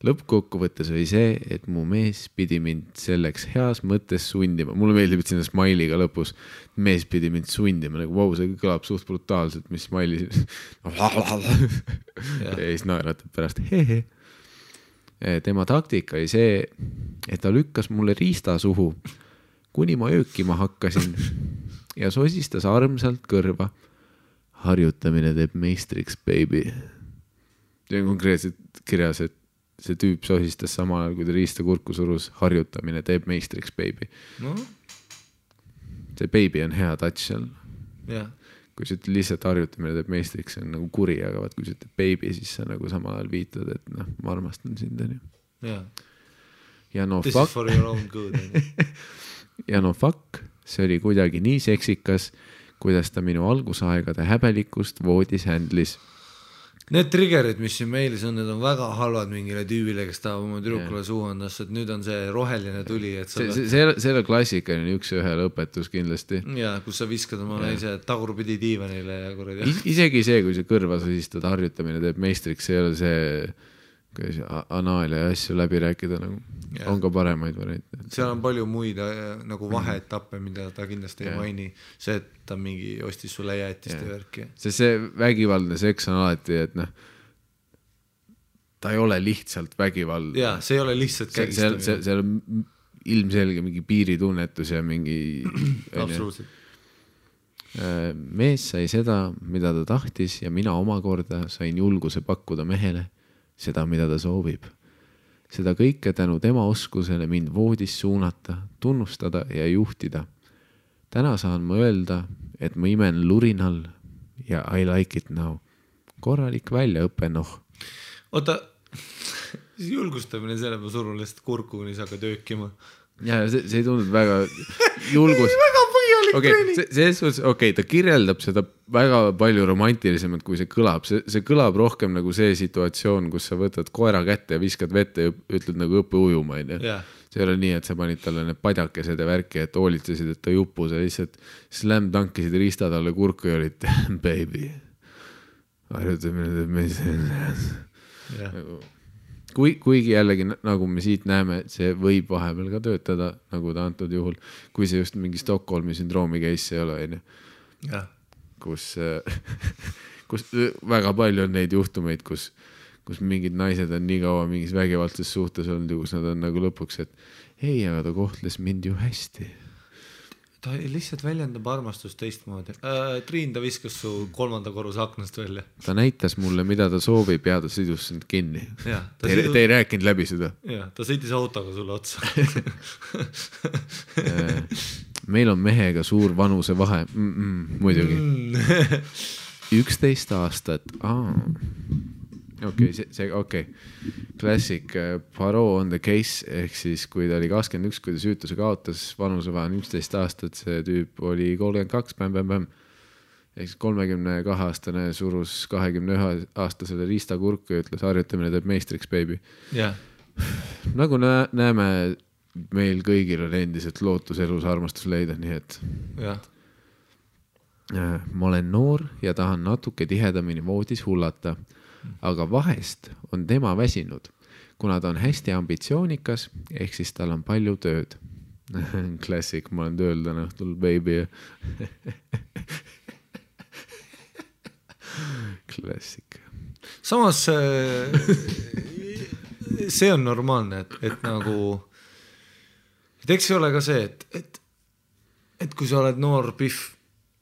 Lõppkokkuvõttes oli see, et mu mees pidi mind selleks heas mõttes sundima. Mulle meeldib, et sinna smailiga lõpus mees pidi mind sundima, nagu vau, see kõlab suht brutaalselt, mis smaili ja siis naeratab pärast hehe. Tema taktika oli see, et ta lükkas mulle riista suhu, kuni ma öökima hakkasin ja sosistas armsalt kõrva. Harjutamine teeb meistriks, baby. See on konkreetselt kirjas, et see tüüp sosistas samal ajal, kui ta riista kurku surus. Harjutamine teeb meistriks, baby. No. See baby on hea touch seal. Ja. Kui sa lihtsalt harjutamine teeb meistriks, see on nagu kuri, aga vaat, kui sa ütled baby, siis sa nagu samal ajal viitad, et noh, ma armastan sind. Ja. Ja no This fuck. is for your own good. Ja no fuck, see oli kuidagi nii seksikas, kuidas ta minu algusaegade häbelikust voodis händlis. Need triggerid, mis siin meilis on, need on väga halvad mingile tüübile, kes tahab oma tüdrukule suuandas, et nüüd on see roheline tuli. Et selle klassikaline üks ühe lõpetus kindlasti. Ja, kus sa viskad oma naise tagurpidi diivanile ja kuradi. Isegi see, kui see kõrva sosistad, harjutamine teeb meistriks, see ei ole see anaalia ja asju läbi rääkida, nagu on ka paremaid variante. Seal on palju muid nagu vaheetappe, mida ta kindlasti ei maini. See, et ta mingi ostis sulle jäätist ja värki. See vägivaldne seks on alati, et noh, ta ei ole lihtsalt vägivald. Jaa, see ei ole lihtsalt kägistamine. See on ilmselge mingi piiritunnetus ja mingi absoluutselt. Mees sai seda, mida ta tahtis ja mina omakorda sain julguse pakkuda mehele seda, mida ta soovib. Seda kõike tänu tema oskusele mind voodis suunata, tunnustada ja juhtida. Täna saan ma öelda, et ma imen lurinal ja I like it now. Korralik väljaõppe, noh. Oota, julgustamine selle ma surun lihtsalt kurku, kuni sa hakkad öökima. Ja see ei tunnud väga julgus. Väga põhjalik treening. Ta kirjeldab seda väga palju romantilisemalt, kui see kõlab. See kõlab rohkem nagu see situatsioon, kus sa võtad koera kätte ja viskad vette ja ütled nagu õppe ujuma. See ei ole nii, et sa panid talle need padjakesed ja värki, et hoolitsesid, et ta jupu, sa lihtsalt slam tankisid riista talle kurku ja olid baby. Harjutamine teeb kuigi jällegi, nagu me siit näeme, see võib vahepeal ka töötada, nagu ta antud juhul, kui see just mingi Stockholmi sündroomi case ei ole. kus väga palju on neid juhtumeid, kus mingid naised on nii kaua mingis vägivaldses suhtes olnud ja kus nad on nagu lõpuks, et ei, aga ta kohtles mind ju hästi. Ta lihtsalt väljendab armastust teistmoodi. Triin, ta viskas su 3. korruse aknast välja. Ta näitas mulle, mida ta soovib ja ta sidus sind kinni. Te ei rääkinud läbi seda. Ja, ta sõitis autoga sulle otsa. Meil on mehega suur vanuse vahe. Muidugi. 11 aastat. Okei. Classic Poirot on the case, ehk siis kui ta oli 21, kui ta süütuse kaotas, vanusevahe on 11 aastat, see tüüp oli 32, bäm. Ehk siis 32-aastane surus 21-aastasele riistakurku ja ütles, harjutamine teeb meistriks, baby. Yeah. Nagu näeme, meil kõigil on endiselt lootus elus armastus leida, nii et ma olen noor ja tahan natuke tihedamini voodis hullata. Aga vahest on tema väsinud, kuna ta on hästi ambitsioonikas, ehk siis tal on palju tööd. Classic, ma olen tööl täna õhtul, baby. Classic. Samas see on normaalne, et nagu et eks ei ole ka see, et kui sa oled noor pihv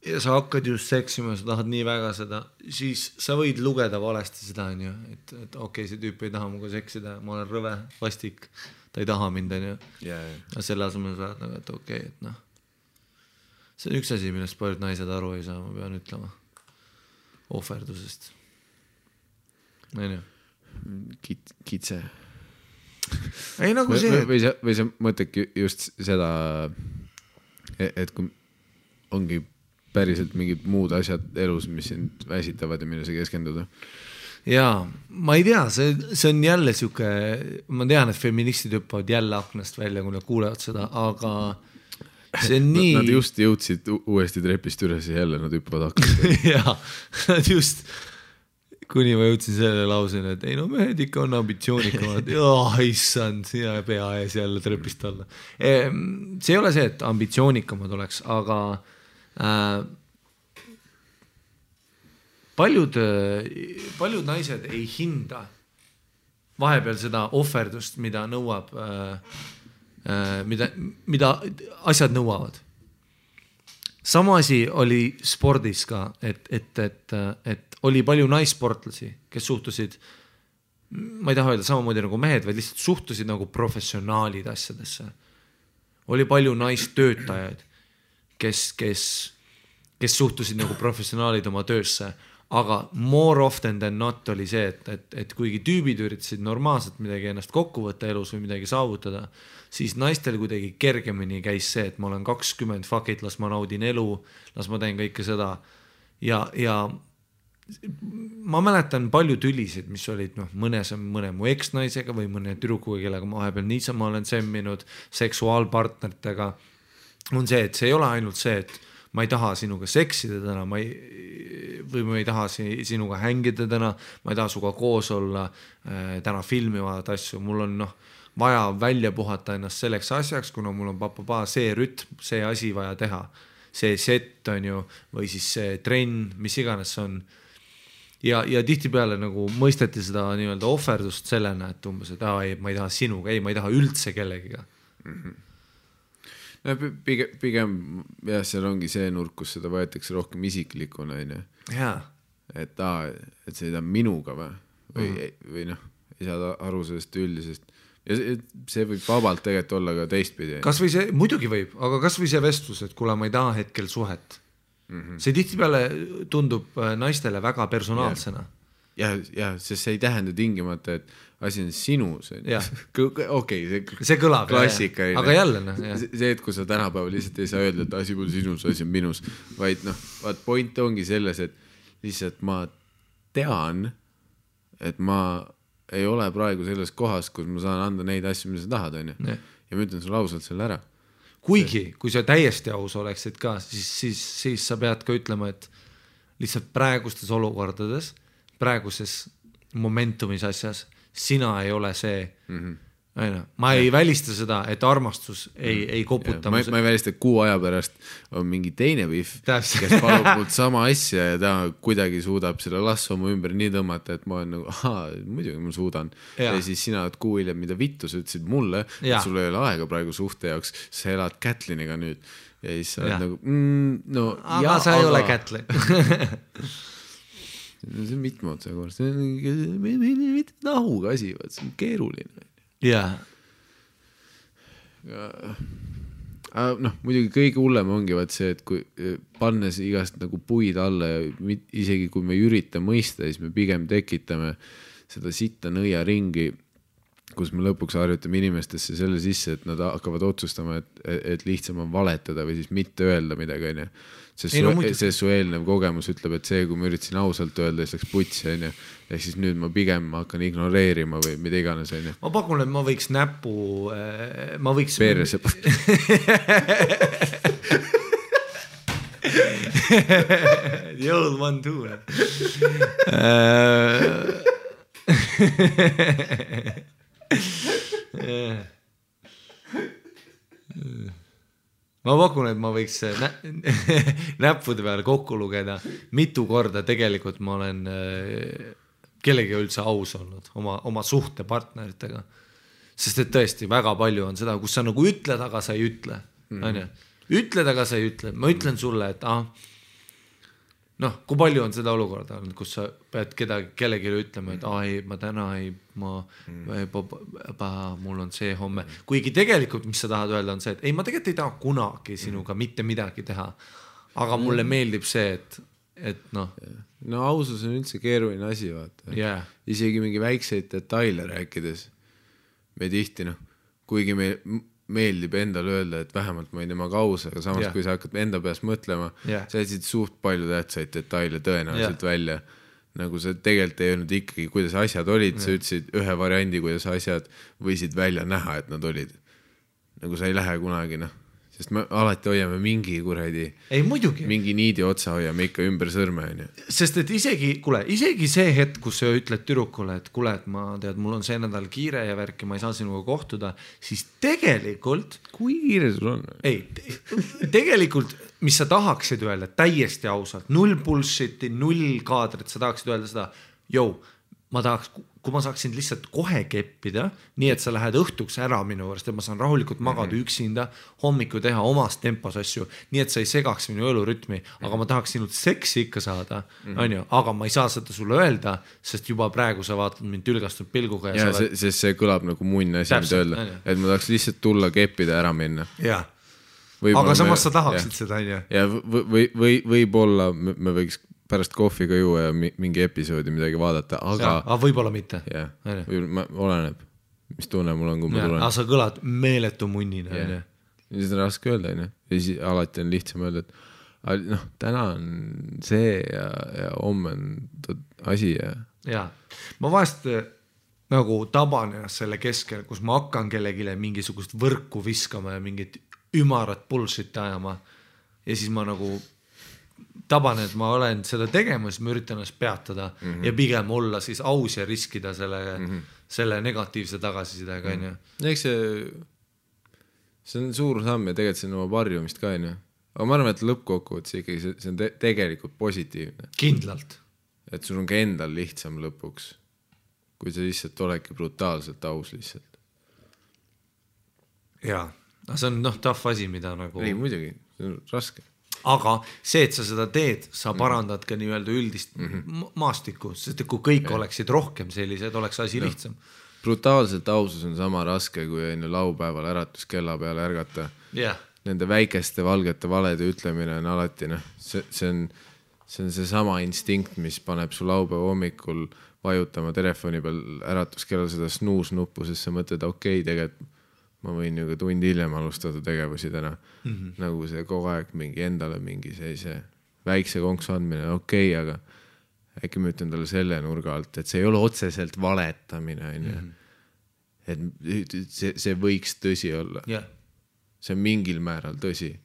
ja sa hakkad just seksima ja sa tahad nii väga seda, siis sa võid lugeda valesti seda, on ju, et okei, see tüüp ei taha muga seksida, ma olen rõve, vastik, ta ei taha mind, on ju. Ja selle asemel sa oled nagu, et okei, et noh. See on üks asi, millest paljud naised aru ei saa, ma pean ütlema. Ohverdusest. On ju? Kitse. Ei nagu see. Või sa mõtledki just seda, et kui ongi päriselt mingid muud asjad elus, mis sind väsitavad ja mille sa keskenduda. Jaa, ma ei tea, see on jälle siuke, ma tean, et feministid hüppavad jälle aknast välja, kui nad kuulevad seda, aga see on nii... Nad just jõudsid uuesti trepist üles ja jälle nad hüppavad aknast välja. Jaa, nad just, kuni ma jõudsin selle lauseni, et ei no mehed ikka on ambitsioonikamad. Issand, ja pea ees jälle trepist alla. See ei ole see, et ambitsioonikamad oleks, aga paljud naised ei hinda vahepeal seda ohverdust, mida nõuab, mida asjad nõuavad. Sama asi oli spordis ka, et oli palju naissportlasi, kes suhtusid, ma ei taha öelda samamoodi nagu mehed, vaid lihtsalt suhtusid nagu professionaalid asjadesse. Oli palju naistöötajaid, kes suhtusid nagu professionaalid oma töösse, aga more often than not oli see, et kuigi tüübid üritasid normaalselt midagi ennast kokku võtta elus või midagi saavutada, siis naistel kuidagi kergemini käis see, et ma olen 20, fuck it, las ma naudin elu, las ma teen kõike seda. Ja ma mäletan palju tülisid, mis olid mõne mu eksnaisega või mõne tüdrukuga, kellega ma vahepeal niisama olen semminud seksuaalpartneritega. On see, et see ei ole ainult see, et ma ei taha sinuga seksida täna, või ma ei taha sinuga hängida täna, ma ei taha suga koos olla, täna filmivad asju, mul on vaja välja puhata ennast selleks asjaks, kuna mul on see rütm, see asi vaja teha, see set on ju, või siis see trenn, mis iganes on. Ja tihtipeale nagu mõisteti seda nii-öelda ohverdust sellena, et umbes, et ei, ma ei taha sinuga, ei, ma ei taha üldse kellegiga. No, pigem jah, seal ongi see nurk, kus seda võetakse rohkem isiklikuna, et see ei taha minuga või ei saa aru sellest üldisest ja see võib vabalt tegelikult olla ka teistpidi. Kas või see, muidugi võib, aga kas või see vestlus, et kuule, ma ei taha hetkel suhet. See tihtipeale tundub naistele väga personaalsena. Ja, sest see ei tähenda tingimata, et asi on sinus. Okei, see kõlab, klassika. Aga jälle. See, et kui sa tänapäeval lihtsalt ei saa öelda, et asi pole sinus, asi on minus, vaid point ongi selles, et lihtsalt ma tean, et ma ei ole praegu selles kohas, kus ma saan anda neid asju, mida sa tahad, on ju. Ja ma ütlen sulle ausalt selle ära. Kuigi, kui sa täiesti aus oleksid ka, siis sa pead ka ütlema, et lihtsalt praegustes olukordades, praeguses momentumis asjas, sina ei ole see, ma ei välista seda, et armastus ei koputa. Ma ei välista, et kuu aja pärast on mingi teine vihv, kes palub mult sama asja ja ta kuidagi suudab selle lasso mu ümber nii tõmmata, et ma olen nagu, muidugi ma suudan. Ja siis sina oled kuu hiljem, mida vittu sa ütlesid mulle, et sul ei ole aega praegu suhte jaoks, sa elad Kätliniga nüüd. Ja siis sa oled nagu, aga sa ei ole Kätlin. See on mitmeotsa kord, see on mitte nahuga asi, see on keeruline. Jaa. Muidugi kõige hullem ongi see, et kui pannes igast nagu puid alla ja isegi kui me ei ürita mõista, siis me pigem tekitame seda sitta nõia ringi, kus me lõpuks harjutame inimestesse selle sisse, et nad hakkavad otsustama, et lihtsam on valetada või siis mitte öelda midagi, sest su eelnev kogemus ütleb, et see, kui ma üritasin ausalt öelda, siis läks putsi, ehk siis nüüd ma pigem hakkan ignoreerima või mida iganes. Ma pakun, et ma võiks näpu, ma võiks perse The old one too. Ma pakun, et ma võiks näppude peale kokku lugeda, mitu korda tegelikult ma olen kellegi üldse aus olnud oma suhtepartneritega. Sest et tõesti väga palju on seda, kus sa nagu ütled, aga sa ei ütle. Ütled, aga sa ei ütle. Ma ütlen sulle, et kui palju on seda olukorda, kus sa pead kellegi ütlema, et ma täna mul on see homme. Kuigi tegelikult, mis sa tahad öelda, on see, et ma tegelikult ei taha kunagi sinuga mitte midagi teha. Aga mulle meeldib see, et ausus on üldse keeruline asi, vaata. Isegi mingi väikseid detaile rääkides. Me tihti, kuigi me meeldib endale öelda, et vähemalt ma ei temaga aus, aga samas kui sa hakkad enda peast mõtlema, sa jätsid suht palju tähtsaid detaile tõenäoliselt välja. Nagu sa tegelikult ei öelnud ikkagi, kuidas asjad olid, sa ütlesid ühe variandi, kuidas asjad võisid välja näha, et nad olid. Nagu sa ei lähe kunagi, sest me alati hoiame mingi kuradi, mingi niidi otsa hoiame ikka ümber sõrme. Sest et isegi see hetk, kus sa ütled tüdrukule, et kuule, et mul on see nädal kiire ja värki, ma ei saa sinuga kohtuda, siis tegelikult... Kui kiire sul on? Tegelikult, mis sa tahaksid öelda täiesti ausalt, 0 bullshiti, 0 kaadrit, sa tahaksid öelda seda, kui ma saaksin lihtsalt kohe keppida, nii et sa lähed õhtuks ära minu võrst, et ma saan rahulikult magada üksinda, hommiku teha omas tempos asju, nii et sa ei segaks minu elurütmi, aga ma tahaks sinult seksi ikka saada, aga ma ei saa seda sulle öelda, sest juba praegu sa vaatad mind tülgastunud pilguga. Sest see kõlab nagu munn asi, mida öelda, et ma tahaks lihtsalt tulla keppida ära minna. Aga samas sa tahaksid seda, ja võib-olla me võiks pärast kohviga juua ja mingi episoodi midagi vaadata, aga võib-olla mitte. Oleneb, mis tunne mul on, kui ma tulen. Aga sa kõlad meeletu munnina. Siis on raske öelda, ja siis alati on lihtsam öelda, et täna on see ja homme on asi. Ma vahest nagu taban ennast selle keskel, kus ma hakkan kellegile mingisugust võrku viskama ja mingit ümarat bullshit ajama ja siis ma nagu taban, et ma olen seda tegema, siis ma üritan ennast peatada ja pigem olla siis aus ja riskida selle negatiivse tagasisidega. Eks see on suur samm ja tegelikult see on oma varjumist ka. Aga ma arvan, et lõppkokkuvõttes ikkagi see on tegelikult positiivne. Kindlalt. Et sul on ka endal lihtsam lõpuks, kui sa lihtsalt oledki brutaalselt aus lihtsalt. Jaa, see on tough asi, mida nagu... Ei, muidugi, see on raske. Aga see, et sa seda teed, sa parandad ka nii-öelda üldist maastikku, sest kui kõik oleksid rohkem sellised, oleks asi lihtsam. Brutaalselt ausus on sama raske, kui laupäeval äratuskella peale ärgata. Nende väikeste valgete valede ütlemine on alati, see on seesama instinkt, mis paneb su laupäeva hommikul vajutama telefoni peal äratuskella seda snuus-nuppu, sest sa mõtled, tegelikult ma võin ju ka tund hiljem alustada tegevusi täna. Nagu see kogu aeg mingi endale mingi see väikse konksu andmine, aga äkki ma ütlen talle selle nurga alt, et see ei ole otseselt valetamine. Et see võiks tõsi olla. See on mingil määral tõsi.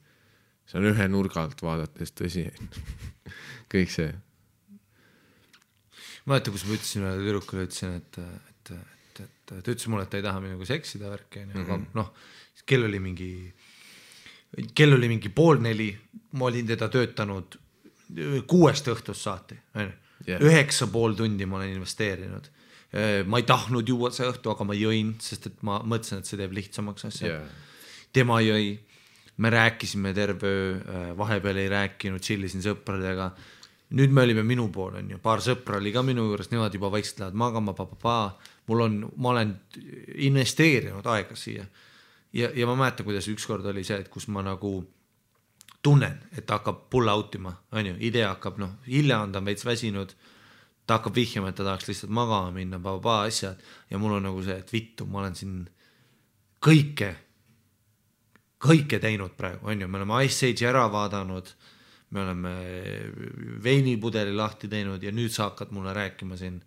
See on ühe nurga alt vaadates tõsi. Kõik see. Ma mäletan, kus ma ütlesin ühele tüdrukule, ütlesin, et et ta ütles mulle, et ta ei taha minuga seksida värki, aga noh, kell oli mingi 3:30, ma olin teda töötanud 6 õhtust saati, 9,5 tundi ma olen investeerinud. Ma ei tahtnud juua see õhtu, aga ma jõin, sest et ma mõtlesin, et see teeb lihtsamaks asja. Tema jõi, me rääkisime terve öö, vahepeal ei rääkinud, chillisin sõpradega. Nüüd me olime minu pool, on ju, paar sõpra oli ka minu juures, nemad juba vaikselt lähevad magama, ma olen investeerinud aega siia. Ja ma mäletan, kuidas ükskord oli see, et kus ma nagu tunnen, et ta hakkab pull outima, on ju, idee hakkab, hilja on ta veits väsinud, ta hakkab vihjama, et ta tahaks lihtsalt magama minna, asjad, ja mul on nagu see, et vittu, ma olen siin kõike teinud praegu, on ju, me oleme Ice Age'i ära vaadanud, me oleme veinipudeli lahti teinud ja nüüd sa hakkad mulle rääkima siin,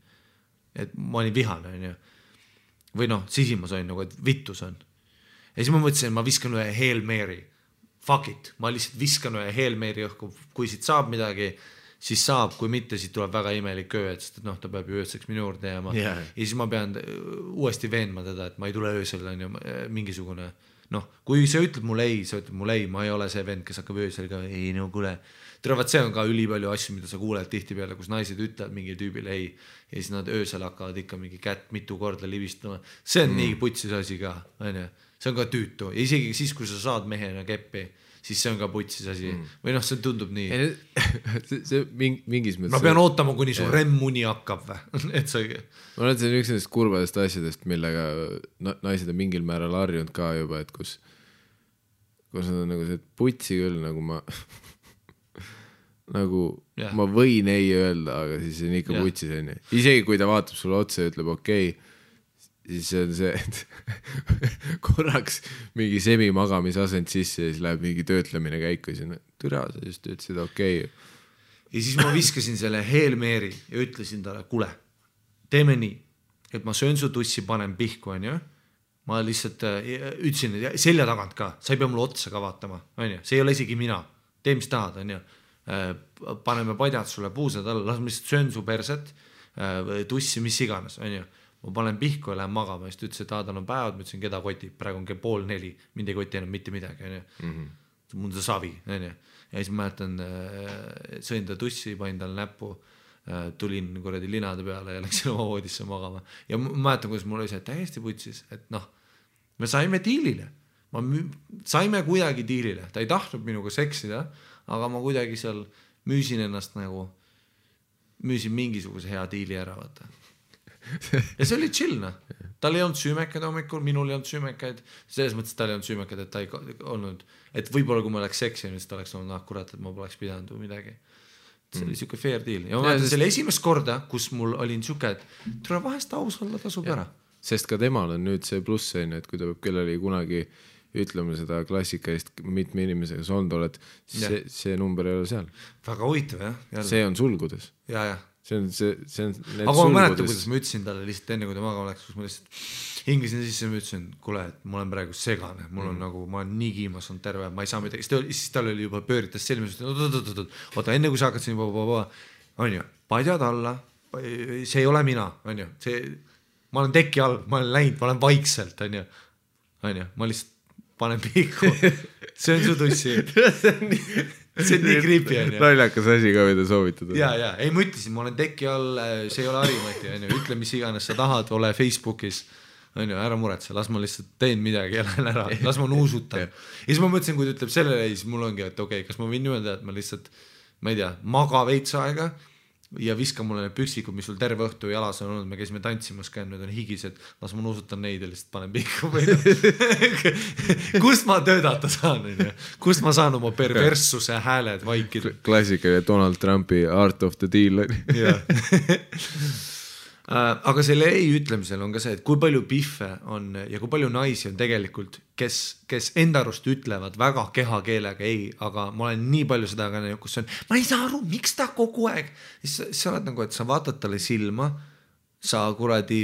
et ma olin vihane, on ju. Või sisimas on nagu, et vittus on. Ja siis ma mõtlesin, ma viskan ühe Hail Mary. Fuck it, ma lihtsalt viskan ühe Hail Mary õhku, kui siit saab midagi, siis saab, kui mitte, siis tuleb väga imelik öö, et ta peab ju ööseks minu juurde jääma. Ja siis ma pean uuesti veenma teda, et ma ei tule öösel, on ju, mingisugune kui see ütleb mulle ei, ma ei ole see vend, kes hakkab öösel ka, ei, kuule. Teavad, see on ka ülipalju asju, mida sa kuuled tihti peale, kus naised ütlevad mingi tüübile ei, ja siis nad öösel hakkavad ikka mingi kätt mitu korda livistama. See on nii putsis asi ka, on ju. See on ka tüütu. Ja isegi siis, kui sa saad mehena keppi, siis see on ka putsis asi. Või see tundub nii. See mingis mõttes... Ma pean ootama, kuni su remmuni hakkab või? Et see... Ma olen see üks nendest kurbadest asjadest, millega naised on mingil määral harjunud ka juba, et kus nad on nagu see, et putsi küll, nagu ma ma võin ei öelda, aga siis on ikka putsis. Isegi kui ta vaatab sulle otsa ja ütleb okei, siis see on see, et korraks mingi semimagamisasend sisse ja siis läheb mingi töötlemine käiku ja türa, sa just ütlesid okei. Ja siis ma viskasin selle Hail Mary ja ütlesin talle, kuule, teeme nii, et ma söön su tussi, panen pihku, on ju. Ma lihtsalt ütlesin, selja tagant ka, sa ei pea mulle otsa ka vaatama, on ju. See ei ole isegi mina, tee mis tahad, on ju. Paneme padjad sulle puusad alla, las ma lihtsalt söön su perset, tussi, mis iganes, on ju. Ma panen pihku ja lähen magama, siis ta ütles, et tal on päevad, ma ütlesin, keda kotib, praegu on 3:30, mind ei koti enam mitte midagi, on ju. Mul on see savi, on ju. Ja siis ma mäletan, sõin ta tussi, panin tal näppu, tulin kuradi linade peale ja läksin oma voodisse magama. Ja ma mäletan, kuidas mul oli see täiesti putsis, et me saime diilile. Saime kuidagi diilile. Ta ei tahtnud minuga seksida, aga ma kuidagi seal müüsin ennast nagu, müüsin mingisuguse hea diili ära, vaata. Ja see oli chill, Tal ei olnud süümekaid hommikul, minul ei olnud süümekaid. Selles mõttes tal ei olnud süümekaid, et ta ei olnud, et võib-olla kui ma oleks seksinud, siis ta oleks olnud, kurat, et ma poleks pidanud või midagi. See oli siuke fair deal. Ja ma mäletan selle esimest korda, kus mul oli siuke, et tule vahest aus olla, tasub ära. Sest ka temal on nüüd see pluss, et kui ta peab kellelegi kunagi ütlema seda klassikalist mitme inimesega soond oled, see number ei ole seal. Väga huvitav, jah. See on sulgudes. Ja. See on need aga ma mäletan, kuidas ma ütlesin talle lihtsalt enne, kui ta magama läks, kus ma lihtsalt hingisin sisse ja ma ütlesin, kuule, et ma olen praegu segane, mul on nagu, ma olen nii kiimas on terve, ma ei saa midagi, siis tal oli juba pööritas selmis, oota, enne kui sa hakkad siin, on ju, padjad alla, see ei ole mina, on ju, ma olen teki all, ma olen läinud, ma olen vaikselt, on ju, ma lihtsalt panen pihku, see on su tussi. See on nii creepy, on ju. Naljakas asi ka, mida soovitada. Ja, ei ma ütlesin, ma olen teki all, see ei ole Harimati, on ju, ütle mis iganes sa tahad, ole Facebookis, on ju, ära muretse, las ma lihtsalt teen midagi ja lähen ära, las ma nuusutan. Ja siis ma mõtlesin, kui ta ütleb sellele, siis mul ongi, et okei, kas ma võin öelda, et ma lihtsalt, ma ei tea, maga veits aega ja viska mulle need püksikud, mis sul terve õhtu jalas on olnud, me käisime tantsimas ka, need on higised, las ma nuusutan neid ja lihtsalt panen pihku või kust ma töötada saan, kust ma saan oma perverssuse hääled vaikida. Klassikaline Donald Trumpi Art of the Deal. Aga selle ei ütlemisel on ka see, et kui palju pihve on ja kui palju naisi on tegelikult, kes enda arust ütlevad väga kehakeelega ei, aga ma olen nii palju seda ka, kus on, ma ei saa aru, miks ta kogu aeg, siis sa oled nagu, et sa vaatad talle silma, sa kuradi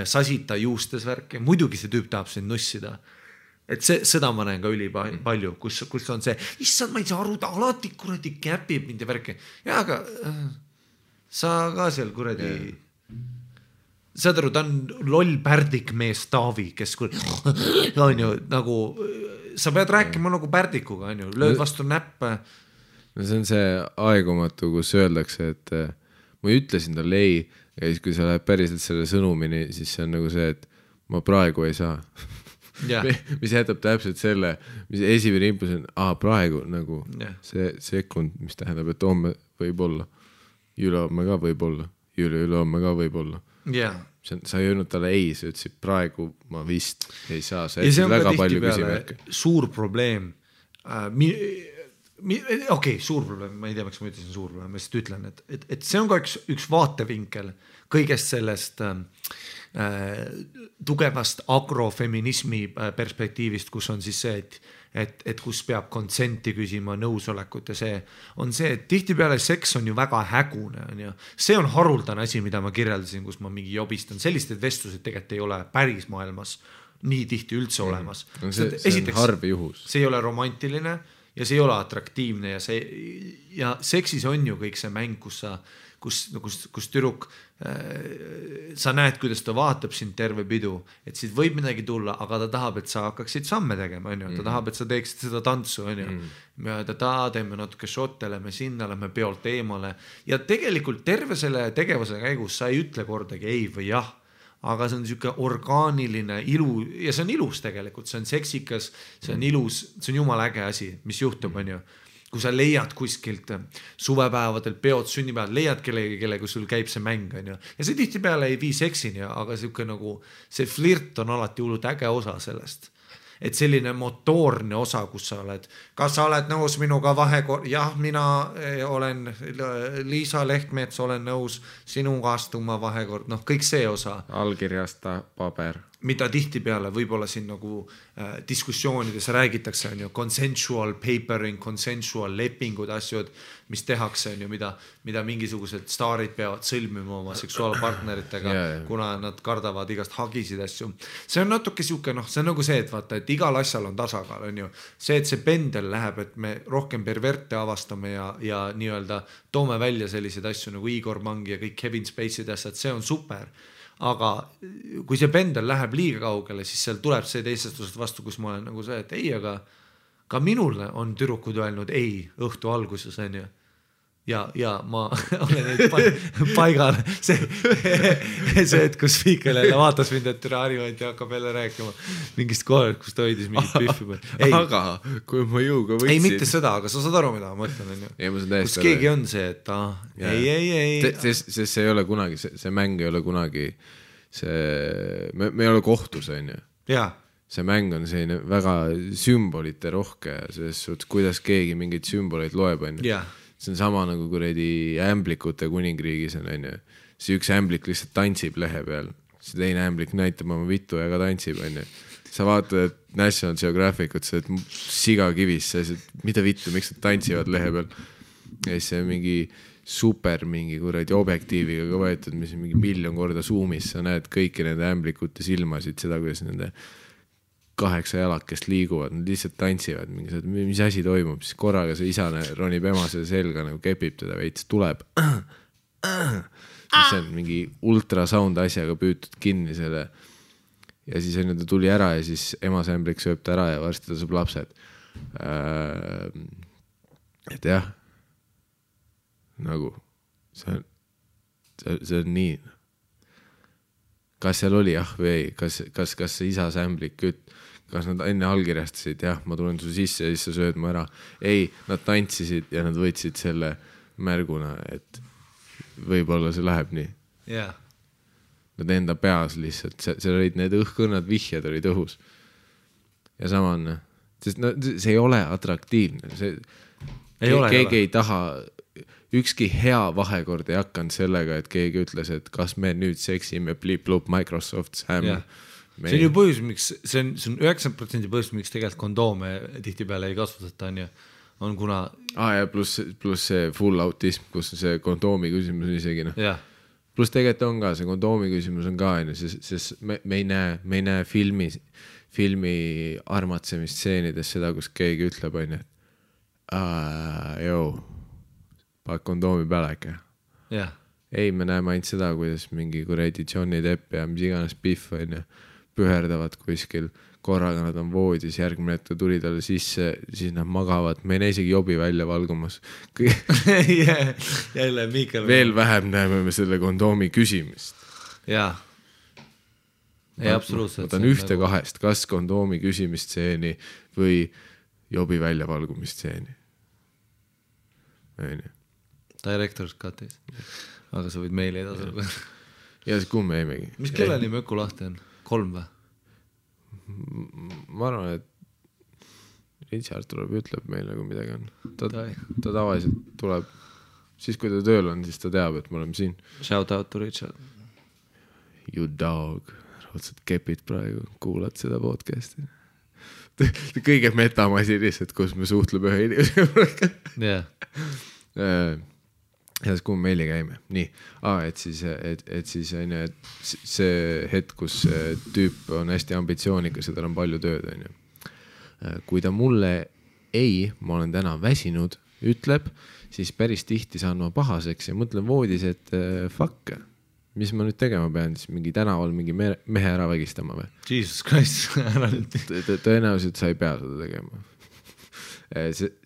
sasita juustes värki, muidugi see tüüp tahab sind nussida. Et seda ma näen ka üli palju, kus on see, issand, ma ei saa aru, ta alati kuradi käpib mind ja värki. Ja aga sa ka seal kuradi saad aru, ta on loll pärdik mees Taavi, kes on ju nagu, sa pead rääkima nagu pärdikuga, on ju, lööd vastu näppe. No see on see aegumatu, kus öeldakse, et ma ütlesin talle ei, ja siis kui sa lähed päriselt selle sõnumini, siis see on nagu see, et ma praegu ei saa. Mis jätab täpselt selle, mis esimene impulss on, praegu nagu see sekund, mis tähendab, et homme võib olla, ülehomme ka võib olla, ülehomme ka võib olla. Sa ei öelnud talle ei, sa ütlesid praegu ma vist ei saa, sa jätsid väga palju küsimärke. Suur probleem, suur probleem, ma ei tea, miks ma ütlesin suur probleem, ma lihtsalt ütlen, et see on ka üks vaatevinkel kõigest sellest tugevast agrofeminismi perspektiivist, kus on siis see, et kus peab konsenti küsima, nõusolekut ja see on see, et tihtipeale seks on ju väga hägune, on ju. See on haruldane asi, mida ma kirjeldasin, kus ma mingi jobistan. Sellised vestlused tegelikult ei ole päris maailmas nii tihti üldse olemas. See on harv juhus. See ei ole romantiline ja see ei ole atraktiivne ja seksis on ju kõik see mäng, kus tüdruk, sa näed, kuidas ta vaatab sind terve pidu, et siit võib midagi tulla, aga ta tahab, et sa hakkaksid samme tegema, on ju, ta tahab, et sa teeksid seda tantsu, on ju, teeme natuke šotte, lähme sinna, lähme peolt eemale ja tegelikult terve selle tegevuse käigus sa ei ütle kordagi ei või jah, aga see on niisugune orgaaniline ilu ja see on ilus tegelikult, see on seksikas, see on ilus, see on jumala äge asi, mis juhtub, on ju. Kui sa leiad kuskilt suvepäevadel, peod, sünnipäevad, leiad kellega sul käib see mäng, on ju. Ja see tihtipeale ei vii seksini, aga see flirt on alati hullult äge osa sellest. Et selline motoorne osa, kus sa oled. Kas sa oled nõus minuga vahekord? Jah, mina olen Liisa Lehtmets, olen nõus sinuga astuma vahekord. Noh, kõik see osa. Allkirjasta paber. Mida tihtipeale võib-olla siin nagu diskussioonides räägitakse, on ju, consensual papering, consensual lepingud, asjad, mis tehakse, on ju, mida mingisugused staarid peavad sõlmima oma seksuaalpartneritega, kuna nad kardavad igast hagisid asju. See on natuke siuke, see on nagu see, et vaata, et igal asjal on tasakaal, on ju. See, et see pendel läheb, et me rohkem perverte avastame ja nii-öelda toome välja selliseid asju nagu Igor Mangi ja kõik Kevin Spacey'd asjad, see on super. Aga kui see pendel läheb liiga kaugele, siis seal tuleb see teisestusest vastu, kus ma olen nagu see, et ei, aga ka minule on tüdrukud öelnud ei õhtu alguses, on ju. Ja ma olen neid paigal. See, et kus Viikel jälle vaatas mind, et Harivant ja hakkab jälle rääkima mingist kohalt, kus ta hoidis mingit pühvi. Aga kui ma jõuga võtsin. Ei, mitte seda, aga sa saad aru, mida ma mõtlen, on ju. Kus keegi on see, et ei. Sest see ei ole kunagi, see mäng ei ole kunagi, me ei ole kohtus, on ju. Jaa. See mäng on selline väga sümbolite rohke, selles suhtes, kuidas keegi mingeid sümboleid loeb, on ju. See on sama nagu kuredi ämblikute kuningriigis on, on ju. See üks ämblik lihtsalt tantsib lehe peal. See teine ämblik näitab oma vittu ja ka tantsib, on ju. Sa vaatad, et National Geographicut, sa oled siga kivis, sa oled, mida vittu, miks nad tantsivad lehe peal. Ja siis see on mingi super mingi kuredi objektiiviga ka võetud, mis on mingi 1 miljon korda zoomis, sa näed kõiki nende ämblikute silmasid, seda, kuidas nende 8 jalakest liiguvad, nad lihtsalt tantsivad, mis asi toimub, siis korraga see isane ronib emasele selga, nagu kepib teda veits, tuleb. Siis on mingi ultrasound asjaga püütud kinni selle ja siis on ta tuli ära ja siis emasämblik sööb ta ära ja varsti ta saab lapsed. Et jah, nagu see on nii. Kas seal oli jah või ei? Kas see isa sämblik kas nad enne allkirjastasid, jah, ma tulen su sisse ja siis sa sööd ma ära. Ei, nad tantsisid ja nad võtsid selle märguna, et võib-olla see läheb nii. Yeah. Nad enda peas lihtsalt, seal olid need õhkõnnad vihjad olid õhus. Ja sama on, sest see ei ole atraktiivne. Keegi ei taha, ükski hea vahekord ei hakanud sellega, et keegi ütles, et kas me nüüd seksime blip-lup Microsoft Sam. Yeah. See on ju põhjus, miks, see on 90% põhjus, miks tegelikult kondoome tihtipeale ei kasvatata, on kuna... ja pluss see full autism, kus see kondoomi küsimus on isegi. Yeah. Pluss tegelikult on ka, see kondoomi küsimus on ka, sest me ei näe filmi armatsemisstseenides seda, kus keegi ütleb, paned kondoomi peale äkki. Yeah. ei, me näeme ainult seda, kuidas mingi kuradi Johnny Depp ja mis iganes Biff on ju, püherdavad kuskil, korraga nad on voodis, järgmine hetk tuli talle sisse, siis nad magavad, me ei näe isegi jobi välja valgumas. Jälle Miikal. Veel vähem näeme me selle kondoomi küsimist. Jaa. Ei, absoluutselt. Ma tahan ühte kahest, kas kondoomi küsimistseeni või jobi väljavalgumistseeni. Director's Cutis. Aga sa võid meile edasi. Ja siis kuhu me jäimegi? Mis kelleni Möku lahti on? 3 või? Ma arvan, et Richard tuleb ja ütleb meile, kui midagi on. Ta tavaliselt tuleb, siis kui ta tööl on, siis ta teab, et me oleme siin. Shout out to Richard. You dog. Otsad kepid praegu, kuulad seda podcasti. Kõige metamasi lihtsalt, kus me suhtleme ühe inimesega. Jah. Ja siis kuhu meili käime. Nii, et siis on ju, et see hetk, kus tüüp on hästi ambitsioonikas ja tal on palju tööd, on ju. Kui ta mulle ei, ma olen täna väsinud, ütleb, siis päris tihti saan ma pahaseks ja mõtlen voodis, et fuck, mis ma nüüd tegema pean, siis mingi tänaval mingi mehe ära vägistama või? Jesus Christ, ära nüüd. Tõenäoliselt sa ei pea seda tegema.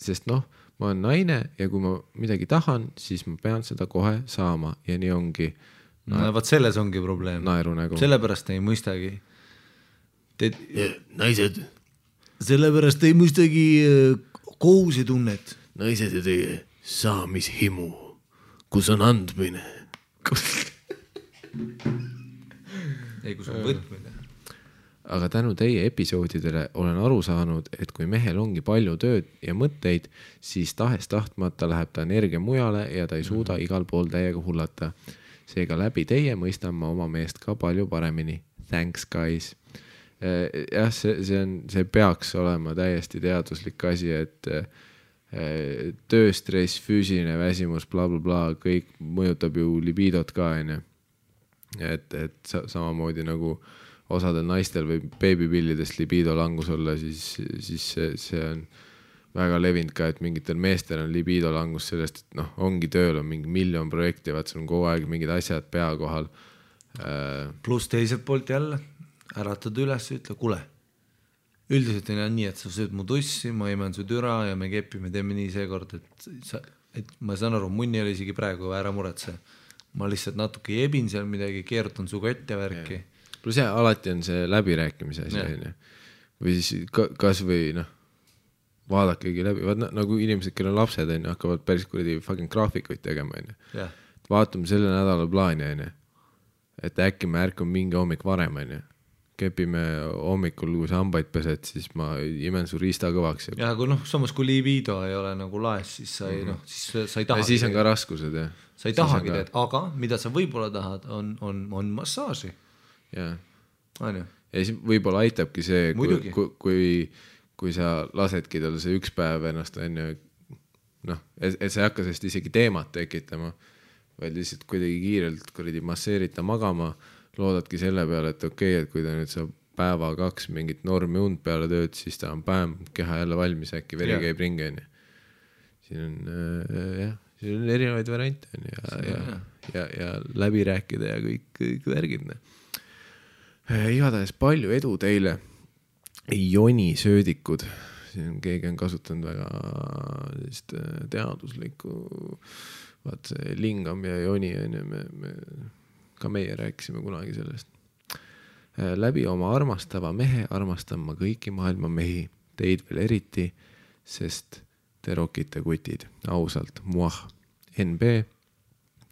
Sest noh, ma olen naine ja kui ma midagi tahan, siis ma pean seda kohe saama ja nii ongi. No vaat selles ongi probleem. Naerunägu. Sellepärast ei mõistagi. Naised. Sellepärast ei mõistagi kohusetunnet. Naised ja teie saamishimu, kus on andmine. Ei, kus on võtmine. Aga tänu teie episoodidele olen aru saanud, et kui mehel ongi palju tööd ja mõtteid, siis tahes tahtmata läheb ta energia mujale ja ta ei suuda igal pool täiega hullata. Seega läbi teie mõistan ma oma meest ka palju paremini. Thanks, guys. Jah, see peaks olema täiesti teaduslik asi, et tööstress, füüsiline väsimus, bla, kõik mõjutab ju libidot ka, enne. Et samamoodi nagu osadel naistel või beebipillidest libido langus olla, siis see on väga levinud ka, et mingitel meestel on libido langus sellest, et noh, ongi tööl on mingi 1 miljon projekti, vaat see on kogu aeg mingid asjad pea kohal. Plus teiselt poolt jälle, äratad üles ja ütle, kuule, üldiselt on nii, et sa sööd mu tussi, ma imen su türa ja me kepime, teeme nii seekord, et ma saan aru, munni oli isegi praegu, ära muretse. Ma lihtsalt natuke jebin seal midagi, keerutan su kotte värki. Plus jah, alati on see läbirääkimise asi. Või siis kas või vaadakegi läbi. Nagu inimesed, kellel on lapsed, hakkavad päris kuradi fucking graafikuid tegema. Vaatame selle nädala plaani. Et äkki me ärkame mingi hommik varem. Kepime hommikul, kui sa hambaid pesed, siis ma imen su riista kõvaks. Ja kui samas kui libido ei ole nagu laes, siis sa ei, siis sa ei taha. Ja siis on ka raskused, jah. Sa ei tahagi teed, aga mida sa võib-olla tahad, on massaaži. Jaa. Ja siis võib-olla aitabki see, kui sa lasedki tal see üks päev ennast et sa ei hakka sellest isegi teemat tekitama, vaid lihtsalt kuidagi kiirelt masseerita magama, loodadki selle peale, et okei, et kui ta nüüd saab päeva 2 mingit normi und peale tööd, siis ta on päev keha jälle valmis, äkki veri käib ringi. Siin on erinevaid variante ja läbi rääkida ja kõik värgid. Igatahes palju edu teile. Joni söödikud. Siin keegi on kasutanud väga teaduslikku vaat see Lingam ja Joni ka meie rääkisime kunagi sellest. Läbi oma armastava mehe armastan ma kõiki maailma mehi, teid veel eriti, sest te rokite kutid, ausalt, muah, NB,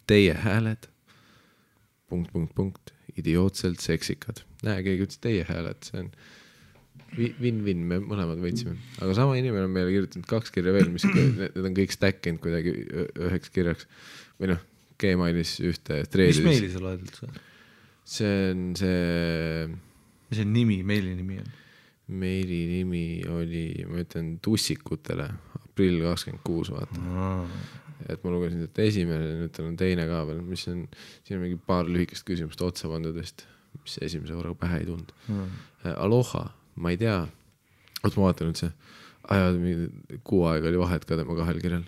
teie hääled, ... idiootselt seksikad. Näe, keegi ütles teie hääled, see on win-win, me mõlemad võitsime. Aga sama inimene on meile kirjutanud 2 kirja veel, mis need on kõik stackinud kuidagi 1 kirjaks. Või Gmailis ühte treedis. Mis meili sa loed üldse? See on see... Mis see nimi, meili nimi on? Meili nimi oli, ma ütlen, Tussikutele, aprill 26, vaata. Et ma lugesin et esimene, nüüd on teine ka veel, mis on, siin on mingi paar lühikest küsimust otsapandudest, mis esimese korraga pähe ei tund. Aloha, ma ei tea, oot ma vaatan nüüd see, kuu aega oli vahet ka tema 2 kirjal,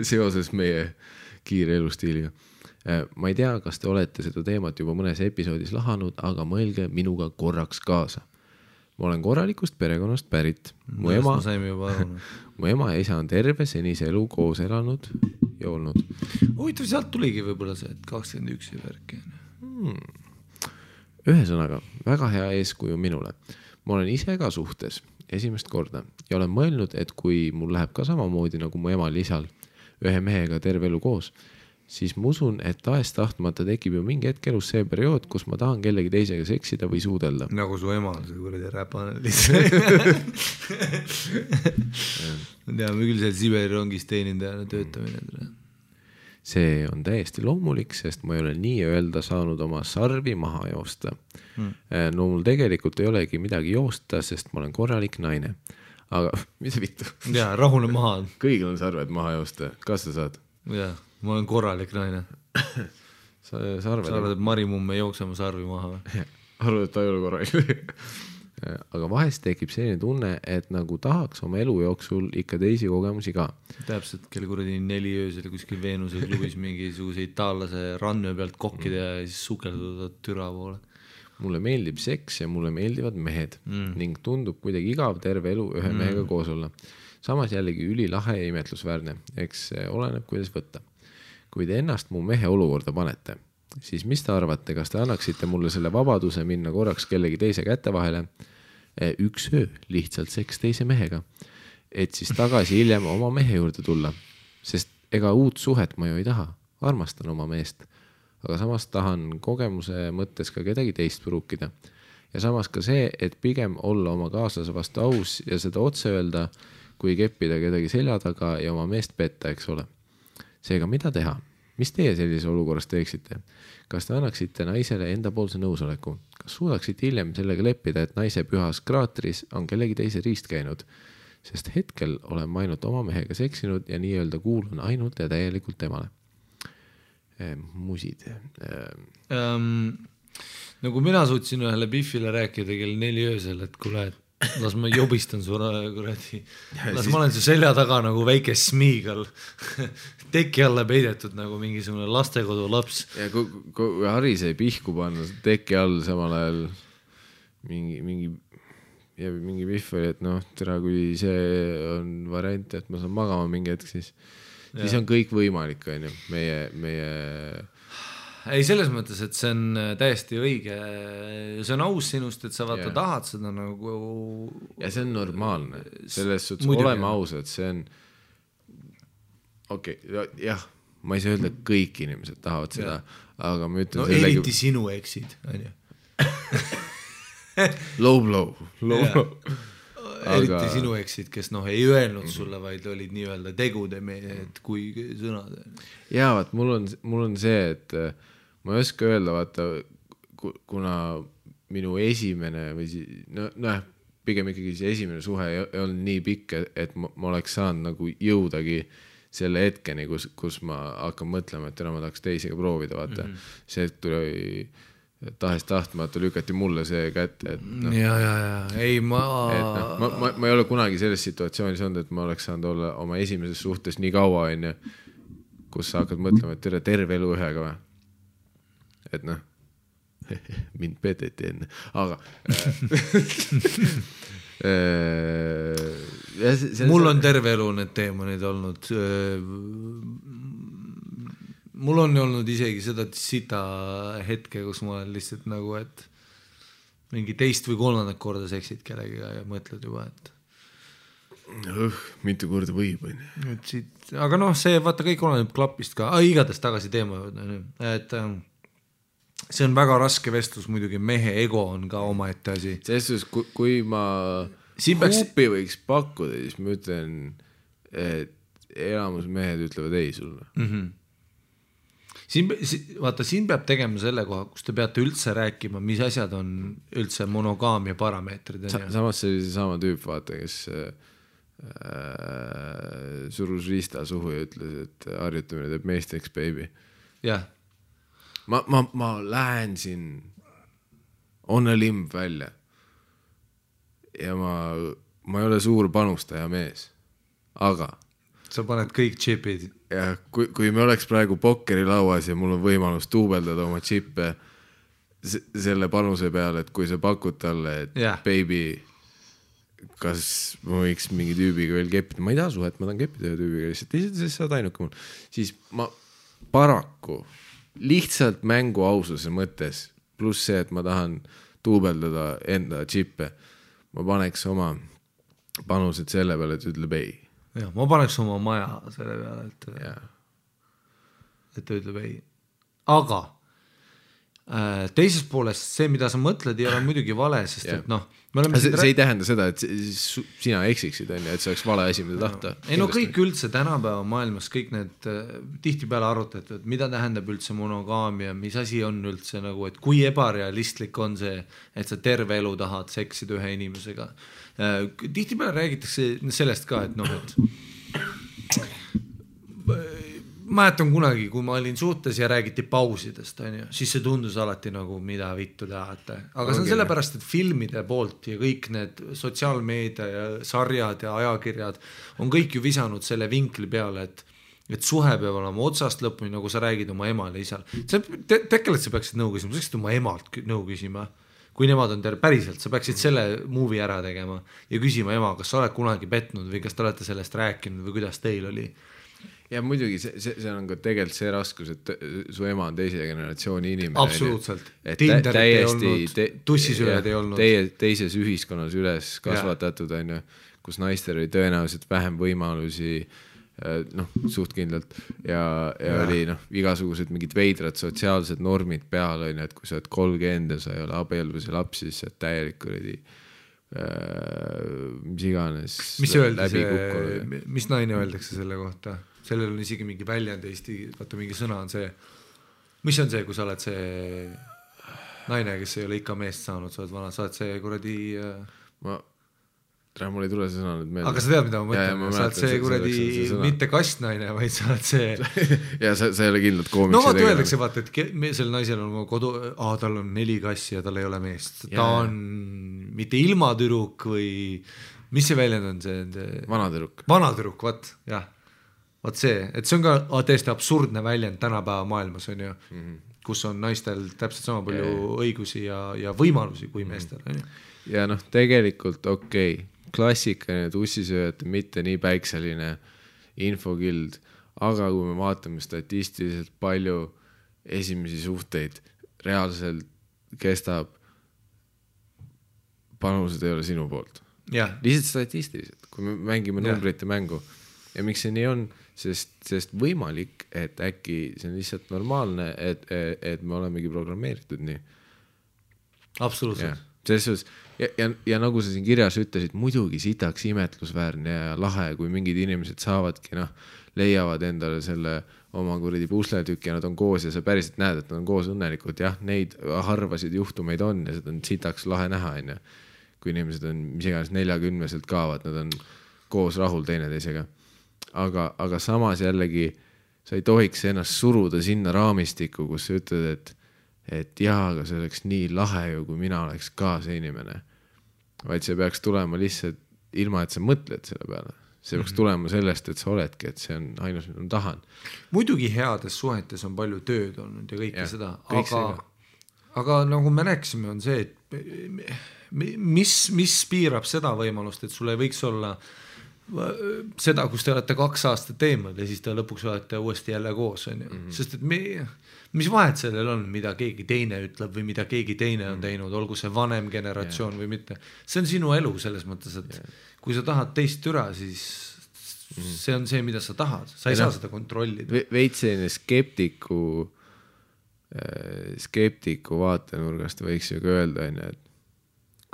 seoses meie kiire elustiiliga. ma ei tea, kas te olete seda teemat juba mõnes episoodis lahanud, aga mõelge minuga korraks kaasa. Ma olen korralikust perekonnast pärit. Mu ema ja isa on terve senise elu koos elanud ja olnud. Huvitav, sealt tuligi võib-olla see, et 21 värki. Ühesõnaga, väga hea eeskuju minule. Ma olen ise ka suhtes esimest korda ja olen mõelnud, et kui mul läheb ka samamoodi nagu mu emal isal ühe mehega terve elu koos, siis ma usun, et tahes tahtmata tekib ju mingi hetk elus see periood, kus ma tahan kellegi teisega seksida või suudelda. Nagu su ema on see kuradi räpane lihtsalt. Teame küll seal Siberi rongis teenindajana töötamine. See on täiesti loomulik, sest ma ei ole nii-öelda saanud oma sarvi maha joosta. No mul tegelikult ei olegi midagi joosta, sest ma olen korralik naine. Aga mida vittu? Jaa, rahune maha. Kõigil on sarved maha joosta. Kas sa saad? Jaa, ma olen korralik naine. Sa arvad, et Marimumm ei jookse oma sarvi maha või? Arvad, et ta ei ole korralik. Aga vahest tekib selline tunne, et nagu tahaks oma elu jooksul ikka teisi kogemusi ka. Täpselt, kelle kuradi 4 öösel kuskil Veenuse klubis mingisuguse itaallase rannöö pealt kokkida ja siis sukelduda türa poole. Mulle meeldib seks ja mulle meeldivad mehed ning tundub kuidagi igav terve elu ühe mehega koos olla. Samas jällegi ülilahe ja imetlusväärne, eks oleneb, kuidas võtta. Kui te ennast mu mehe olukorda panete, siis mis te arvate, kas te annaksite mulle selle vabaduse minna korraks kellegi teise kätte vahele, üks öö lihtsalt seks teise mehega, et siis tagasi hiljem oma mehe juurde tulla, sest ega uut suhet ma ju ei taha, armastan oma meest, aga samas tahan kogemuse mõttes ka kedagi teist pruukida. Ja samas ka see, et pigem olla oma kaaslase vastu aus ja seda otse öelda, kui keppida kedagi selja taga ja oma meest petta, eks ole. Seega, mida teha? Mis teie sellise olukorras teeksite? Kas te annaksite naisele endapoolse nõusoleku? Kas suudaksite hiljem sellega leppida, et naise pühas kraatris on kellegi teise riist käinud? Sest hetkel olen ma ainult oma mehega seksinud ja nii-öelda kuulun ainult ja täielikult temale. Musid. Nagu mina suutsin ühele Biffile rääkida kell 4 öösel, et kuule, las ma jobistan su kuradi. Las ma olen su selja taga nagu väike smiigal teki alla peidetud nagu mingisugune lastekodu laps. Ja kui Harri sai pihku panna teki all samal ajal mingi Biff oli, et noh, tere, kui see on variant, et ma saan magama mingi hetk, siis on kõik võimalik, on ju, meie ei, selles mõttes, et see on täiesti õige, see on aus sinust, et sa vaata tahad seda nagu ja see on normaalne, selles suhtes oleme ausad, see on jah, ma ei saa öelda, et kõik inimesed tahavad seda, aga ma ütlen eriti sinu eksid, on ju low eriti sinu eksid, kes ei öelnud sulle, vaid olid nii-öelda tegude mehed kui sõnad. Jaa, vaat mul on see, et ma ei oska öelda, vaata, kuna minu esimene või pigem ikkagi see esimene suhe ei olnud nii pikk, et ma oleks saanud nagu jõudagi selle hetkeni, kus ma hakkan mõtlema, et ma tahaks teisega proovida, vaata. See tuli tahes tahtmata lükati mulle see kätte, et ei, ma ei ole kunagi selles situatsioonis olnud, et ma oleks saanud olla oma esimeses suhtes nii kaua, kus sa hakkad mõtlema, et terve elu ühega või. Et mind peteti enne, aga mul on terve elu need teemonid olnud. Mul on olnud isegi seda sita hetke, kus ma olen lihtsalt nagu, et mingi teist või kolmandat korda seksid kellegiga ja mõtled juba, et mitu korda võib, aga see vaata kõik oleneb klapist ka, igatahes tagasi teema juurde, et see on väga raske vestlus, muidugi mehe ego on ka omaette asi. Selles, kui ma huupi võiks pakkuda, siis ma ütlen, et elamus mehed ütlevad ei sulle. Vaata, siin peab tegema selle koha, kus te peate üldse rääkima, mis asjad on üldse monogaamia parameetrid. Samas see oli see sama tüüp, vaata, kes surus riista suhu ja ütles, et harjutamine teeb meesteks, baby. Jah. Ma lähen siin on a limb välja ja ma ei ole suur panustaja mees, aga sa paned kõik chipid ja kui me oleks praegu pokkerilauas ja mul on võimalus duubeldada oma džippe selle panuse peale, et kui sa pakud talle, et baby, kas ma võiks mingi tüübiga veel keppida, ma ei taha suhet, ma tahan keppida ühe tüübiga, lihtsalt sa oled ainuke mul, siis ma paraku lihtsalt mängu aususe mõttes, pluss see, et ma tahan duubeldada enda džippe, ma paneks oma panused selle peale, et ütleb ei. Ja, ma paneks oma maja selle peale, et ta ütleb ei. Aga teisest poolest see, mida sa mõtled, ei ole muidugi vale, sest et noh, see ei tähenda seda, et sina eksiksid, et see oleks vale asi, mida tahta. Ei no kõik üldse tänapäeva maailmas, kõik need tihtipeale arutatud, mida tähendab üldse monogaamia, mis asi on üldse nagu, et kui ebarealistlik on see, et sa terve elu tahad seksida ühe inimesega. Tihtipeale räägitakse sellest ka, et noh, et mäletan kunagi, kui ma olin suhtes ja räägiti pausidest, siis see tundus alati nagu, mida vittu tahate. Aga see on sellepärast, et filmide poolt ja kõik need sotsiaalmeedia ja sarjad ja ajakirjad on kõik ju visanud selle vinkli peale, et suhe peab olema otsast lõpuni, nagu sa räägid oma emale ja isal. Tekkelt sa peaksid nõu küsima, sa peaksid oma emalt nõu küsima. Kui nemad on päriselt, sa peaksid selle movie ära tegema ja küsima ema, kas sa oled kunagi petnud või kas te olete sellest rääkinud või kuidas teil oli. Ja muidugi see on ka tegelikult see raskus, et su ema on teise generatsiooni inimene. Absoluutselt. Tinderit ei olnud, tussisööjad ei olnud. Teises ühiskonnas üles kasvatatud, kus naistel oli tõenäoliselt vähem võimalusi, suht kindlalt ja oli igasugused mingid veidrad sotsiaalsed normid peal, et kui sa oled 30 ja sa ei ole abielus ja lapsi, siis sa oled täielik oli mis iganes läbi kukkunud. Mis naine öeldakse selle kohta? Sellel on isegi mingi väljend Eesti, vaata mingi sõna on see, mis on see, kui sa oled see naine, kes ei ole ikka meest saanud, sa oled vana, sa oled see kuradi mul ei tule see sõna nüüd meelde. Aga sa tead, mida ma mõtlen, sa oled see kuradi mitte kastnaine, vaid sa oled see ja sa ei ole kindlalt koomiksi no vaata öeldakse, vaata, et sel naisel on kodu, tal on 4 kassi ja tal ei ole meest, ta on mitte ilmatüruk või mis see väljend on see? Vanatüruk, jah. Vaat see, et see on ka täiesti absurdne väljend tänapäeva maailmas on ju, kus on naistel täpselt sama palju õigusi ja võimalusi kui meestel. Ja tegelikult klassikaline tussisööjate mitte nii päikseline infokild, aga kui me vaatame statistiliselt palju esimesi suhteid reaalselt kestab, panused ei ole sinu poolt. Lihtsalt statistiliselt, kui me mängime numbrite mängu. Ja miks see nii on? Sest võimalik, et äkki see on lihtsalt normaalne, et me olemegi programmeeritud nii. Absoluutselt. Ja nagu sa siin kirjas ütlesid, muidugi sitaks imetlusväärne ja lahe, kui mingid inimesed saavadki, leiavad endale selle oma kuradi pusletükki ja nad on koos ja sa päriselt näed, et nad on koos õnnelikult. Jah, neid harvasid juhtumeid on ja seda on sitaks lahe näha. Kui inimesed on mis iganes 40-selt kaavad, nad on koos rahul teineteisega. Aga samas jällegi sa ei tohiks ennast suruda sinna raamistikku, kus sa ütled, et jaa, aga see oleks nii lahe ju, kui mina oleks ka see inimene. Vaid see peaks tulema lihtsalt ilma, et sa mõtled selle peale. See peaks tulema sellest, et sa oledki, et see on ainus, mida ma tahan. Muidugi heades suhetes on palju tööd olnud ja kõike seda, aga nagu me rääkisime, on see, et mis piirab seda võimalust, et sul ei võiks olla seda, kus te olete 2 aastat teemad ja siis te lõpuks olete uuesti jälle koos, sest et mis vahet sellel on, mida keegi teine ütleb või mida keegi teine on teinud, olgu see vanem generatsioon või mitte. See on sinu elu selles mõttes, et kui sa tahad teist türa, siis see on see, mida sa tahad, sa ei saa seda kontrollida. Veits selline skeptiku vaatenurgast võiks ju ka öelda, et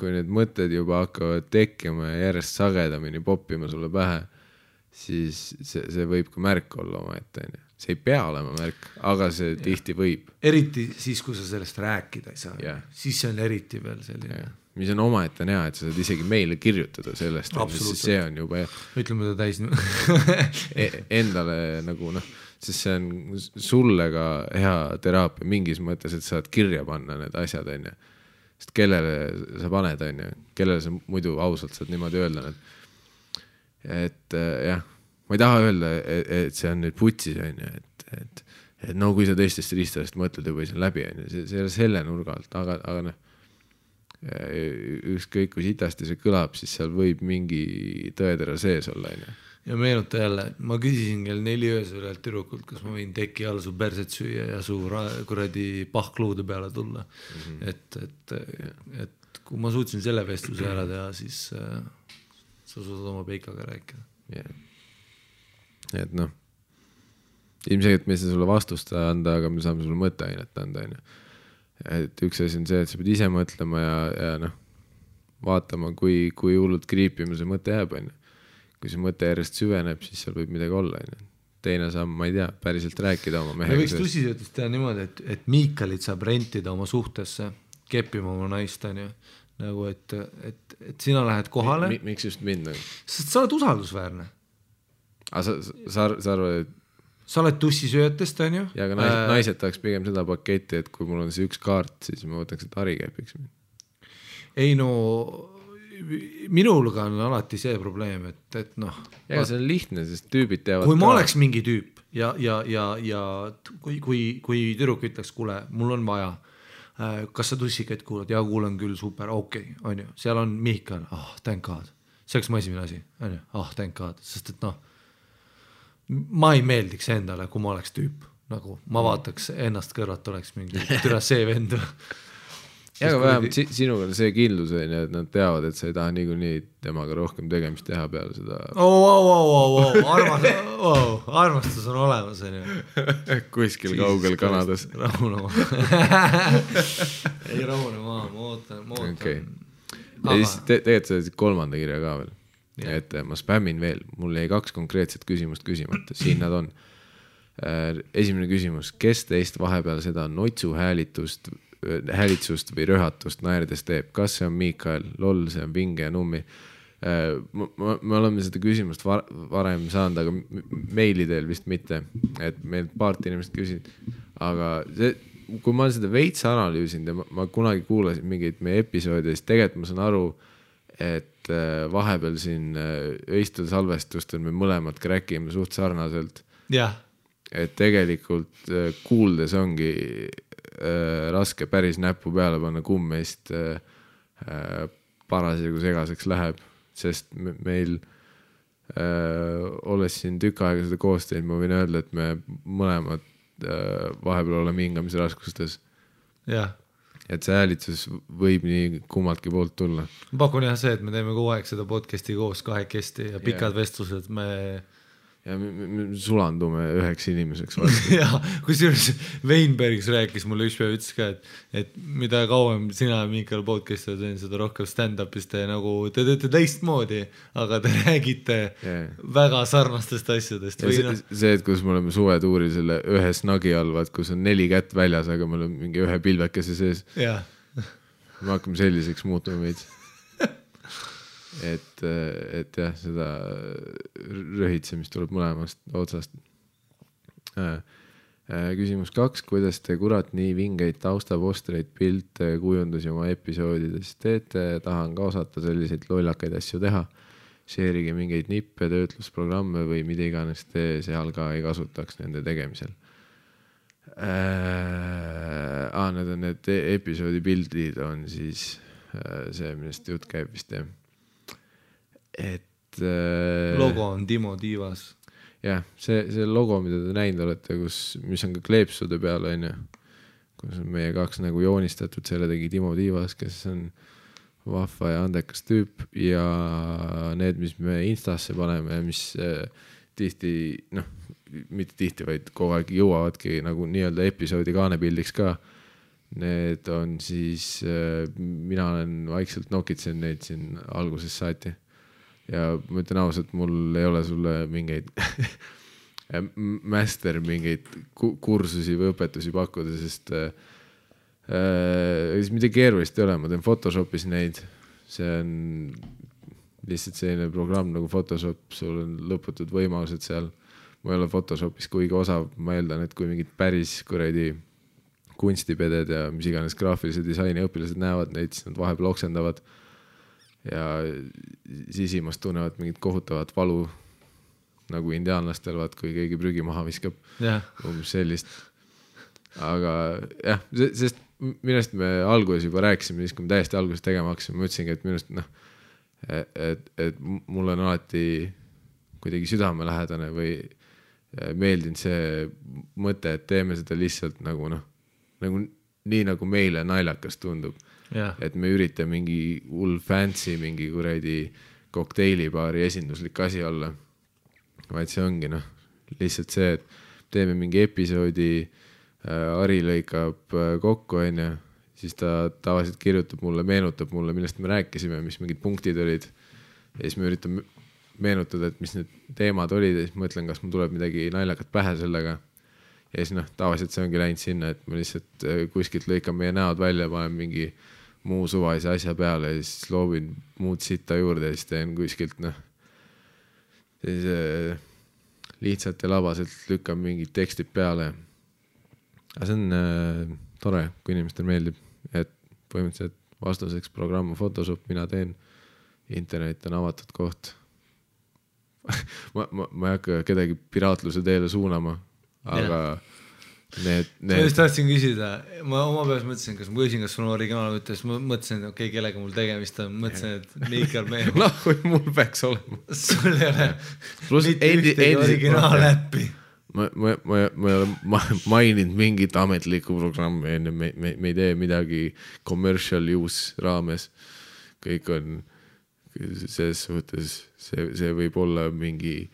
kui need mõtted juba hakkavad tekkima ja järjest sagedamini poppima sulle pähe, siis see võib ka märk olla oma ette. See ei pea olema märk, aga see tihti võib. Eriti siis, kui sa sellest rääkida ei saa. Siis see on eriti veel selline. Mis on oma ette näha, et sa saad isegi meile kirjutada sellest, sest see on juba ütleme ta täis endale nagu sest see on sulle ka hea teraapia mingis mõttes, et saad kirja panna need asjad, sest kellele sa paned, kellele sa muidu ausalt saad niimoodi öelda. Et jah, ma ei taha öelda, et see on nüüd putsis, on ju, et no kui sa teistest riistadest mõtled juba see on läbi, on ju, see ei ole selle nurga alt, aga noh, ükskõik kui sitasti see kõlab, siis seal võib mingi tõetera sees olla, on ju. Ja meenuta jälle, ma küsisin kell 4 öösel ühelt tüdrukult, kas ma võin teki all su perset süüa ja su kuradi pahkluude peale tulla. Et kui ma suutsin selle vestluse ära teha, siis sa suudad oma peikaga rääkida. Et noh, ilmselt me ei saa sulle vastust anda, aga me saame sulle mõtteainet anda, on ju. Et üks asi on see, et sa pead ise mõtlema ja noh, vaatama, kui hullult kriipima see mõte jääb, on ju. Kui see mõte järjest süveneb, siis seal võib midagi olla. Teine samm, ma ei tea, päriselt rääkida oma mehega. Me võiks tussisöötust teha niimoodi, et Miikalit saab rentida oma suhtesse, keppima oma naist, on ju. Nagu, et sina lähed kohale. Miks just mind? Sest sa oled usaldusväärne. Sa arvad, et... Sa oled tussisöötest, on ju. Ja aga naised tahaks pigem seda paketti, et kui mul on see üks kaart, siis ma võtaks, et Harri kepiks. Ei no... Minulga on alati see probleem, et noh. Ja see on lihtne, sest tüübid teavad kui ma oleks mingi tüüp ja kui tüdruk ütleks, kuule, mul on vaja, kas sa tussikaid kuulad? Ja kuulen küll, super, okei, on ju. Seal on Mihkel, thank God. See oleks mu esimene asi, on ju, thank God. Sest et noh, ma ei meeldiks endale, kui ma oleks tüüp. Nagu ma vaataks ennast kõrvat, oleks mingi türa see vend. Ja aga vähemalt sinuga on see kindlus, et nad teavad, et sa ei taha nii temaga rohkem tegemist teha peale seda. Armastus on olemas, on ju. Kuskil kaugel Kanadas. Rahune maa, ma ootan. Okay. Ja siis tegelikult sa kolmanda kirja ka veel. Et ma spämmin veel. Mul jäi 2 konkreetset küsimust küsimata. Siin nad on. Esimene küsimus. Kes teist vahepeal seda notsu häälitsust või röhatust naerdes teeb? Kas see on Miikael? Loll, see on Vinge ja Nummi. Me oleme seda küsimust varem saanud, aga meilidel vist mitte. Et meil paart inimest küsid. Aga kui ma olen seda veits analüüsinud ja ma kunagi kuulasin mingeid meie episoodi, siis tegelikult ma saan aru, et vahepeal siin öistel salvestustel me mõlemad kräkime suht sarnaselt. Jah. Et tegelikult kuuldes ongi raske päris näppu peale panna, kumm meist parasjagu segaseks läheb, sest meil olles siin tükk aega seda koosteid, ma võin öelda, et me mõlemad vahepeal oleme hingamise raskustes. Jah. Et see häälitsus võib nii kummaltki poolt tulla. Ma pakun jah see, et me teeme kogu aeg seda podcasti koos kahekesti ja pikad vestlused ja me sulandume üheks inimeseks vastu. Ja, kusjuures Weinbergs rääkis mulle üks päev, ütles ka, et mida kauem sina ja Miikael podcasti teen, seda rohkem stand-upist te nagu, te teete teistmoodi, aga te räägite väga sarnastest asjadest. See, et kus me oleme suvetuuril selle ühe snagi all, kus on 4 kätt väljas, aga me oleme mingi ühe pilvekese sees. Me hakkame selliseks muutuma meid. Et jah, seda röhitsemist tuleb mõlemast otsast. Küsimus 2. Kuidas te kurat nii vingeid taustapostreid, pilte, kujundusi oma episoodides teete? Tahan ka osata selliseid lollakaid asju teha. Share'ige mingeid nippe, töötlusprogramme või mida iganes te seal ka ei kasutaks nende tegemisel. Need on need episoodi pildid on siis see, millest jutt käib vist jah. Logo on Timo Tiivas. Jah, see logo, mida te näinud olete, mis on ka kleepsude peal, on ju, kus on meie 2 nagu joonistatud, selle tegi Timo Tiivas, kes on vahva ja andekas tüüp ja need, mis me Instasse paneme, mis tihti, mitte tihti, vaid kogu aeg jõuavadki nagu nii-öelda episoodi kaanepildiks ka. Need on siis, mina olen vaikselt nokitsen neid siin alguses saati. Ja ma ütlen ausalt, mul ei ole sulle mingeid master mingeid kursusi või õpetusi pakkuda, sest midagi keerulist ei ole, ma teen Photoshopis neid, see on lihtsalt selline programm nagu Photoshop, sul on lõputud võimalused seal, ma ei ole Photoshopis kuigi osav, ma eeldan, et kui mingid päris kuradi kunstipeded ja mis iganes graafilise disaini õpilased näevad neid, siis nad vahepeal oksendavad ja sisimast tunnevad mingit kohutavat valu nagu indiaanlastel, vaat kui keegi prügi maha viskab, umbes sellist. Aga jah, sest minust me alguses juba rääkisime, siis kui me täiesti alguses tegema hakkasime, ma ütlesingi, et minust et mul on alati kuidagi südamelähedane või meeldinud see mõte, et teeme seda lihtsalt nagu nii nagu meile naljakas tundub. Et me üritame mingi hull fancy, mingi kuradi kokteilibaari esinduslik asi olla. Vaid see ongi lihtsalt see, et teeme mingi episoodi, Ari lõikab kokku, siis ta tavaliselt kirjutab mulle, meenutab mulle, millest me rääkisime, mis mingid punktid olid. Ja siis me üritame meenutada, et mis need teemad olid ja siis mõtlen, kas mul tuleb midagi naljakat pähe sellega. Ja siis tavaliselt see ongi läinud sinna, et ma lihtsalt kuskilt lõikan meie näod välja, panen mingi muu suvalise asja peale ja siis loobin muud sitta juurde ja siis teen kuskilt lihtsalt ja labaselt lükkan mingid tekstid peale. Aga see on tore, kui inimestel meeldib, et põhimõtteliselt vastuseks programm Photoshop, mina teen, internet on avatud koht. ma ei hakka kedagi piraatluse teele suunama, aga ma just tahtsin küsida, ma oma peas mõtlesin, kas ma küsin, kas sul on originaal võttes, ma mõtlesin, et okei, kellega mul tegemist on, mõtlesin, et Miikal mehed. Kui mul peaks olema. Sul ei ole mitte ühtegi originaal-äppi. Ma ei ole maininud mingit ametlikku programmi, me ei tee midagi commercial use raames. Kõik on selles suhtes, see võib olla mingi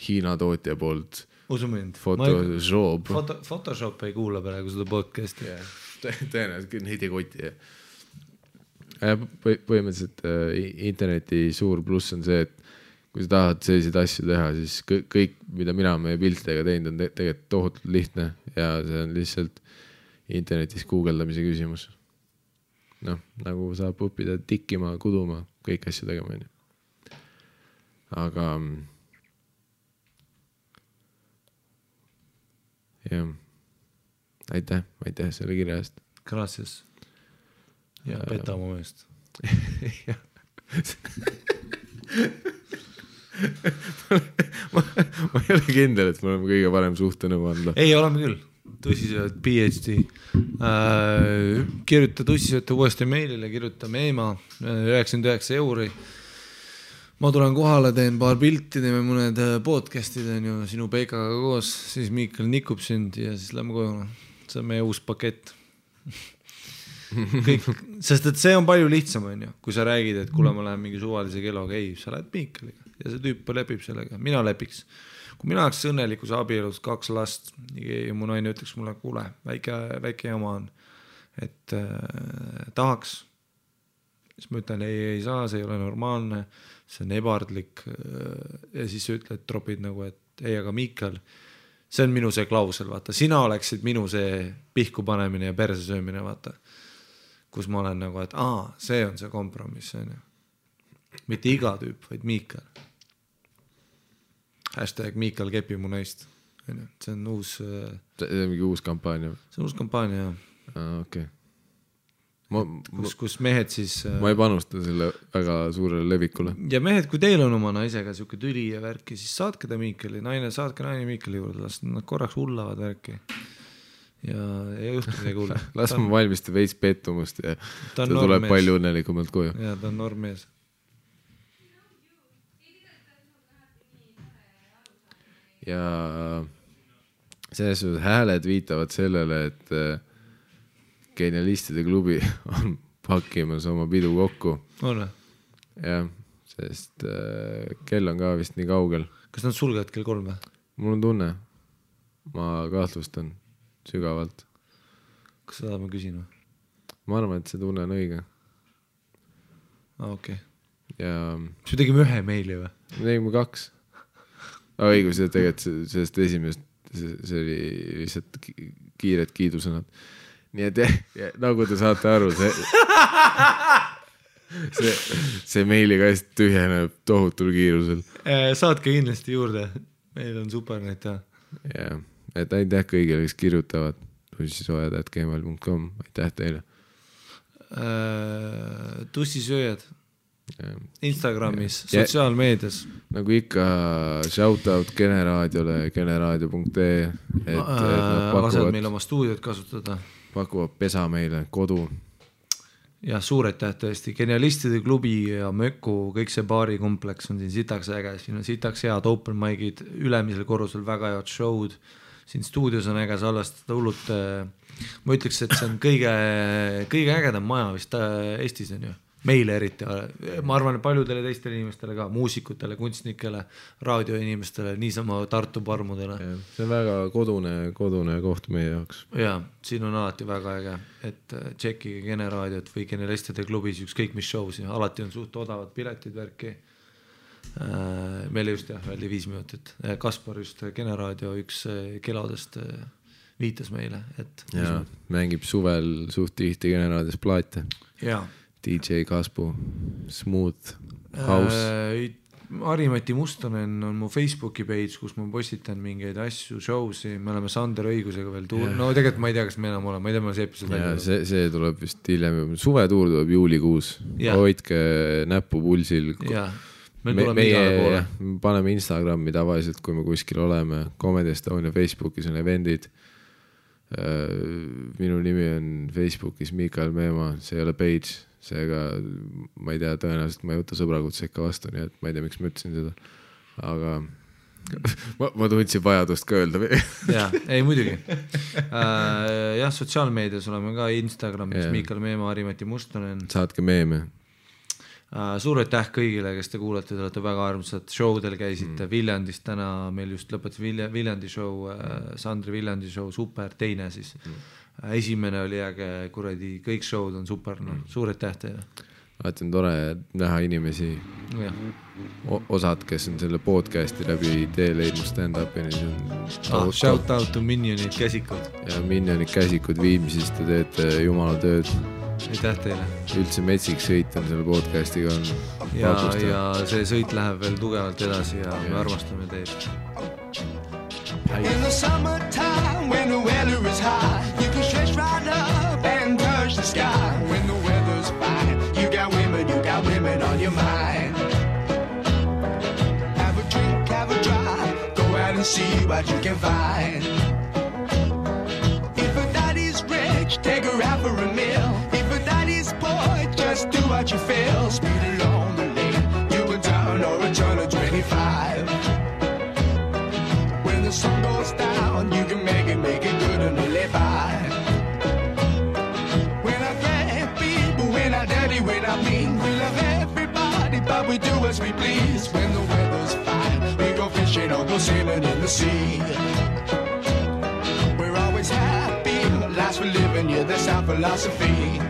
Hiina tootja poolt Photoshop. Photoshop ei kuula praegu seda podcasti. Tõenäoliselt neid ei koti. Põhimõtteliselt interneti suur pluss on see, et kui sa tahad selliseid asju teha, siis kõik, mida mina meie piltidega teinud, on tegelikult tohutult lihtne ja see on lihtsalt internetis guugeldamise küsimus. Nagu saab õppida tikkima, kuduma, kõik asju tegema. Aga jah, aitäh selle kirja eest. Gracias. Ja peta oma meest. ma ei ole kindel, et me oleme kõige parem suhtenõu anda. Ei, oleme küll. Tussisööd, PhD. Kirjuta tussisööte uuesti meilile, kirjuta meema 99 €. Ma tulen kohale, teen paar pilti, teeme mõned podcastid sinu Peikaga koos, siis Miikal nikub sind ja siis lähme koju. See on meie uus pakett. Kõik, sest et see on palju lihtsam, kui sa räägid, et kuule, ma lähen mingi suvalise keloga, ei, sa lähed Miikaliga ja see tüüp lepib sellega, mina lepiks. Kui mina oleks õnnelikus abielus 2 last ja mu naine ütleks mulle, kuule, väike jama on, et tahaks, siis ma ütlen, ei saa, see ei ole normaalne, see on ebardlik ja siis sa ütled, tropid nagu, et ei, aga Miikal, see on minu see klausel, vaata, sina oleksid minu see pihku panemine ja perse söömine, vaata, kus ma olen nagu, et see on see kompromiss, mitte iga tüüp, vaid Miikal. Hashtag Miikal kepi mu naist. See on uus... See on mingi uus kampaania? See on uus kampaania, jah. Okei. Kus mehed siis... Ma ei panusta selle väga suurele levikule. Ja mehed, kui teil on oma naisega siuke tüli ja värki, siis saatke ta Miikali, saatke naine Miikali juurde, las nad korraks hullavad värki. Ja juhtu midagi hulle. Las ma valmista veits pettumust ja ta tuleb palju õnnelikumalt koju. Ja ta on normmees. Ja selles suhtes hääled viitavad sellele, et Genialistide klubi on pakkimas oma pidu kokku. On või? Jah, sest kell on ka vist nii kaugel. Kas nad sulgevad kell 3 või? Mul on tunne. Ma kahtlustan sügavalt. Kas seda ma küsin või? Ma arvan, et see tunne on õige. Okei. Ja... Siis me tegime 1 meili või? Me tegime 2. Õigus, ja tegelikult sellest esimest, see oli lihtsalt kiired kiidusõnad. Nii et nagu te saate aru, see meiliga tühjeneb tohutul kiirusel. Saatke kindlasti juurde, meil on super neid teha. Ja, et aitäh kõigile, kes kirjutavad tussisööjad@gmail.com, aitäh teile. Tussisööjad Instagramis, sotsiaalmeedias. nagu ikka shout out Generaadiole, generaadio.ee, lased meil oma stuudiot kasutada. Pakuvad pesa meile, kodu. Ja suur aitäh tõesti, Genialistide klubi ja Möku, kõik see baarikompleks on siin sitaks äge, siin on sitaks head open mic'id, ülemisel korrusel väga head show'd, siin stuudios on äge salvestada hullult, ma ütleks, et see on kõige ägedam maja vist Eestis on ju. Meile eriti, ma arvan paljudele teistele inimestele ka, muusikutele, kunstnikele, raadioinimestele, niisama Tartu parmudele. See on väga kodune koht meie jaoks. Ja, siin on alati väga äge, et tšekkige Generaadiot või Genialistide klubis ükskõik mis show'si, alati on suht odavad piletid värki. Meile just väldi 5 minutit. Kaspar just Generaadio üks kelodest viitas meile. Et ja, mängib suvel suht tihti Generaadios plaate. Jaa. DJ Kaspu, Smooth, House. Harimati Mustonen on mu Facebooki page, kus ma postitan mingeid asju, show'si, me oleme Sander õigusega veel no tegelikult ma ei tea, kas me enam oleme, ma ei tea, ma see episood välja. See tuleb vist hiljem, suvetuur tuleb juulikuus, hoidke näppu pulsil. Jaa, meil tuleme igale poole. Paneme Instagrami tavaliselt, kui me kuskil oleme, Comedy Estonia Facebookis on eventid. Minu nimi on Facebookis Mikael Meemaa, see ei ole page, seega ma ei tea, tõenäoliselt ma ei võta sõbrakutse ikka vastu, nii et ma ei tea, miks ma ütlesin seda, aga ma tundsin vajadust ka öelda. Jaa, ei muidugi. Jah, sotsiaalmeedias oleme ka Instagramis Mikael Meemaa, Harimati Mustonen. Saatke meeme. Suur aitäh kõigile, kes te kuulete, te olete väga armsad, showdel käisite Viljandis täna, meil just lõpetas Viljandi show, Sandri Viljandi show, super, teine siis. Esimene oli äge, kuradi, kõik showd on super, suur aitäh teile. Alati on tore näha inimesi, osad, kes on selle podcasti läbi tee leidnud stand-upini. Shout out to Minionid käsikud. Ja Minionid käsikud Viimsist, te teete jumala tööd. Aitäh teile. Üldse metsik sõit on selle podcastiga on ja see sõit läheb veel tugevalt edasi ja me armastame teid. In the summertime when the weather is high, you can stretch right up and touch the sky. When the weather's fine, you got women on your mind. Have a drink, have a drive, go out and see what you can find. If a daddy's rich, take her out for a meal. Just do what you feel, speed along the lane. You can turn or a turn of 25. When the sun goes down, you can make it good and live by. When I grab people, when I dirty, when I mean, we love everybody, but we do as we please. When the weather's fine, we go fishing or go sailing in the sea. We're always happy, life's for living, yeah, that's our philosophy.